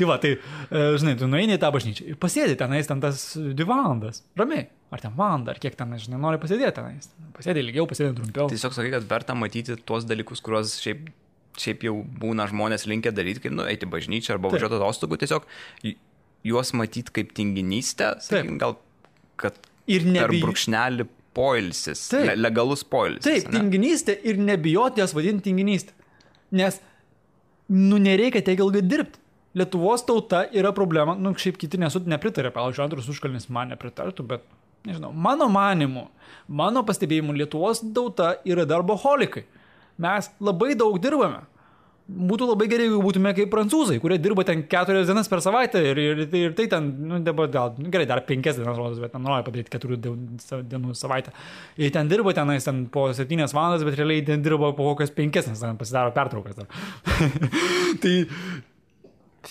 tai va, tai, žinai, tu nueini į tą bažnyčią ir pasėdi tenais ten tas 2 valandas, ramiai, ar ten valandą, ar kiek ten, žinai, nori pasėdėti tenais. Pasėdi ilgiau, pasėdi trumpiau. Tiesiog sakai, kad verta matyti tuos dalykus, kuriuos šiaip jau būna žmonės linkę daryti, kaip eiti bažnyčią arba važiuoti atostogų, tiesiog juos matyti kaip tinginystę, sakykim, gal, kad per brūkšnelį poilsis, legalus poilsis. Taip, tinginystė ir nebijoti jas vadinti tinginystę, nes, nereikia tiek ilgai dirbti. Lietuvos tauta yra problema, šiaip kiti nepritarė, pavyzdžiui, Andrius Užkalnis man nepritartų, bet, nežinau, mano manimu, mano pastebėjimu, Lietuvos tauta yra darboholikai. Mes labai daug dirbame. Būtų labai gerai, jeigu būtume kaip prancūzai, kurie dirba ten 4 dienas per savaitę ir tai ten, dabar gal, gerai, dar 5 dienas rodos, bet nori padaryti 4 dienų savaitę. Ir ten dirba tenais ten po 7 valandas, bet realiai ten dirba po kokias 5, nes ten pasidaro pertraukas. Tai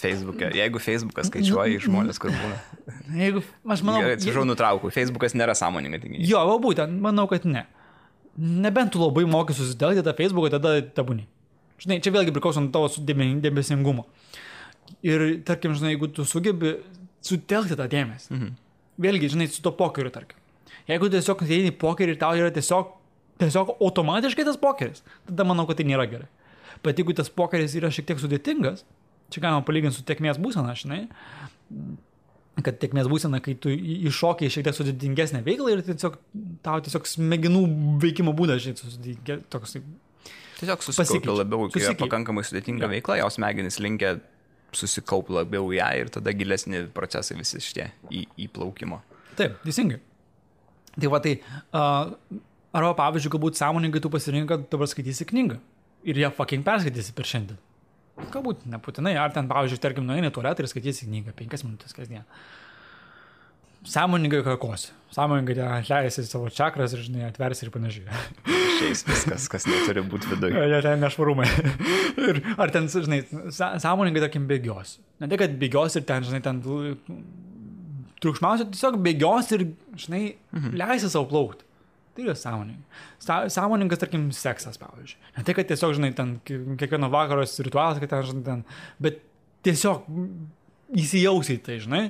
Facebook'e. Jeigu Facebookas skaičiuoja žmonės, kur būna. Jeigu, aš manau... Atsiprašau, nutraukau. Facebookas nėra sąmoninga tinginystė. Jo, būtent, manau, kad ne. Nebent tu labai moki susitelkti tą Facebooką, tada tabūni. Žinai, čia vėlgi priklauso nuo tavo dėmesingumo. Ir, tarkim, žinai, jeigu tu sugebi sutelkti tą dėmesį, vėlgi, žinai, su to pokeriu, tarkim. Jeigu tiesiog eini į pokerį ir tau yra tiesiog automatiškai tas pokeris, tada manau, kad tai nėra gerai. Bet jeigu tas pokeris yra šiek tiek sudėtingas, čia galima palyginti su tėkmės būsena, žinai, kad tėkmės būsena, kai tu iššokiai šiek tiek sudėtingesnę veiklą ir tau tiesiog smegenų veikimo būdas, žinai, toks... Tiesiog susikaupia labiau, kai yra pakankamai sudėtinga veikla, jos smegenys linkia susikaup labiau ją ir tada gilesni procesai visi šitie įplaukimo. Taip, teisingai. Tai va tai, arba pavyzdžiui, galbūt sąmoningai tu pasirinkai, kad dabar skaitysi knygą ir ją fucking perskaitysi per šiandien. Galbūt nebūtinai, ar ten, pavyzdžiui, tarkim, nueini į tualetą ir skaitysi knygą 5 minutės kasdien. Sąmoningai kakosi. Sąmoningai atleisi savo čakras ir, žinai, atversi ir panašiai. Šiais viskas, kas neturi būti viduje. Ja, ten nešvarumai. Ir ar ten, žinai, sąmoningai, tarkim, bėgios. Ne tai, kad bėgios ir ten, žinai, ten triukšmiausia, tiesiog bėgios ir, žinai, leisi savo plaukti. Tai yra sąmoningai. Sąmoningas, tarkim, seksas, pavyzdžiui. Ne tai, kad tiesiog, žinai, ten kiekvieno vakaros ritualas, kad ten, žinai, ten, bet tiesiog įsijausi į tai, žinai.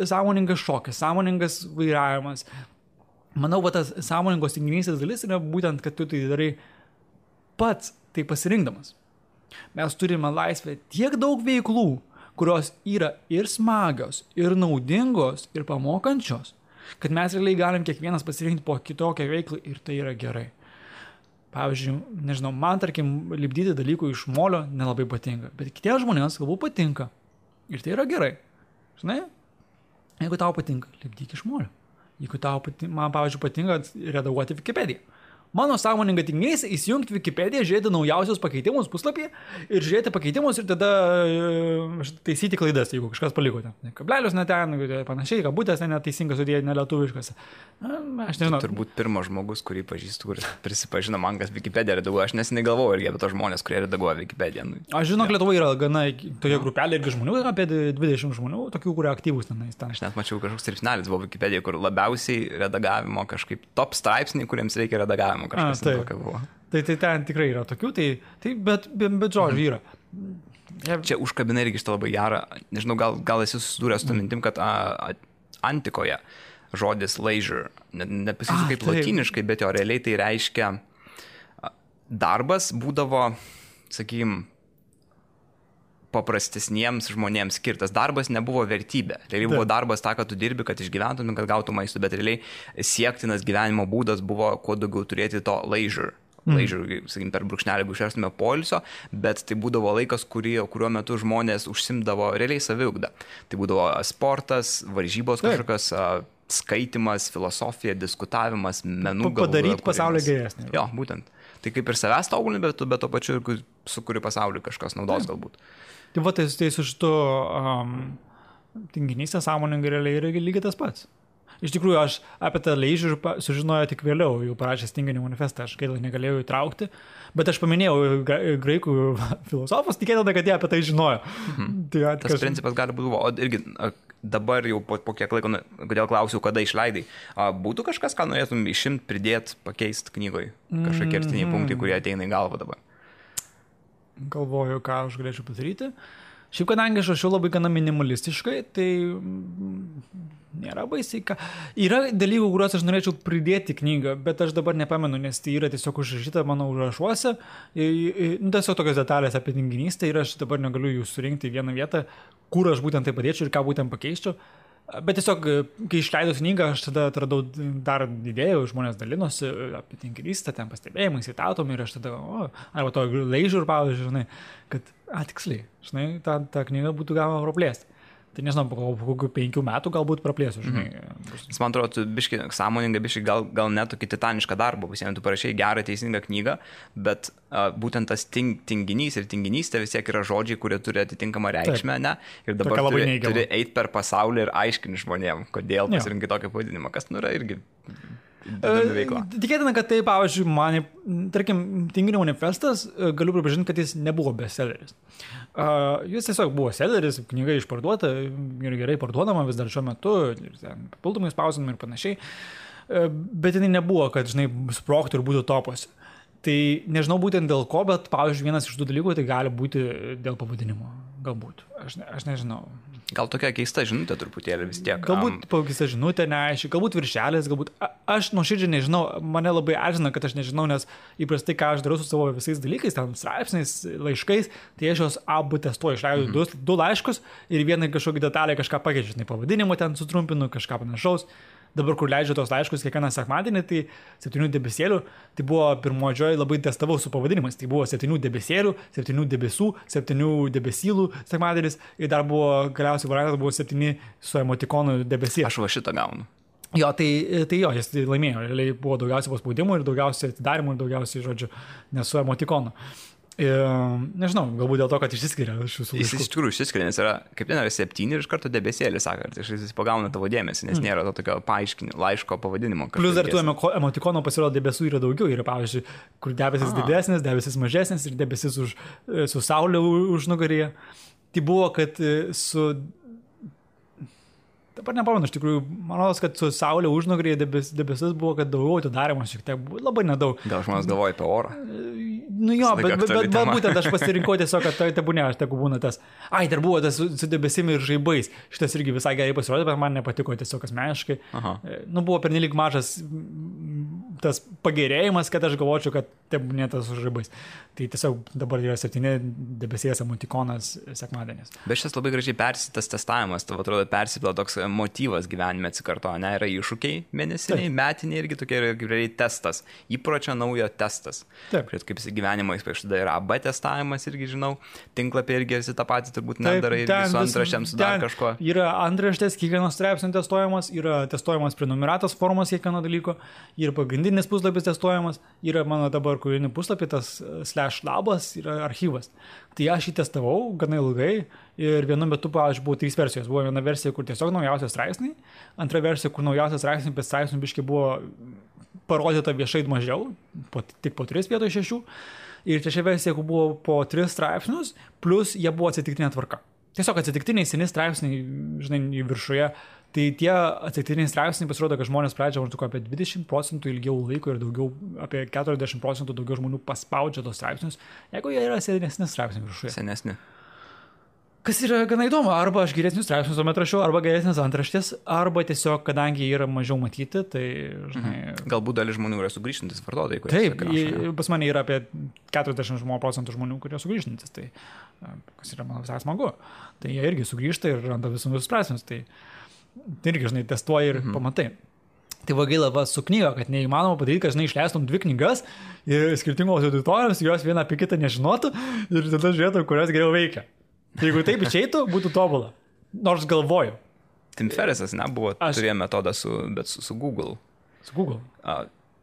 Sąmoningas šokis, sąmoningas vairavimas. Manau, va tas sąmoningos tinginystės dalis yra būtent, kad tu tai darai pats, tai pasirinkdamas. Mes turime laisvę tiek daug veiklų, kurios yra ir smagios, ir naudingos, ir pamokančios, kad mes realiai galim kiekvienas pasirinkti po kitokią veiklą ir tai yra gerai. Pavyzdžiui, nežinau, man, tarkim, lipdyti dalykų iš molio nelabai patinka, bet kitiems žmonėms galbūt patinka. Ir tai yra gerai. Žinai, jeigu tau patinka, lipdyk iš molio. Jeigu tau patinka, man, pavyzdžiui, patinka redaguoti Wikipediją. Mano sąmoninga tinginys įsijungti Wikipediją, žiūrėti naujausius pakeitimus puslapyje ir žiūrėti pakeitimus ir tada taisyti klaidas, jeigu kažkas paliko ten. Kablelius ne ten, panašiai, kabutės neteisingas sudėję, nelietuviškas. Aš nežinau. Turbūt pirmas žmogus, kurį pažįstu, kuris prisipažino man, kas Wikipediją redaguoja. Aš nesinai galvoju irgi apie tos žmonės, kurie redaguoja Wikipediją. Aš žinau, Lietuvoje yra gana toje grupelė irgi žmonių, apie 20 žmonių, tokių, kurie aktyvūs tenais. Aš net mačiau kažkoks straipsnelis buvo Wikipedijoje, kur labiausiai redagavimo kažkaip top straipsniai, kuriems reikia redagavimo. Tai ten tikrai yra tokių, bet žodžiu yra. Čia užkabina irgi šitą labai gerą, nežinau, gal esi susidūręs su mintim, kad antikoje žodis leisure, nepasakysiu kaip lotyniškai, bet jo realiai tai reiškia darbas būdavo, sakykim, paprastesniems žmonėms skirtas. Darbas nebuvo vertybė. Realiai buvo darbas tą, kad tu dirbi, kad išgyventum, kad gautum maistų, bet realiai siektinas gyvenimo būdas buvo kuo daugiau turėti to leisure. Leisure, sakykim, per brūkšnelį išverstume poilsio, bet tai būdavo laikas, kuriuo metu žmonės užsimdavo realiai saviugdą. Tai būdavo sportas, varžybos kažkokios, skaitimas, filosofija, diskutavimas, menų galų. Padaryti pasaulį geresnį. Jo, būtent. Tai kaip ir savęs tobulini, bet to pačiu ir sukuri pasaulį kažkas naudos galbūt. Tai va, tai su šitu tinginystę sąmoningai realiai yra lygiai tas pats. Iš tikrųjų, aš apie tą leisure sužinojau tik vėliau, jau parašęs tinginį manifestą, aš gaila negalėjau įtraukti, bet aš paminėjau graikų filosofus, tikėtina, kad jie apie tai žinojo. Tai tas principas gali būti, o irgi dabar jau po kiek laiko, kodėl klausiau, kada išleidai, būtų kažkas, ką norėtum išimti, pridėti, pakeisti knygoje, kažkokie kertiniai punktai, kurie ateina į galvą dabar. Galvoju, ką aš galėčiau padaryti. Šiaip, kadangi aš rašiau labai gana minimalistiškai, tai nėra baisiai. Yra dalykų, kuriuos aš norėčiau pridėti knygą, bet aš dabar nepamenu, nes tai yra tiesiog užrašyta mano užrašuose. Tiesiog tokios detalės apie tinginystę ir aš dabar negaliu jų surinkti į vieną vietą, kur aš būtent tai padėčiau ir ką būtent pakeičiau. Bet tiesiog, kai išleidau knygą, aš tada atradau dar idėjų, žmonės dalinosi apie tinginystę, ten pastebėjimai, citatom ir aš tada, arba to leisure, pavyzdžiui, žinai, kad, tiksliai, žinai, tą knygą būtų galima praplėsti. Tai nežinau, po kokių 5 metų galbūt praplėsiu, žinai. Jis man atrodo, tu biški sąmoningai, biški gal net tokį titanišką darbą pasiėmė, tu parašai gerą teisingą knygą, bet būtent tas tinginys ir tinginystė vis tiek yra žodžiai, kurie turi atitinkamą reikšmę, ne? Ir dabar turi eiti per pasaulį ir aiškinti žmonėm, kodėl pasirinkai tokį pavadinimą, kas yra irgi veikla. Tikėtina, kad tai, pavyzdžiui, man, tarkim, tinginio manifestas, galiu pripažinti, kad jis nebuvo bestselleris. Jis tiesiog buvo selleris, knyga išparduota ir gerai parduodama vis dar šiuo metu, papildomai spausdinama ir panašiai, bet jinai nebuvo, kad, žinai, sprogtų ir būtų topuose. Tai nežinau būtent dėl ko, bet, pavyzdžiui, vienas iš tų dalykų tai gali būti dėl pavadinimo. Galbūt. Aš nežinau. Gal tokia keista žinutė truputėlį vis tiek. Galbūt keista žinutė, neaiškiai, galbūt viršelis, galbūt. Aš nuoširdžiai nežinau, mane labai erzina, kad aš nežinau, nes įprastai, ką aš darau su savo visais dalykais, ten straipsniais, laiškais, tai aš jos abu testuoju, išleidžiu 2 laiškus ir vieną kažkokį detalę kažką pakeičiu, pavadinimą ten sutrumpinu, kažką panašaus. dabar kur leidžiu tos laiškus kiekvieną sekmadienį, tai 7 debesėlių, tai buvo pirmodžioj labai testavau su pavadinimais, tai buvo 7 debesėlių, 7 debesų, 7 debesylų sekmadienis ir dar buvo galiausiai variantas buvo 7 su emotikonu debesėlių. Aš va šitą gaunu. Jo, tai jo, jis laimėjo, realiai buvo daugiausiai paspaudimų ir daugiausiai atidarimų ir daugiausiai, žodžiu, nesu emotikonu. Nežinau, galbūt dėl to, kad išsiskiria šių laiškų. Jis iš tikrųjų išsiskiria, nes yra, kaip ten yra 7 ir iš karto debesėlis, sako, ir jis pagauna tavo dėmesį, nes nėra to tokio paaiškinimo, laiško pavadinimo. Plus dar tų emotikonų pasirodo debesų yra daugiau, yra pavyzdžiui, kur debesis didesnis, debesis mažesnis ir debesis su saulė už nugaryje. Tai buvo, kad dabar nepamenu, iš tikrųjų, manau, kad su saulė užnugaryje debesis buvo, kad daugiau atidarimo šiek tiek, labai nedaug. Gal žmonės galvoja apie orą? Nu jo, bet būtent aš pasirinkau tiesiog, kad tai tebūnė, aš tegu būna tas. Ai, dar buvo tas su debesimi ir žaibais. Šitas irgi visai gerai pasirodė, bet man nepatiko tiesiog asmeniškai. Nu, buvo pernelyg mažas tas pagerėjimas, kad aš galvočiau, kad tebūnė tas su žaibais. Tai tiesiog dabar yra 7 debesės emotikonas sekmadienis. Bet šis labai gražiai persitas testavimas, tavo atrodo persipila toks motyvas gyvenime atsikartoja, ne, yra iššūkiai mėnesiniai, metiniai irgi tokie yra realiai testas, įpročio naujo testas. Taip. Kaip jis gyvenimo įspėš, tada yra AB testavimas irgi, žinau, tinklapė irgi esi tą patį turbūt nedarai irgi su antraštėm, su dar kažko. Yra antraštės, kiekvienos straipsnio testuojamas, yra testuojamas prenumeratos formos kiekvieno dalyko, yra pagrindinis puslapis testuojamas, yra mano dabar kūrinį puslapį, tas /labas yra archyvas. Tai aš jį testavau gana ilgai ir vienu metu, pavyzdžiui, buvo 3 versijos. Buvo viena versija, kur tiesiog naujausios straipsniai, antra versija, kur naujausios straipsniai, bet straipsnių biškai buvo parodyta viešai mažiau, tik po 3 vietoj 6. Ir trečia versija, kur buvo po 3 straipsnius, plus jie buvo atsitiktinė tvarka. Tiesiog atsitiktiniai seni straipsniai, žinai, viršuje. Tai tie atsitiktiniai straipsniai pasirodo, kad žmonės pradžia maždaug apie 20% ilgiau laiko ir daugiau, apie 40% daugiau žmonių paspaudžia tos straipsnius, jeigu jie yra senesni straipsniai viršuje. Senesni. Kas yra gana įdomu, arba aš geresnius straipsnius tuomet rašiau, arba geresnės antraštės, arba tiesiog, kadangi jie yra mažiau matyti, tai, žinai... Galbūt dalis žmonių yra sugrįžtantis vartotojai, kurie... Taip, pas mane yra apie 40% žmonių, kurie sugrįžtantis, tai kas yra, man visai smagu. Tai jie irgi sugrįžta ir randa visus straipsnius, tai irgi, žinai, testuoji ir pamatai. Tai va gaila va su knyga, kad neįmanoma padaryti, kad, žinai, išleistum 2 knygas ir skirtingos auditorijos, jos vieną apie kitą nežinotų ir tada žiūrėtų, kurios geriau veikia. Jeigu taip išeitų, būtų tobula. Nors galvoju. Tim Ferrisas nebuvo, turėjo metodą su Google. Su Google?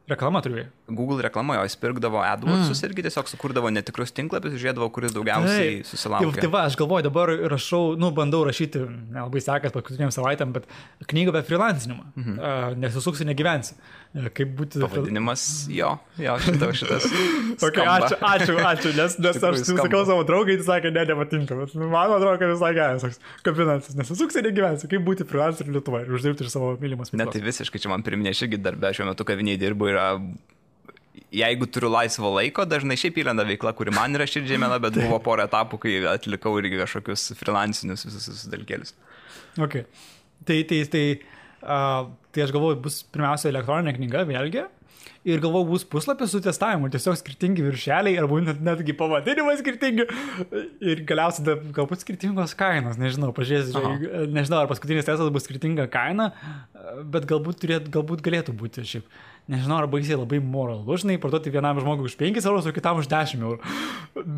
Reklama turėjo. Google reklamojo, jis pirkdavo AdWordsus irgi tiesiog sukurdavo netikrus tinklapius, žiūrėdavo, kuris daugiausiai susilaukia. Tai va, aš galvoju, dabar rašau, bandau rašyti, nelabai sekas paskutiniam savaitėm, bet knygą apie freelancinimą. Nesusuksi, negyvensi. Kaip būti... Pavadinimas, jo, šitas. Okay, ačiū, nes aš sakau savo draugai, jis sakė, nepatinka, bet man atrodo, kad visai geras, kaip finansis, nesusuksi, negyvensi, kaip būti freelanceriu Lietuvoje ir uždirbti iš savo mylimos veiklos. Ne, tai visiškai čia man priminė, aš irgi darbę šiuo metu kaviniai dirbu ir jeigu turiu laisvo laiko, dažnai šiaip įlenda veikla, kuri man yra širdžiai mėla, bet buvo porą etapų, kai atlikau irgi kažkokius freelancinius visus dalykėlius. Okay. Tai aš galvoju, bus pirmiausia elektroninė knyga, vėlgi, ir galvoju, bus puslapis su testavimu, tiesiog skirtingi viršeliai, arba netgi pavadinimai skirtingi, ir galiausiai galbūt skirtingos kainos, nežinau, pažiūrėsiu, nežinau, ar paskutinis testas bus skirtinga kaina, bet galbūt galėtų būti šiaip. Nežinau, ar baisiai labai moralu, žinai, parduoti vienam žmogui už 5 eurus, o kitam už 10 eurų.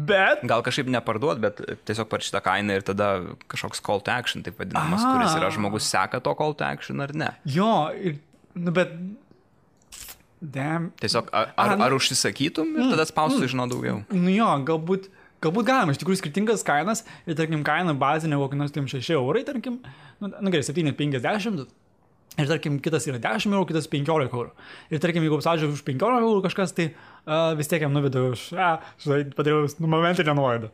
Bet... Gal kažkaip neparduot, bet tiesiog par šitą kainą ir tada kažkoks call to action, taip vadinamas, kuris yra žmogus seka to call to action ar ne. Jo, bet... Tiesiog ar užsisakytum ir tada spaustų žinau daugiau. Nu jo, galbūt galima, iš tikrųjų skirtingas kainas ir, tarkim, kaina bazinė kokį nors 6 eurai, tarkim, gerai, 7,50 ir, tarkim, kitas yra 10 eurų, kitas 15 eurų. Ir, tarkim, jeigu apsadžiau už 15 eurų kažkas, tai vis tiek jam nuvedau už, padariau momentinę nuolaidą.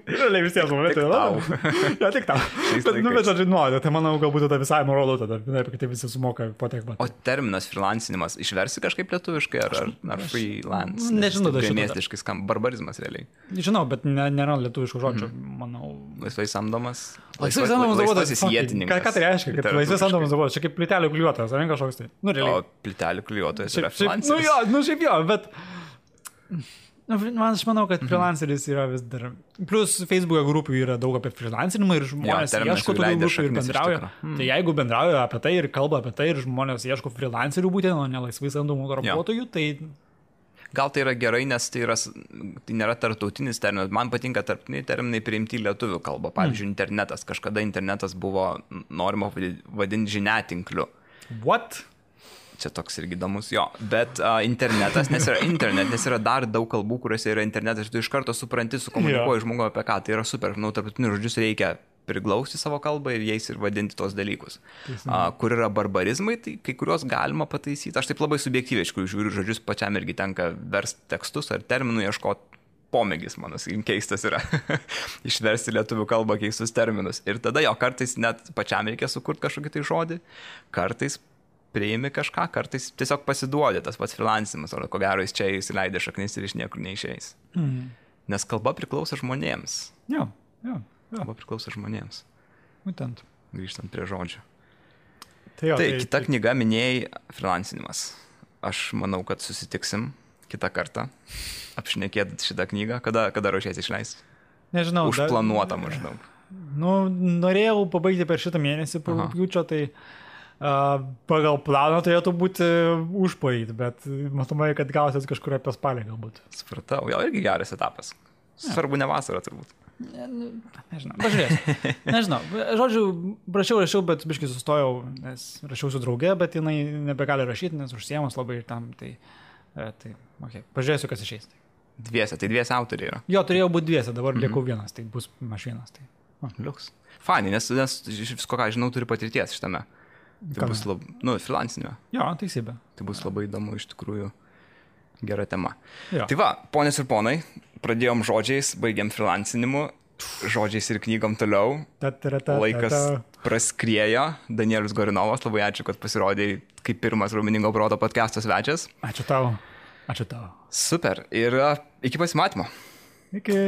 Realiai vis tiek momentinę nuolaidą. Ja, tik tau. Bet žodžiu nuolaidą, tai manau, galbūt tada visai moralu, tada, kaip tai visi sumoka po tiek pat. O terminas freelancinimas išversi kažkaip lietuviškai ar freelance? Nežinau, tai miestiškai skamba, barbarizmas realiai. Žinau, bet nėra lietuviškų žodžių, manau. Laisvai samdomas. Laisvai samdomas darbuotojas. Ką tai reiškia, kad laisvai samdomas darbuotojas? Čia kaip plytelių klijuotojas, ar ne kažkoks tai? O plytelių klijuotojas yra freelanceris. Šiaip jo, bet Aš manau, kad freelanceris yra vis dar. Plus Facebook'e grupių yra daug apie freelancerinimą ir žmonės ieško tokių grupių ir bendrauja. Tai jeigu bendrauja apie tai ir kalba apie tai ir žmonės ieško freelancerių būtent, o ne laisvai samdomų darbuotojų, tai... Gal tai yra gerai, nes tai nėra tarptautinis terminas. Man patinka tarptautiniai terminai priimti į lietuvių kalbą. Pavyzdžiui, internetas. Kažkada internetas buvo norima vadinti žiniatinkliu. What? Čia toks irgi įdomus, jo. Bet internetas, nes yra dar daug kalbų, kuriuose yra internetas, ir tu iš karto supranti, sukomunikuoji žmogų apie ką. Tai yra super. Tarptautinius žodžius reikia priglausti savo kalbą ir jais ir vadinti tos dalykus. Kur yra barbarizmai, tai kai kuriuos galima pataisyti. Aš taip labai subjektyviai, iš kurių žiūriu žodžius, pačiam irgi tenka versti tekstus ar terminų ieškoti. Pomėgis mano, keistas yra išversti lietuvių kalbą keistus terminus. Ir tada jo kartais net pačiam reikia sukurti kažkokį tai žodį, kartais priimi kažką, kartais tiesiog pasiduodi tas pats freelancimas, o ko gero jis čia įsileidė šaknis ir iš niekur neišeis. Nes kalba priklauso žmonėms. Jo. Kalba priklauso žmonėms. Būtent. Grįžtant prie žodžių. Tai kita knyga minėjai freelancinimas. Aš manau, kad susitiksim kitą kartą apšnekėt šitą knygą. Kada ruošiesi išleisti? Nežinau. Užplanuota maždaug. Norėjau pabaigti per šitą mėnesį, rugpjūčio, tai pagal planą turėtų būti užparyt, bet matomai, kad gausis kažkur apie spalį galbūt. Supratau, jau irgi geras etapas. Svarbu ne vasarą turbūt. Nežinau, pažiūrėsiu. Nežinau, žodžiu, rašiau, bet biškai sustojau, nes rašiau su drauge, bet jinai nebegali rašyti, nes užsiemus labai tam, tai okay. Pažiūrėsiu, kas išeis. Dviese autoriai yra. Jo, turėjau būti dviese, dabar liekau vienas, tai bus aš vienas. Tai. Liuks. Fani, nes visko, ką žinau, turi patirties šitame. Tai bus freelancinio. Jo, teisybė. Tai bus labai įdomu, iš tikrųjų, gera tema. Jo. Tai va, ponios ir ponai, pradėjom žodžiais, baigėm freelancinimu, žodžiais ir knygom toliau. Laikas praskriejo. Danielius Gorinovas, labai ačiū, kad pasirodėjai kaip pirmas Raumeningo proto podcast'o svečias. Ačiū tau. Super. Ir iki pasimatymo. Iki.